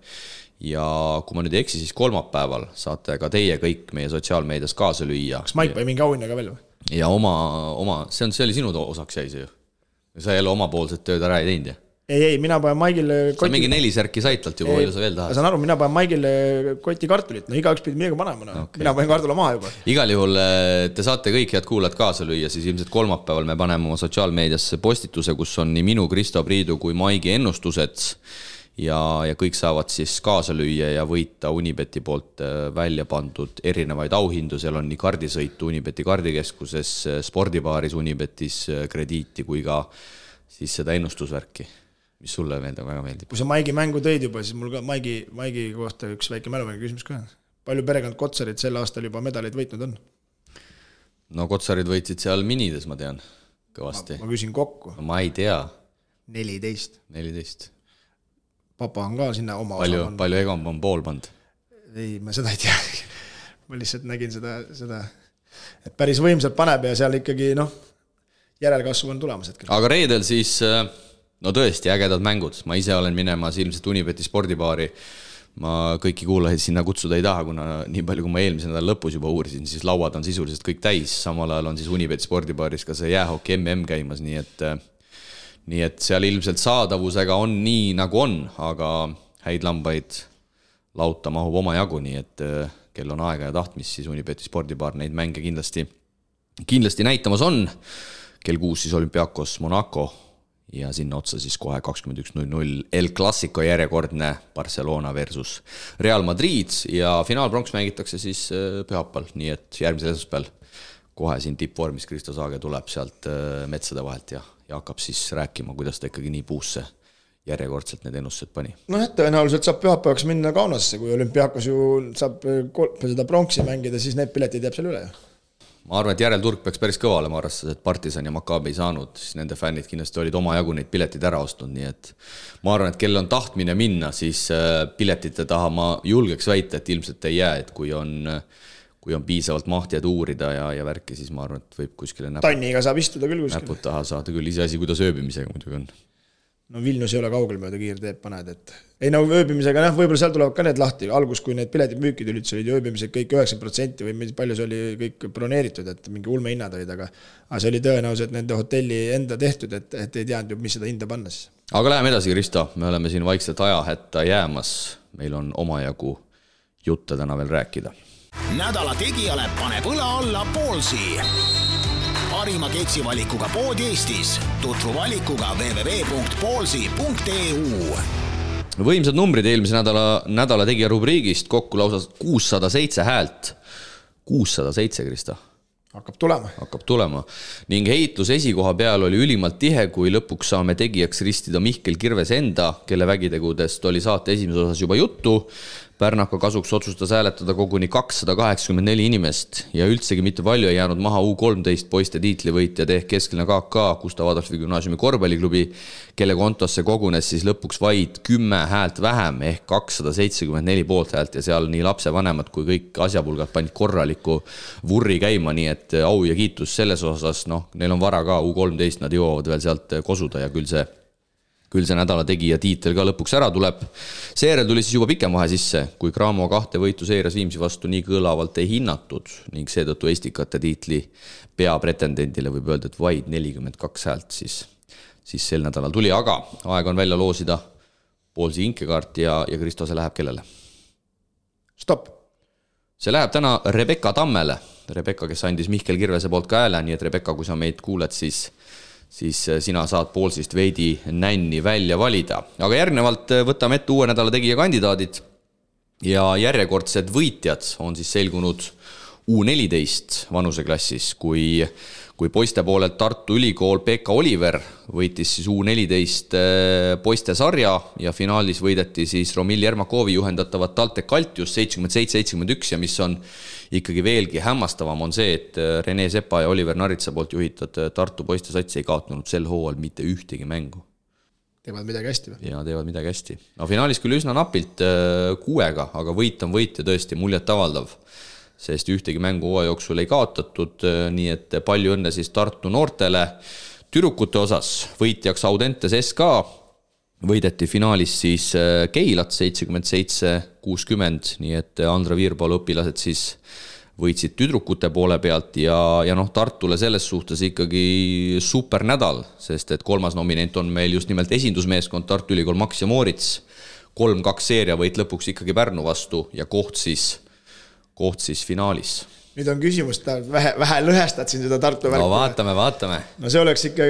ja kui ma nüüd ei eksi, siis kolmapäeval saate ka teie kõik meie sotsiaalmeedias kaasa lüüa. Kas Maik või mingi auhinnaga veel või? Ja oma see oli sinu osaks jäi see ju. Sa jälle omapoolset tööd ära ei teinud, jah? Ei, mina panen Maigile sa mingi 4 särki saitalt juba, palju sa veel tahad? Saan aru, mina panen Maigile koti kartulit, no iga üks pidi midagi panema, okay. Mina panen kartula maha juba. Igal juhul te saate kõik head kuulajad kaasa lüüa, siis ilmselt kolmapäeval me paneme oma sotsiaalmeediasse postituse, kus on nii minu, Kristo Priidu kui Maigi ennustused ja kõik saavad siis kaasa lüüa ja võita Unibeti poolt välja pandud erinevaid auhindu, seal on nii kardisõitu Unibeti kardikeskuses, spordibaaris Unibetis krediiti kui ka siis seda ennustusvärki. Mis sulle väga meeldib? Kui sa Maigi mängu tõid juba, siis mul ka Maigi kohta üks väike mäluväike küsimus ka. Palju perekond Kotsarid sel aastal juba medaleid võitnud on? No Kotsarid võitsid seal minides, ma tean, kõvasti. Ma küsin kokku. No, ma ei tea. 14. Papa on ka sinna oma palju Egon on pool pand? Ei, ma seda ei tea. Ma lihtsalt nägin seda et päris võimsalt paneb ja seal ikkagi järelkasvu on tulemas hetkel. Aga reedel siis no tõesti, ägedad mängud. Ma ise olen minemas ilmselt Unibeti spordibaari. Ma kõiki kuulajaid sinna kutsuda ei taha, kuna nii palju, kui ma eelmise nädala lõpus juba uurisin, siis lauad on sisuliselt kõik täis. Samal ajal on siis Unibeti spordibaaris ka see jäähoki MM käimas, nii et seal ilmselt saadavusega on nii nagu on, aga häid lambaid lauta mahub oma jagu, nii et kel on aega ja tahtmist, siis Unibeti spordibaar neid mänge kindlasti näitamas on. Kell 6 siis Olympiakos Monaco ja sinna otsa siis kohe 21.00 El Clasico järjekordne Barcelona versus Real Madrid ja finaalpronks mängitakse siis pühapäeval, nii et järgmisel esmaspäeval kohe siin tippvormis Kristo Saage tuleb sealt metsade vahelt ja hakkab siis rääkima, kuidas ta ikkagi nii puusse järjekordselt need ennustused pani. No tõenäoliselt saab pühapäevaks minna Kaunasse, kui Olümpiakos ju saab seda pronksi mängida, siis need piletid jääb seal üle. Ma arvan, et järelturg peaks päris kõva olema, arvestades, et Partisan ja Maccabi ei saanud, siis nende fännid kindlasti olid oma jagu neid piletid ära ostnud, nii et ma arvan, et kell on tahtmine minna, siis piletite taha ma julgeks väita, et ilmselt ei jää, et kui on piisavalt mahtijad uurida ja värki, siis ma arvan, et võib kuskile Tanniga saab istuda küll kuskile. Näpud taha saada küll, ise asi, kuidas ööbimisega muidugi on. No Vilnius ei ole kaugel mööda kiirteed paned, et ei ööbimisega, võib-olla seal tulevad ka need lahti, algus, kui need piletid müükid üldse olid ööbimised kõik 9% või palju see oli kõik broneeritud, et mingi ulme hinnad olid, aga see oli tõenäoliselt nende hotelli enda tehtud, et ei teadnud ju, mis seda hinda panna siis. Aga läheme edasi, Kristo, me oleme siin vaikselt ajahätta jäämas, meil on omajagu jutte täna veel rääkida. Nädala tegijale paneb õla alla Poolsi. Parima keksivalikuga pood Eestis. Tutvu valikuga www.poolsi.eu. Võimsad numbrid eelmise nädala tegija rubriigist, kokku lausa 607 häält. 607, Krista. Hakkab tulema. Ning heitlus esikoha peal oli ülimalt tihe, kui lõpuks saame tegijaks ristida Mihkel Kirves enda, kelle vägitegudest oli saate esimeses osas juba juttu. Pärnaka kasuks otsustas hääletada koguni 284 inimest ja üldsegi mitte palju ei jäänud maha U13 poiste tiitlivõitjad ehk Keskeline KK Gustav Adolfi gümnaasiumi korvpalliklubi, kelle kontosse kogunes siis lõpuks vaid 10 häält vähem ehk 274 poolthäält ja seal nii lapsevanemad kui kõik asjapulgad panid korraliku vurri käima, nii et au ja kiitus selles osas, neil on vara ka U13, nad jõuavad veel sealt kosuda ja küll see nädala tegija tiitel ka lõpuks ära tuleb. Seejärel tuli siis juba pikem vahe sisse, kui Cramo 2 võitu seeras Viimsi vastu nii kõlavalt ei hinnatud ning seetõttu Estikate tiitli peapretendendile võib öelda, et vaid 42 häält siis sel nädalal tuli, aga aeg on välja loosida Poolsi inkekaart ja Kristo, see läheb kellele? Stopp! See läheb täna Rebecca Tammele. Rebecca, kes andis Mihkel Kirvese poolt ka hääle, nii et Rebecca, kui sa meid kuuled, siis sina saad Poolsist veidi nänni välja valida. Aga järgnevalt võtame ette uue nädala tegija kandidaadid ja järjekordsed võitjad on siis selgunud U14 vanuseklassis, kui poiste poolelt Tartu Ülikool Pekka Oliver võitis siis U14 poiste sarja ja finaalis võideti siis Romil Jermakovi juhendatavat TalTech Altius 77-71 ja mis on ikkagi veelgi hämmastavam on see, et Rene Sepa ja Oliver Naritsa poolt juhitud Tartu poiste sats ei kaotanud sel hooajal mitte ühtegi mängu. Teevad midagi hästi või? Ja teevad midagi hästi. No finaalis küll üsna napilt 6-ga, aga võit on võit ja tõesti muljet avaldav, sest ühtegi mängu hooaja jooksul ei kaotatud, nii et palju õnne siis Tartu noortele. Tüdrukute osas võitjaks Audentes SK, võideti finaalis siis Keilat 77-60, nii et Andra Viirpalu õpilased siis võitsid tüdrukute poole pealt ja Tartule selles suhtes ikkagi super nädal, sest et 3. nominent on meil just nimelt esindusmeeskond Tartu Ülikool Max ja Moorits, 3-2 seeria võit lõpuks ikkagi Pärnu vastu ja koht siis finaalis. Nüüd on küsimus, vähe lõhestad siin seda Tartu värku. No vaatame. No see oleks ikka,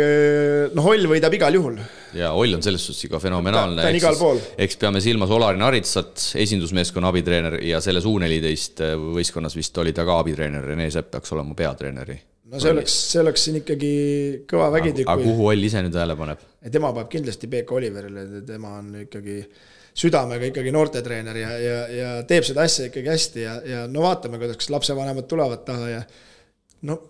Holl võidab igal juhul. Ja Holl on selles suhtes ikka fenomenaalne. Ta on igal pool. Eks peame silmas Olarin Aritsat, esindusmeeskonna abitreener ja selles U14 võistkonnas vist oli ta ka abitreener, Rene Sepp peaks olema peatreeneri. No see oleks siin ikkagi kõva vägitükk. Aga kuhu Holl ise nüüd hääle paneb? Tema paneb kindlasti Pekka Oliverile, tema on ikkagi südamega ikkagi noortetreener ja teeb seda asja ikkagi hästi ja no vaatame, kuidas lapsevanemad tulevad taha ja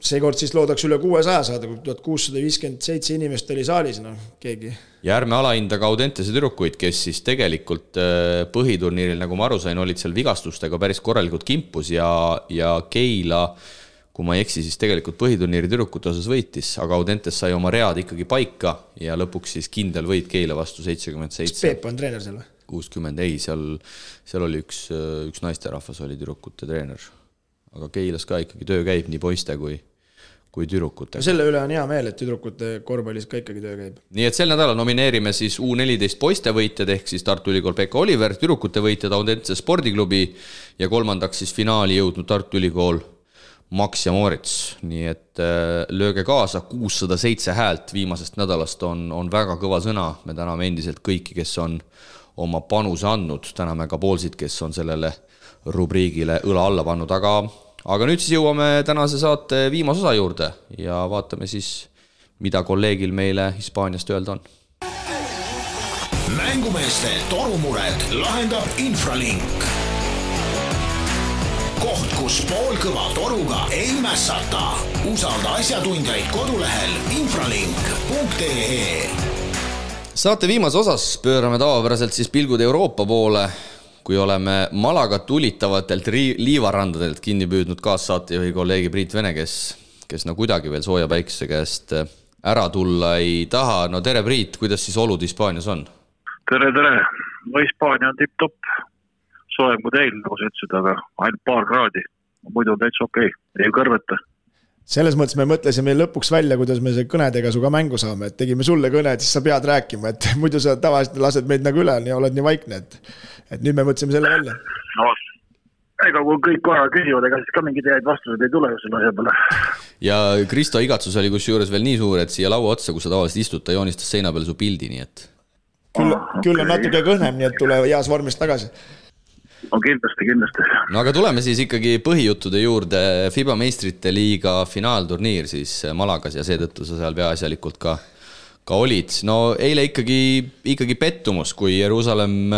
seekord siis loodaks üle 600 saada, kui 1657 inimest oli saalis, keegi. Ja ärme alahinda ka Audentese tüdrukuid, kes siis tegelikult põhiturniiril, nagu ma aru sain, olid seal vigastustega päris korralikult kimpus ja Keila, kui ma ei eksi, siis tegelikult põhiturniiri tüdrukute osas võitis, aga Audentes sai oma read ikkagi paika ja lõpuks siis kindel võit Keila vastu 77. Kas Peep on treener seal või? 60, ei, seal oli üks naisterahvas oli tüdrukute treener. Aga Keilas ka ikkagi töö käib nii poiste kui tüdrukute. Selle üle on hea meel, et tüdrukute korvpallis ka ikkagi töö käib. Nii et sel nädalal nomineerime siis U14 poiste võitjad ehk siis Tartu Ülikool Pekka Oliver, tüdrukute võitjad Audentse spordiklubi ja kolmandaks siis finaali jõudnud Tartu Ülikool Max ja Moorits. Nii et lööge kaasa, 607 häält viimasest nädalast on väga kõva sõna. Me täname endiselt kõiki, kes on oma panuse andnud, täname ka poolsid, kes on sellele rubriigile õla alla pannud, aga nüüd siis jõuame tänase saate viimase osa juurde ja vaatame siis, mida kolleegil meile Hispaaniast öelda on. Mängumeeste torumured lahendab Infralink. Koht, kus poolkõva toruga ei mässata. Usalda asjatundjaid kodulehel infralink.ee. Saate viimase osas pöörame tavapäraselt siis pilgud Euroopa poole, kui oleme Malaga tulitavatelt liivarandadelt kinni püüdnud kaassaatejuhi kolleegi Priit Vene, kes kuidagi veel sooja päikse käest ära tulla ei taha. No tere Priit, kuidas siis olud Hispaanias on? Tere. No Hispaania on tipp-topp. Soojem kui teil, nagu sa ütlesid, aga ainult paar kraadi. Muidu on täitsa okei, ei kõrveta. Selles mõttes me mõtlesime lõpuks välja, kuidas me see kõnedega suga mängu saame, et tegime sulle kõne, et siis sa pead rääkima, et muidu sa tavaliselt lased meid nagu üle ja oled nii vaikne, et nüüd me mõtlesime selle välja. No, ega kui kõik korra küsivad, ega siis ka mingid head vastused ei tule selle asja peale. Ja Kristo igatsus oli kusjuures veel nii suur, et siia laua otsa, kus sa tavaliselt istud, ta joonistas seina peale su pildi, nii et... Küll on natuke kõhnem, nii et tule heas vormis tagasi. No kindlasti. No aga tuleme siis ikkagi põhijuttude juurde. FIBA meistrite liiga finaalturniir siis Malagas ja seetõttu sa seal peaasjalikult ka olid. No eile ikkagi pettumus, kui Jeruusalemm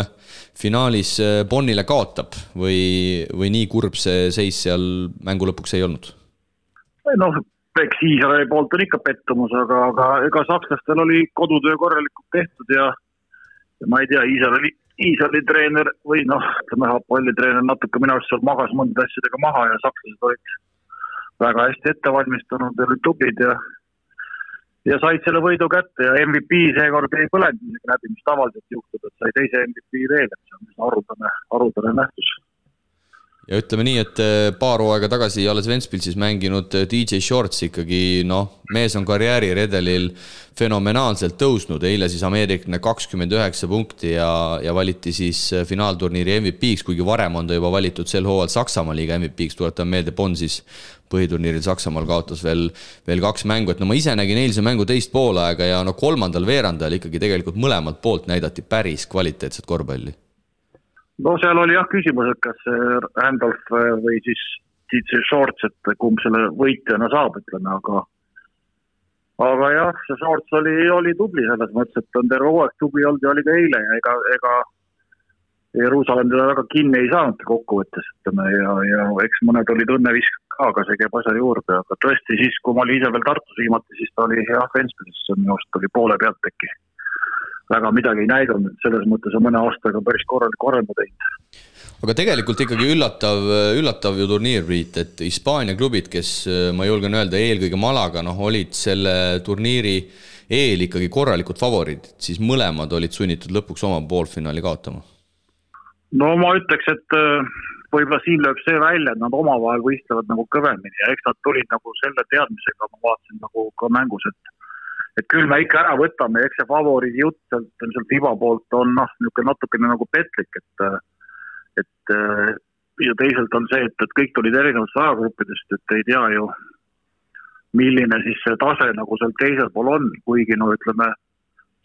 finaalis Bonnile kaotab või nii kurb see seis seal mängu lõpuks ei olnud? No, eks Iisraeli poolt on ikka pettumus, aga ega sakslastel oli kodutöö korralikult tehtud ja ma ei tea, Iisraeli treener või pallitreener natuke minu arust seal magas mõnda asjadega maha ja sakslased olid väga hästi ette valmistunud ja olid tublid ja said selle võidu kätte ja MVP seekord ei põlenud läbi, mis tavaliselt juhtub, et sai teise MVP veel, et see on arutane nähtus. Ja ütleme nii, et paar hooaega tagasi alles Ventspilsis mänginud DJ Shorts ikkagi, mees on karjääri redelil fenomenaalselt tõusnud. Eile siis ameerikne 29 punkti ja valiti siis finaalturniiri MVP-ks, kuigi varem on ta juba valitud sel hooajal Saksamaa liiga MVP-ks. Tuletan meelde, Bonn siis põhiturniiril Saksamaal kaotas veel 2 mängu. Et ma ise nägin eilse mängu teist poolaega ja kolmandal veerandajal ikkagi tegelikult mõlemalt poolt näidati päris kvaliteetset korvpalli. No seal oli küsimus, et kas Randolph või siis see Shorts, et kumb selle võitjana saab, ütleme, aga jah, see Shorts oli tubli selles mõttes, et on terve hooaeg tubli olnud ja oli ka eile ja ega Jeruusalemm teda väga kinni ei saanud kokkuvõttes, ütleme, ja eks mõned olid õnnevisk ka, aga see käib asja juurde, aga tõesti siis, kui ma olin ise veel Tartus viimati, siis ta oli hea Ventspilsis, minu arust oli poole pealt äkki. Väga midagi ei näidanud, selles mõttes on mõne aastaga päris korraliku arengu teinud. Aga tegelikult ikkagi üllatav ju turniir, Priit, et Hispaania klubid, kes ma julgen öelda eelkõige Malaga, olid selle turniiri eel ikkagi korralikud favoriidid, siis mõlemad olid sunnitud lõpuks oma poolfinaali kaotama. No ma ütleks, et võib-olla siin lööb see välja, et nad omavahel võistlevad nagu kõvemini ja eks nad tulid nagu selle teadmisega, ma vaatasin nagu ka mängus, et küll me ikka ära võtame, eks see favoriidi jutt sealt Iba poolt on natukene nagu petlik, et ja teisalt on see, et kõik tulid erinevatest ajagruppidest, et ei tea ju, milline siis see tase nagu seal teisel pool on, kuigi ütleme,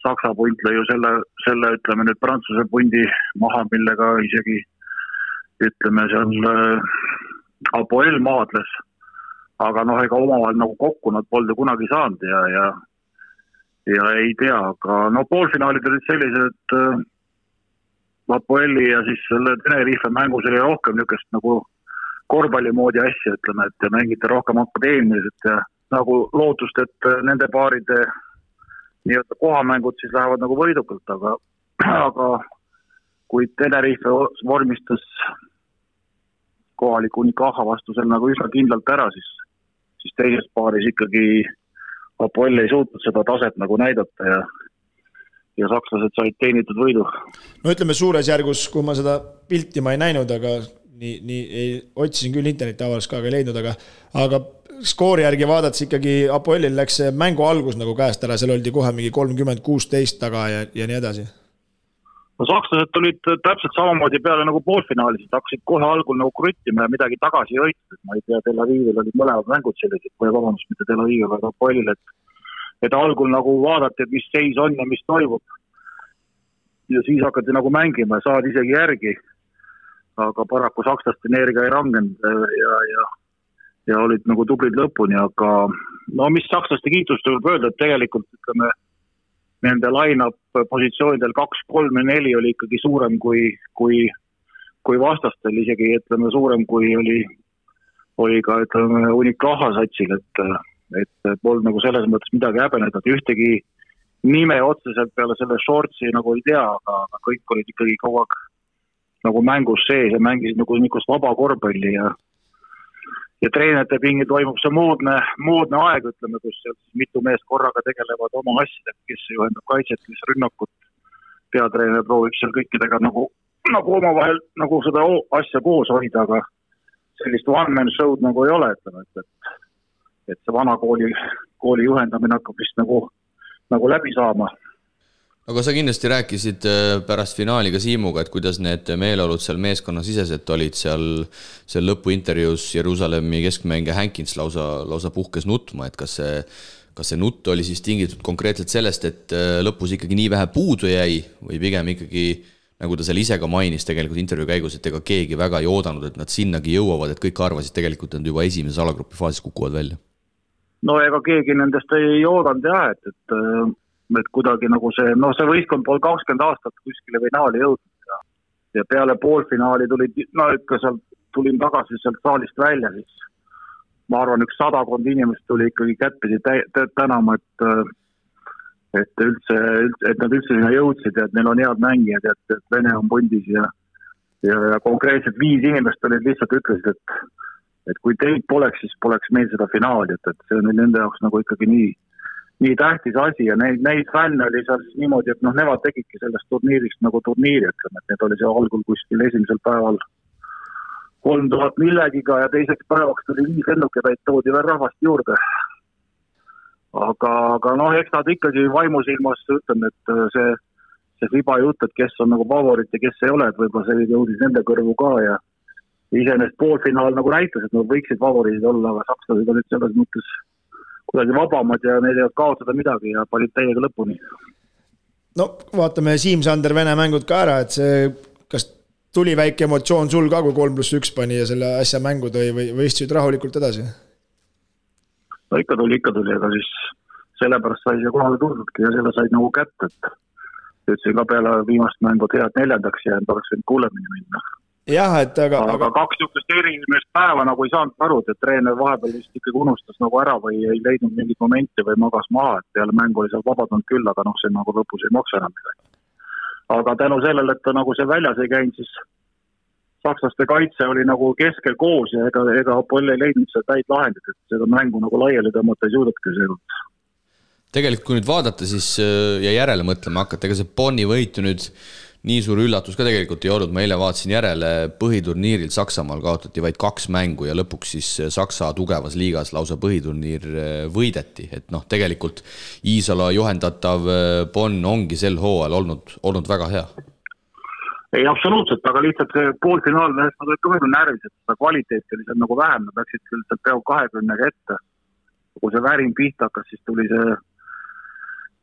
Saksa punt lõi ju selle ütleme nüüd Prantsuse pundi maha, millega isegi ütleme seal Apoel maadles, aga ega omavahel nagu kokku nad polnud kunagi saanud ja ei tea, aga poolfinaalid olid sellised, et Apoeli ja siis selle Tenerife mängus oli rohkem niisugust nagu korvpalli moodi asja, ütleme, et mängiti rohkem akadeemiliselt ja nagu lootust, et nende paaride nii-öelda kohamängud siis lähevad nagu võidukalt, aga kui Tenerife vormistas kohaliku Unicaja vastu seal nagu üsna kindlalt ära, siis teises paaris ikkagi Apoel ei suutnud seda taset nagu näidata ja sakslased said teenitud võidu. No ütleme suures järgus, kui ma seda pilti ma ei näinud, aga otsisin küll interneti avaldus ka ei leidnud, aga skoori järgi vaadates ikkagi Apoelil läks see mängu algus nagu käest ära, seal oldi kohe mingi 30-16 taga ja nii edasi. No sakslased tulid täpselt samamoodi peale nagu poolfinaalis, hakkasid kohe algul nagu kruttima ja midagi tagasi jõitud, ma ei tea, Tel Avivil olid mõlemad mängud sellised, vabandust, mitte Tel Avivil, aga Apoelil, et algul nagu vaadati, et mis seis on ja mis toimub. Ja siis hakati nagu mängima ja saad isegi järgi, aga paraku sakslaste energia ei rangenud ja olid nagu tublid lõpuni, aga mis sakslaste kiitust võib öelda, et tegelikult ütleme, nende line-up positsioonidel 2, 3 ja 4 oli ikkagi suurem kui vastastel, isegi ütleme suurem kui oli ka ütleme Unicaja satsil, et polnud nagu selles mõttes midagi häbeneda, et ühtegi nime otseselt peale selle Shortsi nagu ei tea, aga kõik olid ikkagi kogu aeg nagu mängus sees ja mängisid nagu niisugust vaba korvpalli ja treenerite pingi toimub see moodne aeg, ütleme, kus mitu meest korraga tegelevad oma asjadega, kes juhendab kaitset, kes rünnakut. Peatreener proovib seal kõikidega nagu omavahel nagu seda asja koos hoida, aga sellist one-man show'd nagu ei ole, ütleme, et see vana kooli juhendamine hakkab vist nagu läbi saama. Aga sa kindlasti rääkisid pärast finaali ka Siimuga, et kuidas need meeleolud seal meeskonnasiseselt olid seal lõpuintervjuus Jeruusalemmi keskmängija Hankins lausa puhkes nutma, et kas see nutt oli siis tingitud konkreetselt sellest, et lõpus ikkagi nii vähe puudu jäi või pigem ikkagi, nagu ta seal ise ka mainis tegelikult intervjuu käigus, et ega keegi väga ei oodanud, et nad sinnagi jõuavad, et kõik arvasid tegelikult, et nad juba esimeses alagrupi faasis kukuvad välja. No ega keegi nendest ei oodanud et kuidagi nagu see võistkond pool 20 aastat kuskile finaali jõudnud ja peale poolfinaali tulin tagasi sealt saalist välja, siis ma arvan, 100 inimest tuli ikkagi kättpidi tänama, et nad üldse sinna jõudsid ja et neil on head mängijad ja et Vene on pundis ja konkreetselt 5 inimest olid lihtsalt ütlesid, et kui teid poleks, siis poleks meil seda finaali, et see on nende jaoks nagu ikkagi nii tähtis asi ja neid fänne oli seal siis niimoodi, et nemad tegidki sellest turniirist nagu turniiri, ütleme, et need oli see algul kuskil esimesel päeval 3000 millegiga ja teiseks päevaks tuli 5 lennukepäid, toodi veel rahvast juurde. Aga eks nad ikkagi vaimusilmas ütleme, et see riba jutt, et kes on nagu favorit ja kes ei ole, et võib-olla see jõudis nende kõrvu ka ja iseenesest poolfinaal nagu näitas, et nad võiksid favoriidid olla, aga sakslased olid selles mõttes kuidagi vabamad ja neil ei olnud kaotada midagi ja panid täiega lõpuni. No vaatame Siim-Sander Vene mängud ka ära, et see kas tuli väike emotsioon sul ka, kui 3+1 pani ja selle asja mängu tõi või istusid rahulikult edasi? No ikka tuli, aga siis sellepärast sai see kohale tuldudki ja selle said nagu kätte, et ütlesin ka peale viimast mängu head 4. jäänud, oleks võinud kuulemini minna. Jah, et aga 2 niisugust erimest päeva nagu ei saanud aru, et treener vahepeal vist ikkagi unustas nagu ära või ei leidnud mingit momenti või magas maha, et peale mängu oli seal vabadanud küll, aga see nagu lõpus ei maksa enam midagi. Aga tänu sellele, et ta nagu see väljas ei käinud, siis sakslaste kaitse oli nagu keskel koos ja ega Apoll ei leidnud seda täid lahendit, et seda mängu nagu laiali tõmmata ei suudetki seekord. Tegelikult kui nüüd vaadata siis ja järele mõtlema hakata, ega see Bonni võit nüüd nii suur üllatus ka tegelikult ei olnud, ma eile vaatasin järele põhiturniiril Saksamaal kaotati vaid 2 mängu ja lõpuks siis Saksa tugevas liigas lausa põhiturniir võideti, et tegelikult Iisala juhendatav Bonn ongi sel hooajal olnud väga hea. Ei, absoluutselt, aga lihtsalt see poolfinaal nad olid ka väga närvis, et seda kvaliteeti oli seal nagu vähem, nad läksid küll peaaegu 20 ette. Kui see värin pihta hakkas, siis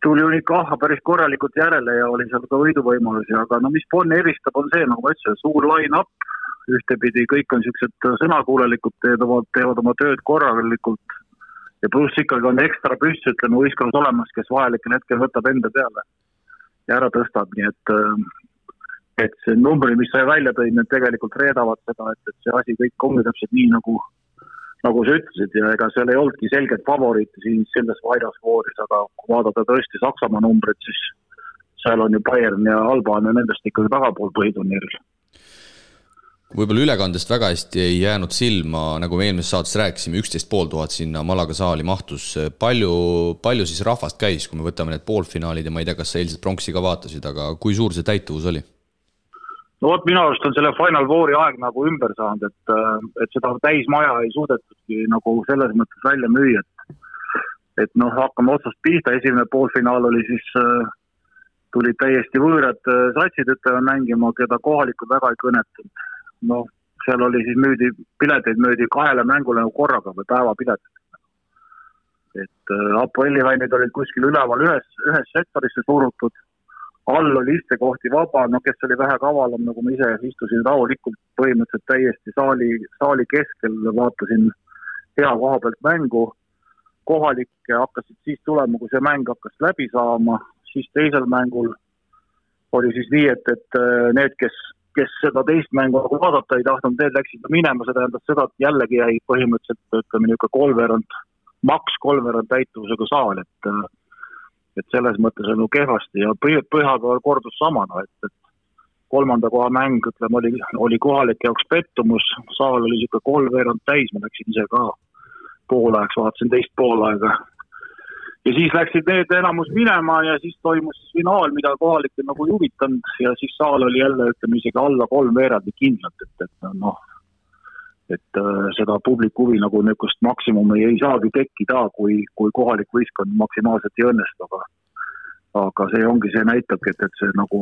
tuli ikka päris korralikult järele ja oli seal ka võiduvõimalusi, aga mis Bonn eristab on see, nagu ma ütlesin, suur line-up, ühtepidi kõik on sellised sõnakuulelikud, teevad oma tööd korralikult ja pluss ikkagi on ekstra püss, ütleme, võistkond olemas, kes vahelikel hetkel võtab enda peale ja ära tõstab, nii et see numbri, mis sai välja tõi, need tegelikult reedavad seda, et see asi kõik ongi täpselt nii, nagu sa ütlesid ja ega seal ei olnudki selget favoriiti siin selles vaidasvooris, aga kui vaadata tõesti Saksamaa numbrid, siis seal on ju Bayern ja Alban ja nendest ikkagi tagapool põhiturniiril. Võib-olla ülekandest väga hästi ei jäänud silma, nagu me eelmises saates rääkisime, 11 500 sinna Malaga saali mahtus. Palju siis rahvast käis, kui me võtame need poolfinaalid ja ma ei tea, kas sa eilset pronksi ka vaatasid, aga kui suur see täituvus oli? No vot, minu arust on selle Final Fouri aeg nagu ümber saanud, et seda täismaja ei suudetudki nagu selles mõttes välja müüa, et hakkame otsast pihta, esimene poolfinaal oli siis, tulid täiesti võõrad satsid mängima, keda kohalikud väga ei kõnetanud. Seal oli siis pileteid möödi 2 mängule nagu korraga või päevapileteid. Et Apolli-väinid olid kuskil üleval ühes sektorisse surutud, all oli istekohti vaba, kes oli vähe kavalam, nagu ma ise istusin rahulikult põhimõtteliselt täiesti saali keskel, vaatasin hea koha pealt mängu, kohalikke hakkasid siis tulema, kui see mäng hakkas läbi saama, siis teisel mängul oli siis nii, et need, kes seda teist mängu vaadata ei tahtnud, need läksid minema, seda endas seda, et jällegi jäi põhimõtteliselt, ütleme niisugune maks kolmveerand täituvusega saal, et selles mõttes on kehvasti ja Pühapäeval kordus sama, et 3. koha mäng, ütleme, oli kohalike jaoks pettumus, saal oli siuke 3/4 täis, ma läksin ise ka poolaegs, vaatasin teist poolaega. Ja siis läksid need enamus minema ja siis toimus finaal, mida kohalikke nagu juvitanud ja siis saal oli jälle, ütleme, isegi alla 3/4 kindlalt, et seda publiku huvi nagu niisugust maksimumi ei saagi tekkida, kui kohalik võistkond maksimaalselt ei õnnestu, aga see ongi, see näitabki, et see nagu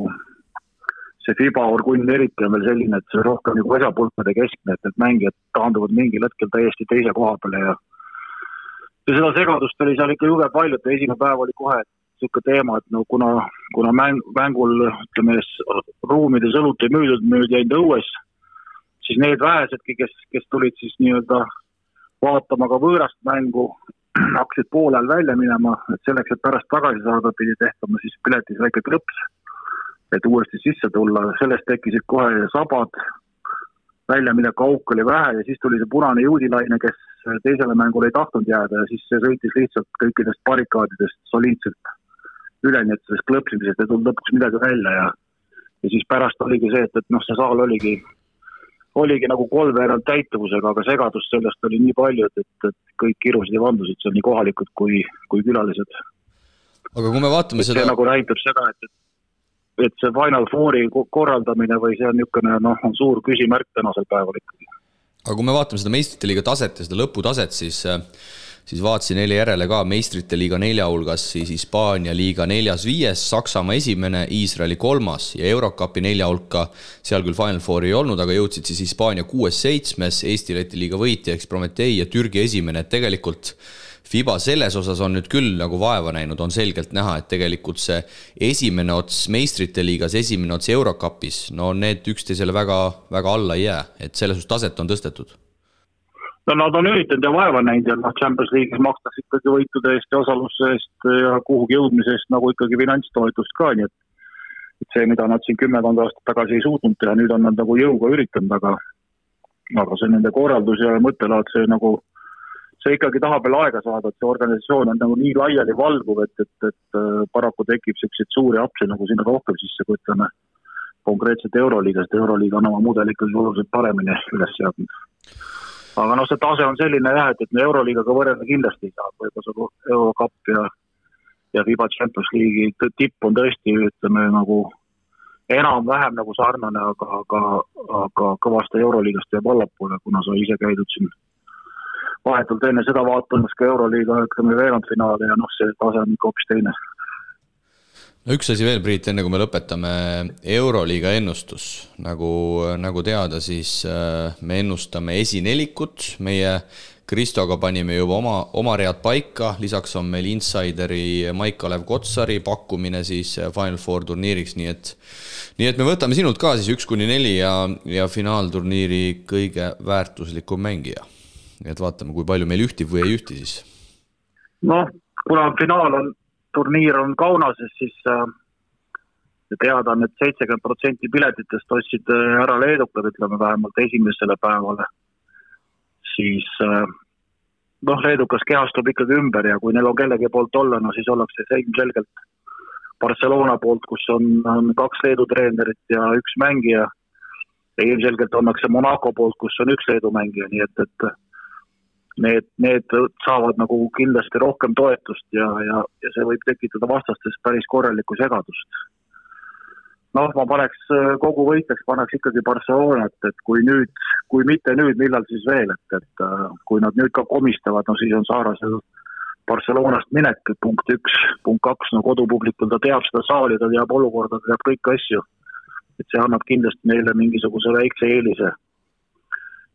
see FIBA orgunn eriti on veel selline, et see rohkem nagu esapulkade keskne, et mängijad taanduvad mingil hetkel täiesti teise koha peale ja seda segadust oli seal ikka juge palju, et esimene päev oli kohe niisugune teema, et kuna mängul, ütleme, ruumides õlut ei müüdud jäid õues, siis need vähesedki, kes tulid siis nii-öelda vaatama ka võõrast mängu, hakkasid poolel välja minema, et selleks, et pärast tagasi saada, pidi tehtama siis piletis väike klõps, et uuesti sisse tulla. Sellest tekkisid kohe sabad, välja mille kauk oli vähe ja siis tuli see punane juudilaine, kes teisele mängule ei tahtnud jääda ja siis see sõitis lihtsalt kõikidest barrikaadidest soliidselt üle, nii et sellest klõpsimisest ei tulnud lõpuks midagi välja ja siis pärast oligi see, et see saal oligi nagu 3/4 täituvusega, aga segadust sellest oli nii palju, et kõik kirusid ja vandusid, see on nii kohalikud kui külalised. Aga kui me vaatame seda... See nagu näitab seda, et see Final Fouri korraldamine või see on niisugune, on suur küsimärk tänasel päeval ikkagi. Aga kui me vaatame seda meistrite liiga taset ja seda lõputaset, siis vaatasin eile järele ka meistrite liiga 4 hulgas, siis Hispaania liiga 4.5, Saksamaa 1, Iisraeli 3 ja Eurocupi 4 hulka, seal küll Final Fouri ei olnud, aga jõudsid siis Hispaania 6.7, Eesti-Läti liiga võitja, eks Prometei ja Türgi 1, et tegelikult FIBA selles osas on nüüd küll nagu vaeva näinud, on selgelt näha, et tegelikult see esimene ots meistrite liigas, esimene ots Eurocupis, no need üksteisele väga, väga alla ei jää, et selles taset on tõstetud. No nad on üritanud ja vaeva näinud ja Champions League'is makstakse ikkagi võitude eest ja osaluse eest ja kuhugi jõudmise eest nagu ikkagi finantstoetust ka, nii et see, mida nad siin 10 aastat tagasi ei suutnud teha, nüüd on nad nagu jõuga üritanud, aga see nende korraldus ja mõttelaad, see ikkagi tahab veel aega saada, et see organisatsioon on nagu nii laiali valguv, et paraku tekib selliseid suuri apse nagu sinna rohkem sisse, kui ütleme konkreetselt Euroliiga, sest Euroliiga on oma mudel ikkagi oluliselt paremini üles seadnud. Aga see tase on selline jah, et me Euroliigaga võrrelda kindlasti ei saa, võib-olla see Eurocup ja FIBA Champions League'i tipp on tõesti, ütleme, nagu enam-vähem nagu sarnane, aga kõvasti Euroliigast jääb allapoole, kuna sa ise käidud siin vahetult enne seda vaatamas ka Euroliiga, ütleme, veerandfinaali ja see tase on ikka hoopis teine. No üks asi veel, Priit, enne kui me lõpetame Euroliiga ennustus. Nagu teada, siis me ennustame esinelikut. Meie Kristoga panime juba oma read paika. Lisaks on meil insideri Maik-Kalev Kotsari pakkumine siis Final Four turniiriks. Nii et me võtame sinult ka siis 1-4 ja finaalturniiri kõige väärtuslikum mängija. Et vaatame, kui palju meil ühtib või ei ühti siis. Kuna turniir on Kaunases, siis teada on, et 70% piletitest ostsid ära leedukad, ütleme vähemalt esimesele päevale. Siis leedukas kehastub ikkagi ümber ja kui neil on kellegi poolt olla, siis ollakse selgelt Barcelona poolt, kus on 2 leedu treenerit ja 1 mängija. Ja ilmselgelt ollakse Monaco poolt, kus on 1 leedu mängija, nii et need saavad nagu kindlasti rohkem toetust ja see võib tekitada vastastes päris korralikku segadust. Ma paneks kogu võiteks, paneks ikkagi Barcelonat, et kui mitte nüüd, millal siis veel, et kui nad nüüd ka komistavad, siis on Saarasel Barcelonast minek, punkt 1, punkt 2, kodupublikul ta teab seda saali, ta teab olukorda, ta teab kõik asju, et see annab kindlasti neile mingisuguse väikse eelise.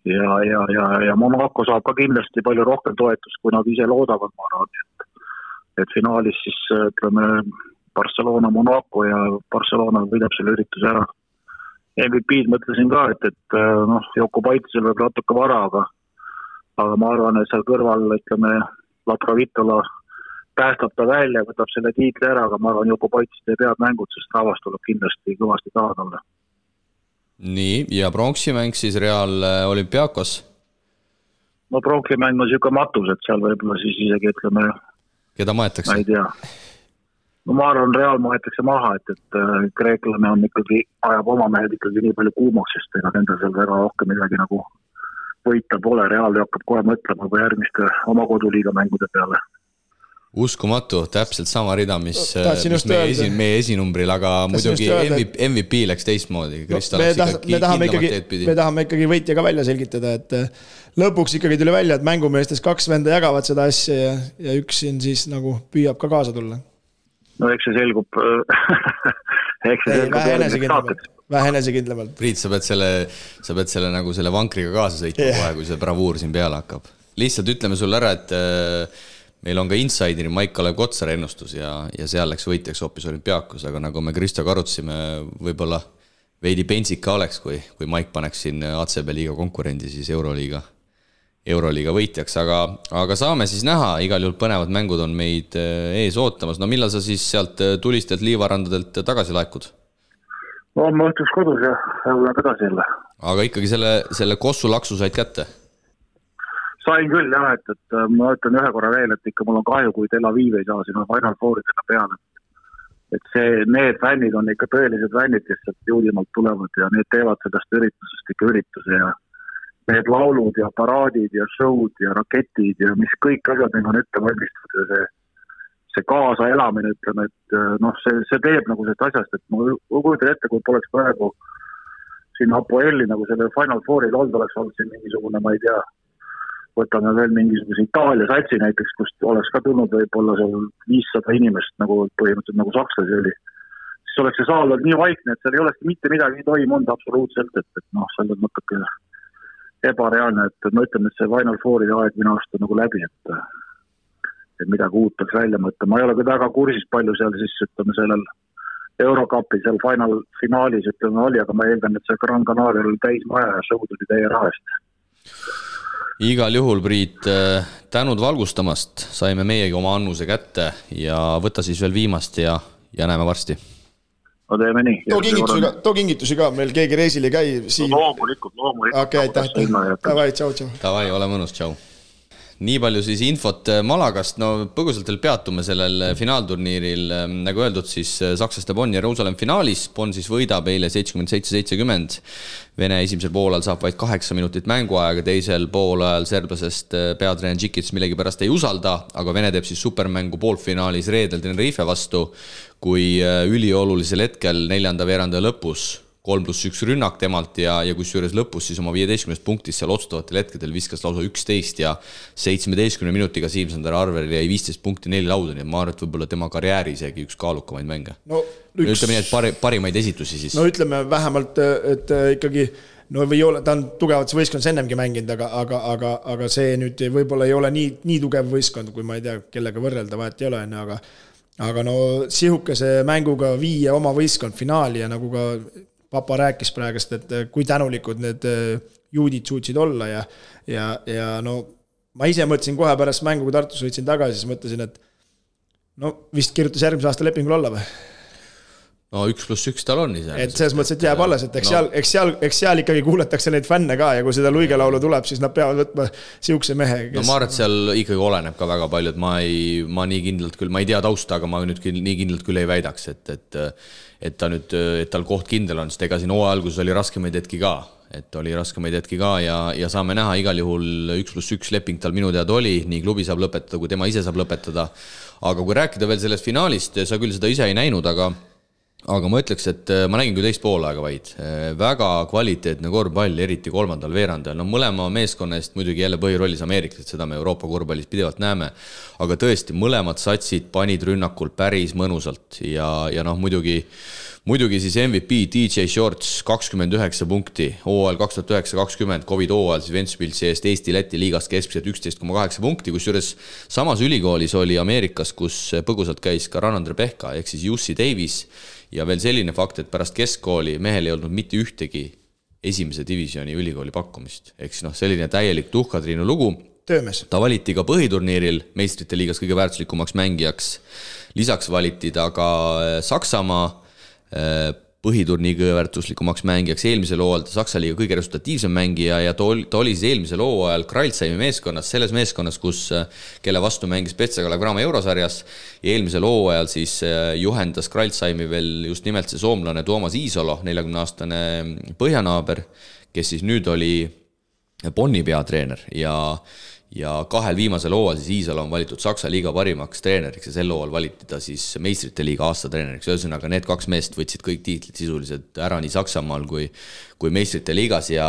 Ja Monaco saab ka kindlasti palju rohkem toetust, kui nad ise loodavad, ma arvan, et finaalis siis ütleme Barcelona, Monaco ja Barcelona võidab selle ürituse ära. MVP-d mõtlesin ka, et Joko Paitisel võib natuke vara, aga ma arvan, et seal kõrval, ütleme, Laprovitola päästab ta välja, võtab selle tiitli ära, aga ma arvan, Joko Paitis teeb head mängud, sest rahvas tuleb kindlasti kõvasti taha talle. Nii, ja pronksimäng siis Real Olympiakos? Pronksimäng on siuke matus, et seal võib-olla siis isegi ütleme... Keda maetakse? Ma ei tea. Ma arvan, Real maetakse maha, et kreeklane on ikkagi, ajab oma mehed ikkagi nii palju kuumaks, sest ega nende seal väga rohkem midagi nagu võita pole. Real hakkab kohe mõtlema või järgmiste oma koduliiga mängude peale. Uskumatu, täpselt sama rida, mis meie esinumbril, aga muidugi MVP läks teistmoodi. Me tahame ikkagi võitja ka välja selgitada, et lõpuks ikkagi tuli välja, et mängumeestes 2 venda jagavad seda asja ja üks siin siis nagu püüab ka kaasa tulla. Eks see selgub vähe enesekindlamalt. Priit, sa pead selle nagu selle vankriga kaasa sõitma kohe, kui see bravuur siin peale hakkab. Lihtsalt ütleme sulle ära, et meil on ka insideri Maik-Kalev Kotsar ennustus ja seal läks võitjaks hoopis Olümpiakos, aga nagu me Kristoga arutasime, võib-olla veidi pensik ka oleks, kui Maik paneks siin ACB liiga konkurendi siis Euroliiga võitjaks, aga saame siis näha, igal juhul põnevad mängud on meid ees ootamas. No millal sa siis sealt tulistelt liivarandadelt tagasi laekud? Ma õhtuks kodus ja tagasi jälle. Aga ikkagi selle Kossu laksu said kätte? Sain küll jah, et ma ütlen ühe korra veel, et ikka mul on kahju, kui Tel Aviv ei saa sinna Final Fouridele peale. Et need fännid on ikka tõelised fännid, kes sealt juulimalt tulevad ja need teevad sellest üritusest ikka ürituse ja need laulud ja paraadid ja showd ja raketid ja mis kõik asjad on ette valmistatud ja see kaasa elamine, ütleme, et see teeb nagu sellest asjast, et ma kujutan ette, kui poleks praegu siin Apoelli nagu selle Final Fouril oleks olnud siin mingisugune, ma ei tea, võtame veel mingisuguse Itaalia satsi näiteks, kust oleks ka tulnud võib-olla seal 500 inimest, nagu põhimõtteliselt nagu sakslasi oli. Siis oleks see saal olnud nii vaikne, et seal ei olekski mitte midagi toimunud absoluutselt, et seal on natuke ebareaalne, et ma ütlen, et see Final Fouri aeg minu aasta nagu läbi, et et midagi uut peaks välja mõtta. Ma ei ole ka väga kursis palju seal siis, ütleme, sellel Eurocupi seal finaalis, ütleme, oli, aga ma eeldan, et see Gran Canaria oli täis maja ja show tuli teie rahast. Igal juhul, Priit, tänud valgustamast, saime meiegi oma annuse kätte ja võta siis veel viimast ja näeme varsti. No teeme nii. Too kingitusi ka, meil keegi reisil ei käi. No, loomulikult. Okei, aitäh. Tavai, tšau. Tavai, ole mõnus, tšau. Nii palju siis infot Malagast, no põgusalt veel peatume sellel finaalturniiril, nagu öeldud siis sakslaste Bonn ja Jeruusalemm finaalis, Bonn siis võidab eile 77-70, Vene esimesel poolajal saab vaid 8 minutit mänguaega, teisel poolajal serblasest peatreener Džikic millegi pärast ei usalda, aga Vene teeb siis supermängu poolfinaalis reedel Tenerife vastu, kui üliolulisel hetkel 4. veerandaja lõpus 3+1 rünnak temalt ja kus juures lõpus siis oma 15 punktist seal otsustavatel hetkedel viskas lausa 11 ja 17 minutiga Siim-Sander Arveril jäi 15 punkti 4 lauda, nii et ma arvan, et võib-olla tema karjääri isegi üks kaalukamaid mänge. Ütleme nii, et parimaid esitusi siis. No ütleme vähemalt, et ikkagi või ole, ta on tugevat võistkond ennemgi mänginud, aga see nüüd võib-olla ei ole nii tugev võistkond, kui ma ei tea, kellega võrrelda, vahet ei ole, aga no sihukese mänguga viia oma võistkond finaali ja nagu ka Papa rääkis praegust, et kui tänulikud need juudid suutsid olla ja no ma ise mõtlesin kohe pärast mängu, kui Tartus võitsin tagasi, siis mõtlesin, et no vist kirjutas järgmise aasta lepingul olla või? No 1+1 tal on ise. Et selles mõttes, et jääb alles, et eks seal ikkagi kuuletakse neid fänne ka ja kui seda luigelaulu tuleb, siis nad peavad võtma sihukese mehe. No ma arvan, et seal ikkagi oleneb ka väga palju, et ma nii kindlalt küll, ma ei tea tausta, aga ma nüüd nii kindlalt küll ei väidaks, et tal koht kindel on, sest ega siin hooaja alguses oli raskemaid hetki ka, ja saame näha igal juhul 1+1 leping tal minu teada oli, nii klubi saab lõpetada, kui tema ise saab lõpetada. Aga kui rääkida veel sellest finaalist, sa küll seda ise ei näinud, aga ma ütleks, et ma nägin küll teist poolaega vaid. Väga kvaliteetne korvpall, eriti 3. veerandajal. No mõlema meeskonna eest muidugi jälle põhirollis Ameeriklased, seda me Euroopa korvpallis pidevalt näeme. Aga tõesti, mõlemad satsid panid rünnakul päris mõnusalt. Ja noh, muidugi siis MVP DJ Shorts 29 punkti, hooajal 2009-2020, Covid hooajal siis Ventspilsi eest Eesti-Läti liigast keskmiselt 11,8 punkti, kus juures samas ülikoolis oli Ameerikas, kus põgusalt käis ka Ranandre Pehka, ehk siis Jussi Davis. Ja veel selline fakt, et pärast keskkooli mehel ei olnud mitte ühtegi esimese divisjoni ülikooli pakkumist. Ehk siis selline täielik tuhkatriinu lugu. Töömes. Ta valiti ka põhiturniiril meistrite liigas kõige väärtuslikumaks mängijaks. Lisaks valiti ta ka Saksamaa põhiturniiri kõige väärtuslikumaks mängijaks. Eelmisel hooajal ta Saksa liiga kõige resultatiivsem mängija ja ta oli siis eelmisel hooajal Kreilsheimi meeskonnas, selles meeskonnas, kelle vastu mängis Petsa Kalev-Cramo eurosarjas. Ja eelmisel hooajal siis juhendas Kreilsheimi veel just nimelt see soomlane Toomas Iisolo, 40-aastane põhjanaaber, kes siis nüüd oli Bonni peatreener ja kahel viimasel hooajal siis Iisalo on valitud Saksa liiga parimaks treeneriks ja sel hooajal valiti ta siis meistrite liiga aasta treeneriks. Ühesõnaga need 2 meest võtsid kõik tiitlid sisuliselt ära nii Saksamaal kui meistrite liigas ja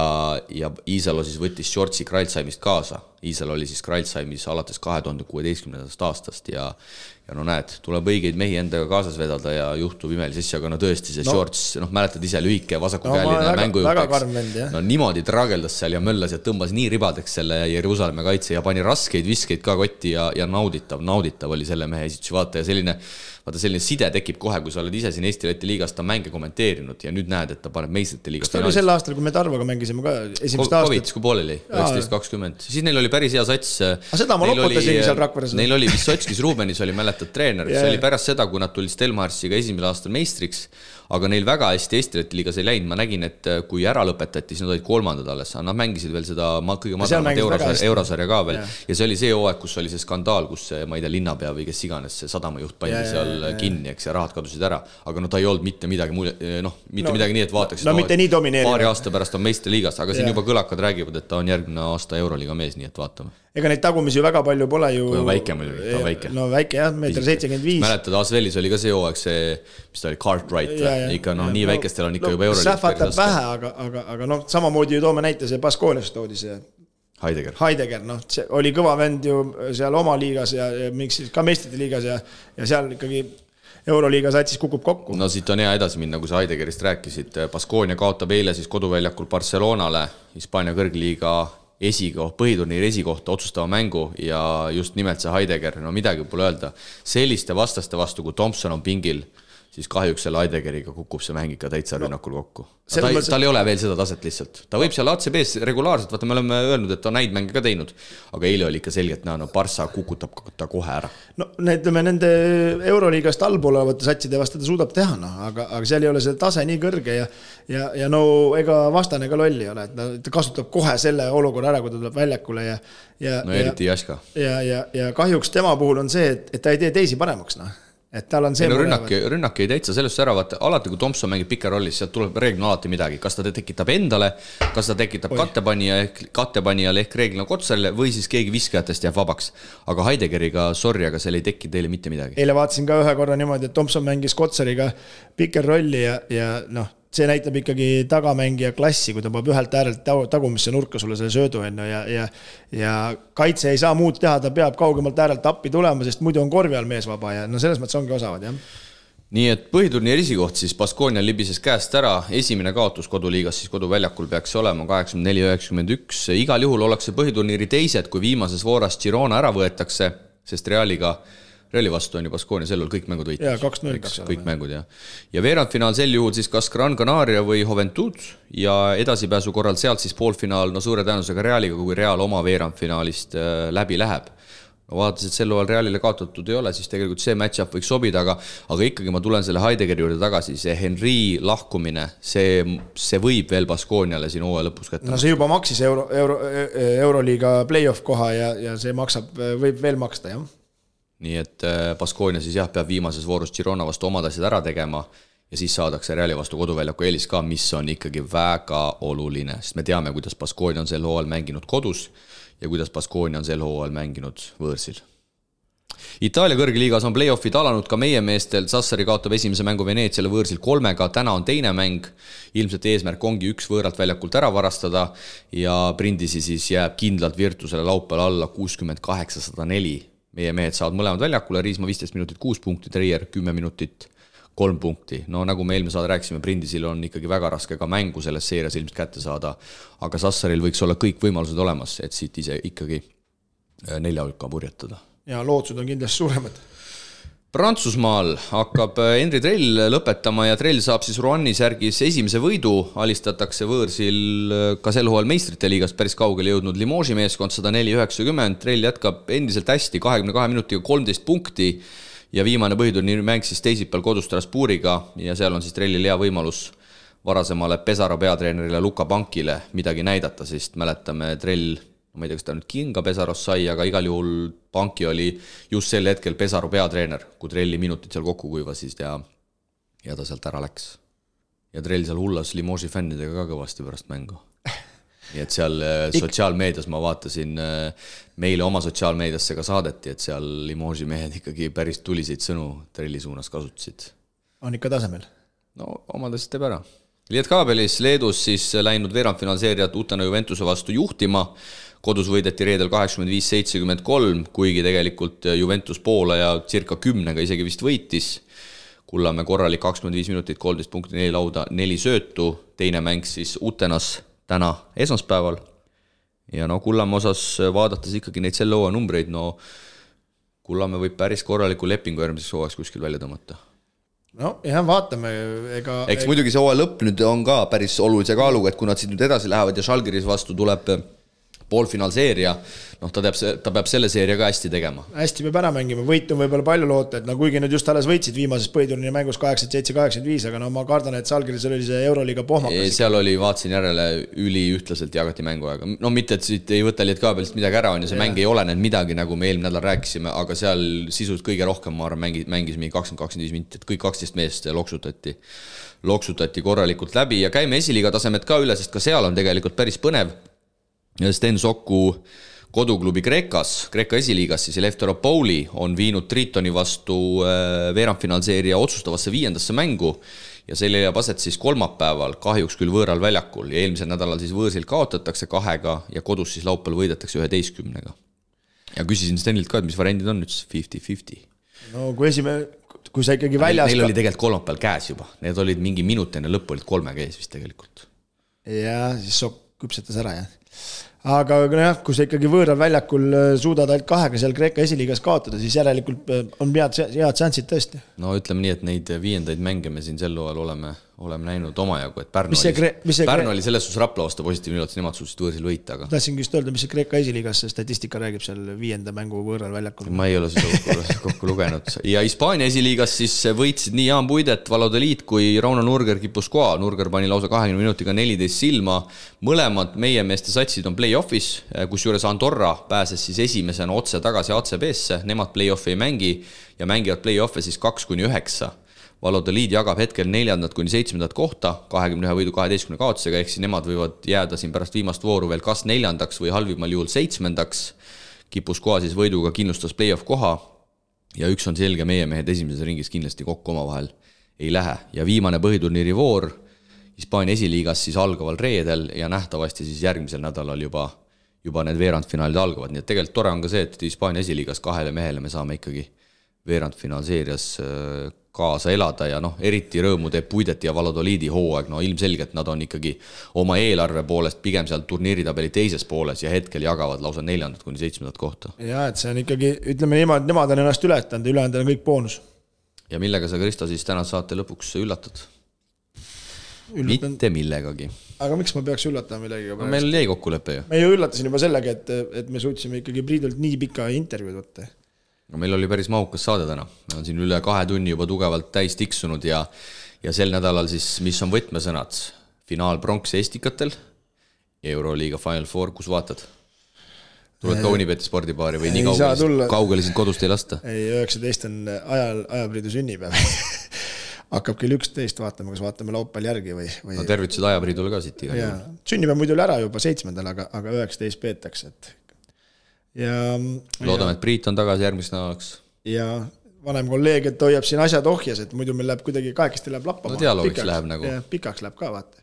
Iisalo siis võttis Shortsi Kreilsheimist kaasa. Iisalo oli siis Kreilsheimis alates 2016. aastast ja no näed, tuleb õigeid mehi endaga kaasas vedada ja juhtub imelis asja, aga no tõesti see Shorts, mäletad ise lühike vasakukäeline mängujuhteks. No niimoodi trageldas seal ja möllas ja tõmbas nii ribadeks selle Jeruusalemma kaitse ja pani raskeid viskeid ka kotti ja nauditav oli selle mehe esitusi vaata ja selline side tekib kohe, kui sa oled ise siin Eesti-Läti liigas ta mänge kommenteerinud ja nüüd näed, et ta paneb meistrite liigas. Kas ta oli sel aastal, kui me Tarvoga mängisime ka esimest aastat? Covid, kui pooleli, 19-20. Siis neil oli päris hea sats. Seda ma loputasingi seal Rakveres. Neil oli Vissotskis Rubenis oli mäletad treener. See oli pärast seda, kui nad tulid Stelmarsiga esimesel aastal meistriks, aga neil väga hästi Eesti-Läti liigas ei läinud. Ma nägin, et kui ära lõpetati, siis nad olid 3. alles. Nad mängisid veel seda kõige madalamat eurosarja ka veel. Ja see oli see hooaeg, kus oli see skandaal, kus ma ei tea, linnapea või kes iganes see sadamajuht pandi seal kinni, eks ja rahad kadusid ära. Aga ta ei olnud mitte midagi nii, et vaataks, paari aasta pärast on meiste liigas, aga siin juba kõlakad räägivad, et ta on järgmine aasta euroliiga mees, nii et vaatame. Ega neid tagumisi ju väga palju pole ju. Kui on väike muidugi, ta on väike. No väike jah, 1,75 m. Mäletad, Asvelis oli ka see hooaeg see, mis ta oli, Cartwright. Ikka nii väikestel on ikka juba euroliiga. Sähvatab vähe, aga samamoodi ju toome näite see Baskoonias toodi see Heidegger, see oli kõva vend ju seal oma liigas ja miks ka meistrite liigas ja seal ikkagi euroliiga satsis kukub kokku. No siit on hea edasi minna, kui sa Heideggerist rääkisid. Baskoonia kaotab eile siis koduväljakul Barcelonale, Hispaania kõrgliiga põhiturniiri esikohta otsustava mängu ja just nimelt see Heidegger, no midagi pole öelda. Selliste vastaste vastu, kui Thompson on pingil, siis kahjuks selle Heideggeriga kukub see mäng ikka täitsa rünnakul kokku. Tal ei ole veel seda taset lihtsalt. Ta võib seal ACB-s regulaarselt, vaata me oleme öelnud, et ta on näid mänge ka teinud, aga eile oli ikka selgelt näha, no Barca kukutab ta kohe ära. No nende Euroliigast allpool olevate satside vastu ta suudab teha, no, aga seal ei ole see tase nii kõrge ja no ega vastane ka lolli ole, et ta kasutab kohe selle olukorra ära, kui ta tuleb väljakule no eriti Jaska. Ja kahjuks tema puhul on see, et ta ei tee teisi paremaks, noh. Et tal on see rünnak ei täitsa sellest ära, vaata, alati kui Thompson mängib pikerollis, sealt tuleb reeglina alati midagi, kas ta tekitab endale, kas ta tekitab kattepanijale ehk reeglina Kotsarile või siis keegi viskajatest jääb vabaks. Aga Heideggeriga, sorry, aga seal ei teki teile mitte midagi. Eile vaatasin ka ühe korra niimoodi, et Thompson mängis Kotsariga pikerolli ja noh, see näitab ikkagi tagamängija klassi, kui ta peab ühelt äärelt tagumisse nurka sulle selle söödu enne ja kaitse ei saa muud teha, ta peab kaugemalt äärelt appi tulema, sest muidu on korvi all mees vaba ja no selles mõttes ongi osavad, jah. Nii et põhiturniiri esikoht siis Baskonia libises käest ära, esimene kaotus koduliigas siis koduväljakul peaks olema 84-91, igal juhul ollakse põhiturniiri teised, kui viimases vooras Girona ära võetakse, sest Reali vastu on ju Baskonia sellel kõik mängud võitis. Jaa, 2-0. Kõik mängud, jah. Ja veerandfinaal sel juhul siis kas Gran Canaria või Juventud ja edasipääsu korral sealt siis poolfinaal, no suure tõenäosusega Realiga, kui Real oma veerandfinaalist läbi läheb. No vaadates, et sel ajal Realile kaotatud ei ole, siis tegelikult see match-up võiks sobida, aga ikkagi ma tulen selle Heideggeri juurde tagasi, see Henry lahkumine, see võib veel Baskoniale siin hooaja lõpus kätte. No see juba maksis Euroliiga playoff koha ja see võib veel maksta, jah. Nii et Baskonia siis jah, peab viimases voorus Girona vastu omad asjad ära tegema ja siis saadakse Reali vastu koduväljaku eelis ka, mis on ikkagi väga oluline, sest me teame, kuidas Baskonia on sel hooajal mänginud kodus ja kuidas Baskonia on sel hooajal mänginud võõrsil. Itaalia kõrgliigas on playoffid alanud ka meie meestel, Sassari kaotab esimese mängu Veneetsiale võõrsil 3, täna on teine mäng, ilmselt eesmärk ongi üks võõralt väljakult ära varastada ja Brindisi siis jääb kindlalt Virtusele laupäeval alla 68-104. Meie mehed saavad mõlemad väljakule, Riisma 15 minutit 6 punkti, Trier 10 minutit 3 punkti. No nagu me eelmine saade rääkisime, Brindisil on ikkagi väga raske ka mängu selles seerias ilmselt kätte saada, aga Sassaril võiks olla kõik võimalused olemas, et siit ise ikkagi 4 hulka purjetada. Ja lootsud on kindlasti suuremad. Prantsusmaal hakkab Henri Trell lõpetama ja Trell saab siis Roannis järgis esimese võidu, alistatakse võõrsil ka sel hooajal meistrite liigast päris kaugele jõudnud Limoži meeskond 104-90, Trell jätkab endiselt hästi 22 minutiga 13 punkti ja viimane põhiturniiri mäng siis teisipäeval kodus Strasbourgiga ja seal on siis Trellil hea võimalus varasemale Pesaro peatreenerile Luka Pankile midagi näidata, sest mäletame Trell, ma ei tea, kas ta nüüd Kinga Pesaros sai, aga igal juhul Panki oli just sel hetkel Pesaro peatreener, kui Trelli minutid seal kokku kuivasid ja ta sealt ära läks. Ja Trell seal hullas Limoži fännidega ka kõvasti pärast mängu. Nii et seal sotsiaalmeedias ma vaatasin, meile oma sotsiaalmeediasse ka saadeti, et seal Limoži mehed ikkagi päris tuliseid sõnu Trelli suunas kasutasid. On ikka tasemel? No omadest teeb ära. Lietkaabelis Leedus siis läinud veerandfinaalseeriat Utena Juventuse vastu juhtima, kodus võideti reedel 85-73, kuigi tegelikult Juventus poole ja circa 10 isegi vist võitis. Kullamäe korralik 25 minutit, 13 punkti, 4 lauda, 4 söötu, teine mäng siis Utenas täna esmaspäeval. Ja no Kullamäe osas vaadates ikkagi neid selle hooaja numbreid, no Kullamäe võib päris korraliku lepingu järgmiseks hooajaks kuskil välja tõmmata. No jah, vaatame. Eks muidugi see hooaja lõpp nüüd on ka päris olulise kaaluga, et kui nad siit nüüd edasi lähevad ja Žalgiris vastu tuleb poolfinaalseeria, noh ta peab selle seeria ka hästi tegema. Hästi peab ära mängima, võit on võib-olla palju loota, et no kuigi nüüd just alles võitsid viimases põhiturniiri mängus 87-85, aga no ma kardan, et Žalgiris oli see Euroliiga pohmakas. Seal oli, vaatsin järele, üliühtlaselt jagati mänguaega. No mitte, et siit ei võta Lietkaabelit midagi ära on ja see mäng ei ole need midagi, nagu me eelmine nädal rääkisime, aga seal sisult kõige rohkem ma arvan mängis mingi 20-25 minutit, kõik 12 meest loksutati korralikult läbi ja käime esiliiga tasemed ka üle, sest ka seal on tegelikult päris põnev. Sten Soku koduklubi Kreekas esiliigas, siis Lefteropoli on viinud Tritoni vastu veerandfinaalseeria otsustavasse 5. mängu ja see leiab aset siis kolmapäeval, kahjuks küll võõral väljakul ja eelmisel nädalal siis võõrsil kaotatakse 2 ja kodus siis laupäeval võidetakse 11. Ja küsisin Stenilt ka, et mis variandid on nüüd 50-50. No kui sa ikkagi väljas... Neil oli tegelikult kolmapäeval käes juba, need olid mingi minut enne lõppu, olid 3 käes vist tegelikult. Ja siis Sokk küpsetas ära, jah. aga jah, kui sa ikkagi võõral väljakul suudad ainult 2 seal Kreeka esiliigas kaotada, siis järelikult on head šansid tõesti. No ütleme nii, et neid 5. mänge me siin sel hooajal oleme näinud omajagu, et Pärnu oli selles suhtes Rapla vastu positiivne üllatus, nemad suutsid võõrsil võita. Aga... Tahtsin just öelda, mis see Kreeka esiliigas statistika räägib seal 5. mängu võõral väljakul. Ma ei ole seda kokku lugenud. Ja Hispaania esiliigas siis võitsid nii Jaan Puidet, Valladolid kui Rauno Nurger Guipuscoa. Nurger pani lausa 20 minutiga 14 silma. Mõlemad meie meeste satsid on play-offis, kus juures Andorra pääses siis esimesena otse tagasi ACB-sse. Nemad play-offi ei mängi ja mängivad play-offi siis 2-9. Valladolid jagab hetkel 4. kuni 7. kohta 21 võidu 12 kaotusega, ehk siis nemad võivad jääda siin pärast viimast vooru veel kas 4. või halvimal juhul 7. Guipuscoa siis võiduga kindlustas play-off koha ja üks on selge, meie mehed esimeses ringis kindlasti kokku omavahel ei lähe. Ja viimane põhiturniiri voor Hispaania esiliigas siis algaval reedel ja nähtavasti siis järgmisel nädalal juba need veerandfinaalid algavad. Nii et tegelikult tore on ka see, et Hispaania esiliigas 2 mehele me saame ikkagi veerandfinaalseerias kaasa elada ja eriti rõõmu teeb Puidet ja Valladolidi hooaeg, ilmselgelt nad on ikkagi oma eelarve poolest pigem seal turniiritabeli teises pooles ja hetkel jagavad lausa 4. kuni 7. kohta. Ja, et see on ikkagi, ütleme niimoodi, nemad on ennast ületanud, ülejäänud on kõik boonus. Ja millega sa, Kristo, siis täna saate lõpuks üllatad? Mitte millegagi. Aga miks ma peaks üllatama millegagi? No, meil jäi kokkulepe ju. Me ju üllatasin juba sellega, et me suutsime ikkagi Priidult nii pika intervjuud võtta. No, meil oli päris mahukas saade täna. Me on siin üle 2 tunni juba tugevalt täis tiksunud ja sel nädalal siis, mis on võtmesõnad? Finaal pronks Estikatel, Euroliiga Final Four, kus vaatad? Tuled ka Unibeti spordipaari või nii kaugele sind kodust ei lasta? Ei, 19 on ajapriidu sünnipäev. Hakkab küll 11, vaatame, kas vaatame laupäeval järgi või... No tervitused ajapriidule ka siit iga. Sünnipäev muidu ära juba 7. aga 19 peetakse, et... Loodame, et Priit on tagasi järgmist nädalaks. Ja vanem kolleeg, et hoiab siin asjad ohjas, et muidu meil läheb kuidagi kahekesti läheb lappama. No dialoogiks läheb nagu. Ja, pikaks läheb ka, vaata.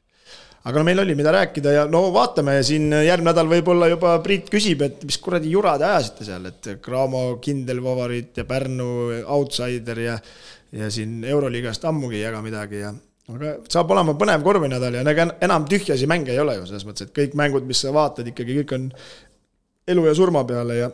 Aga meil oli mida rääkida ja vaatame siin järgmine nädal võib-olla juba Priit küsib, et mis kuradi jurad ajasite seal, et Graamo kindel favoriit ja Pärnu outsider ja siin Euroliigast ammugi jaga midagi ja aga saab olema põnev korvinädal ja enam tühjasi mänge ei ole ju selles mõttes, et kõik mängud, mis sa vaatad, ikkagi kõik on elu ja surma peale ja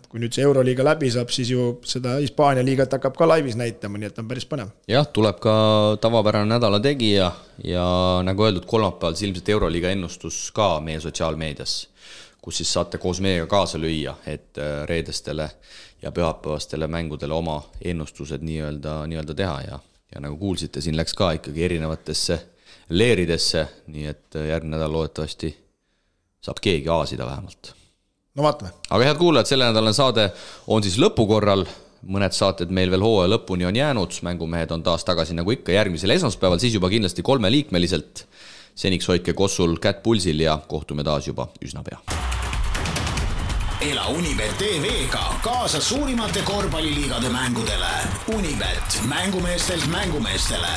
kui nüüd see Euroliiga läbi saab, siis ju seda Hispaania liigat hakkab ka laivis näitama, nii et on päris põnev. Jah, tuleb ka tavapärane nädala tegija ja nagu öeldud, kolmapäeval ilmselt Euroliiga ennustus ka meie sotsiaalmeedias, kus siis saate koos meiega kaasa lüüa, et reedestele ja pühapäevastele mängudele oma ennustused nii-öelda teha ja nagu kuulsite, siin läks ka ikkagi erinevatesse leeridesse, nii et järgmine nädal loodetavasti saab keegi aasida vähemalt. No vaatame. Aga head kuulajad, selle nädalane saade on siis lõpukorral. Mõned saated meil veel hooaja lõpuni on jäänud. Mängumehed on taas tagasi nagu ikka järgmisel esmaspäeval, siis juba kindlasti 3-liikmeliselt. Seniks hoidke kossul kätt pulsil ja kohtume taas juba üsna pea. Ela Unibet TV-ga kaasa suurimate korvpalliliigade mängudele. Unibet, mängumeestelt mängumeestele.